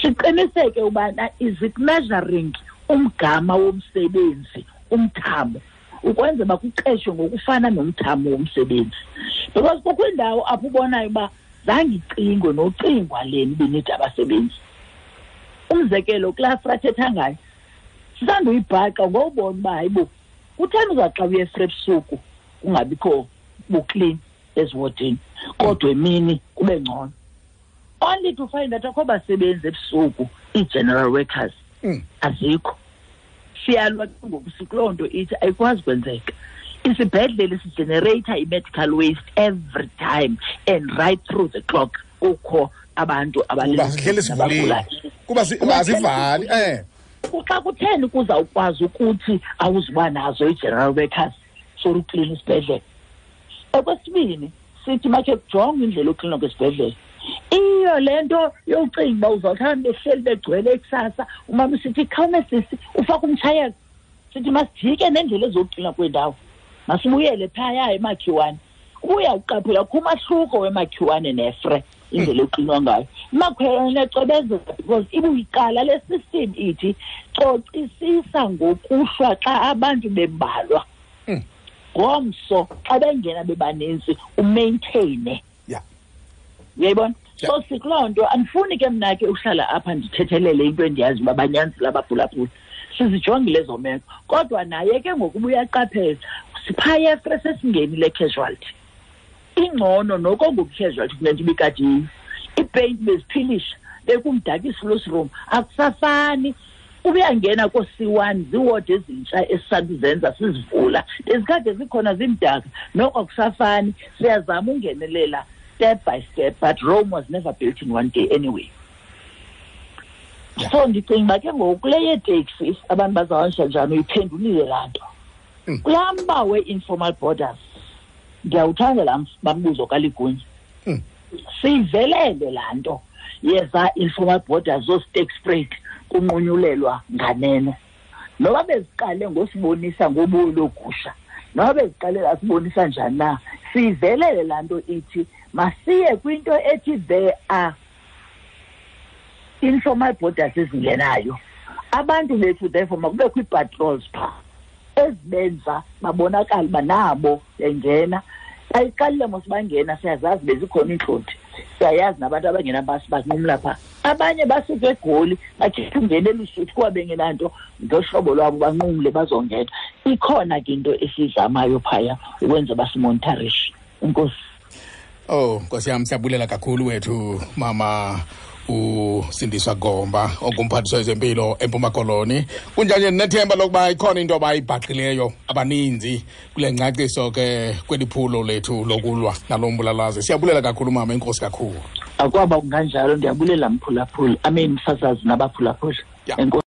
S3: Siqiniseke ubana is it measuring umgama womsebenzi, umthamo, ukwenza uba kuqeshwe ngokufana nomthamo womsebenzi. Because kukho indawo apho ubonayo uba zange icingwe nocingwa leni ibinida abasebenzi. Umzekelo kulaa Frey athetha ngayo, sisanduyibhaqa ngowubona uba hayibo, kutheni uza xa uye eFrey ebusuku kungabikho buklini eziwodini, kodwa emini kube ngcono. Only to find that akho basebenzi ebusuku, ii-general workers azikho. Siyalwa ke ngoku sikuloo nto ithi ayikwazi kwenzeka. Isibhedlele sigenerate i-medical waste every time and right through the clock kukho abantu
S1: Kuba sihleli sivulile, kuba azivali.
S3: Xa kutheni kuzawukwazi ukuthi awuzuba nazo i-general workers for uklina isibhedlele? Okwesibini, sithi makhe kujongwe indlela yokuklina kwesibhedlele. Iyo le nto yokucinga uba uzawuhlala behleli begcwele kusasa, umama sithi khawume sisi ufake umtshayelo. Sithi masijike nendlela ezokuklina kwendawo, masibuyele phaya emakhiwane. Ubuya uqaphela kukho umahluko wemakhiwane neFrey indlela eklinwa ngayo. Imakhiwane ecwebezela because ibuyiqala le system ithi cocisisa ngokuhlwa xa abantu bembalwa. Ngomso xa bengena bebaninzi umaintaine. Uyayibona? So sikuloo nto andifuni ke mna ke uhlala apha ndithethelele into endiyazi uba banyanzile abaphulaphuli. Sizijongile ezo meko. Kodwa naye ke ngoku uyaqaphela, siphaya eFrey sesingenile casualty. Ingcono noko ngoku casualty kule nto ibikade iyiyo. Iipeyinti beziphilisha, bekumdaka i-sluice room, akusafani. Ubuyangena ko-C1 ziiwodi ezintsha esisanduzenza sizivula, bezikade zikhona zimdaka, noko akusafani. Siyazama ungenelela step by step, but Rome was never built in one day anyway. So ndicinga uba ke ngoku kule yeeteksi abantu bazawuhanjiswa njani, uyiphendulile laa nto. Kulaa mba we-informal borders, ndiyawuthanda laa mbuzo kaLigunya. Siyivelele laa nto yeza informal borders zooSterkspruit kunqunyulelwa nganeno. Noba beziqale ngosibonisa ngobulo logusha, noba beziqale asibonisa njani na, siyivelele laa nto ithi masiye kwinto ethi there are informal borders ezingenayo. Abantu bethu therefore makubekho ii-patrols phaa ezibenza babonakale uba nabo bengena. Bayiqalile mos bangena, siyazazi bezikhona iintlonti, siyayazi nabantu abangena banqumla phaa. Abanye basuka eGoli bakhetha ungena eLusuthu kuba bengenanto, ngohlobo lwabo banqumle bazongena. Ikhona ke into esiyizamayo phaya ukwenza basimonitarishe. Enkosi.
S1: Oh, Nkosi yam, siyabulela kakhulu wethu mama uSindiswa Gomba ongumphathiswa wezempilo eMpuma Koloni. Kunjanje ndinethemba lokuba ikhona into abayibhaqileyo abaninzi kule ngcaciso ke kweli phulo lethu lokulwa nalo mbulalazi. Siyabulela kakhulu mama, enkosi kakhulu.
S3: Akwaba kunganjalo, ndiyabulela mphulaphuli. I mean msasazi nabaphulaphuli. Enkosi.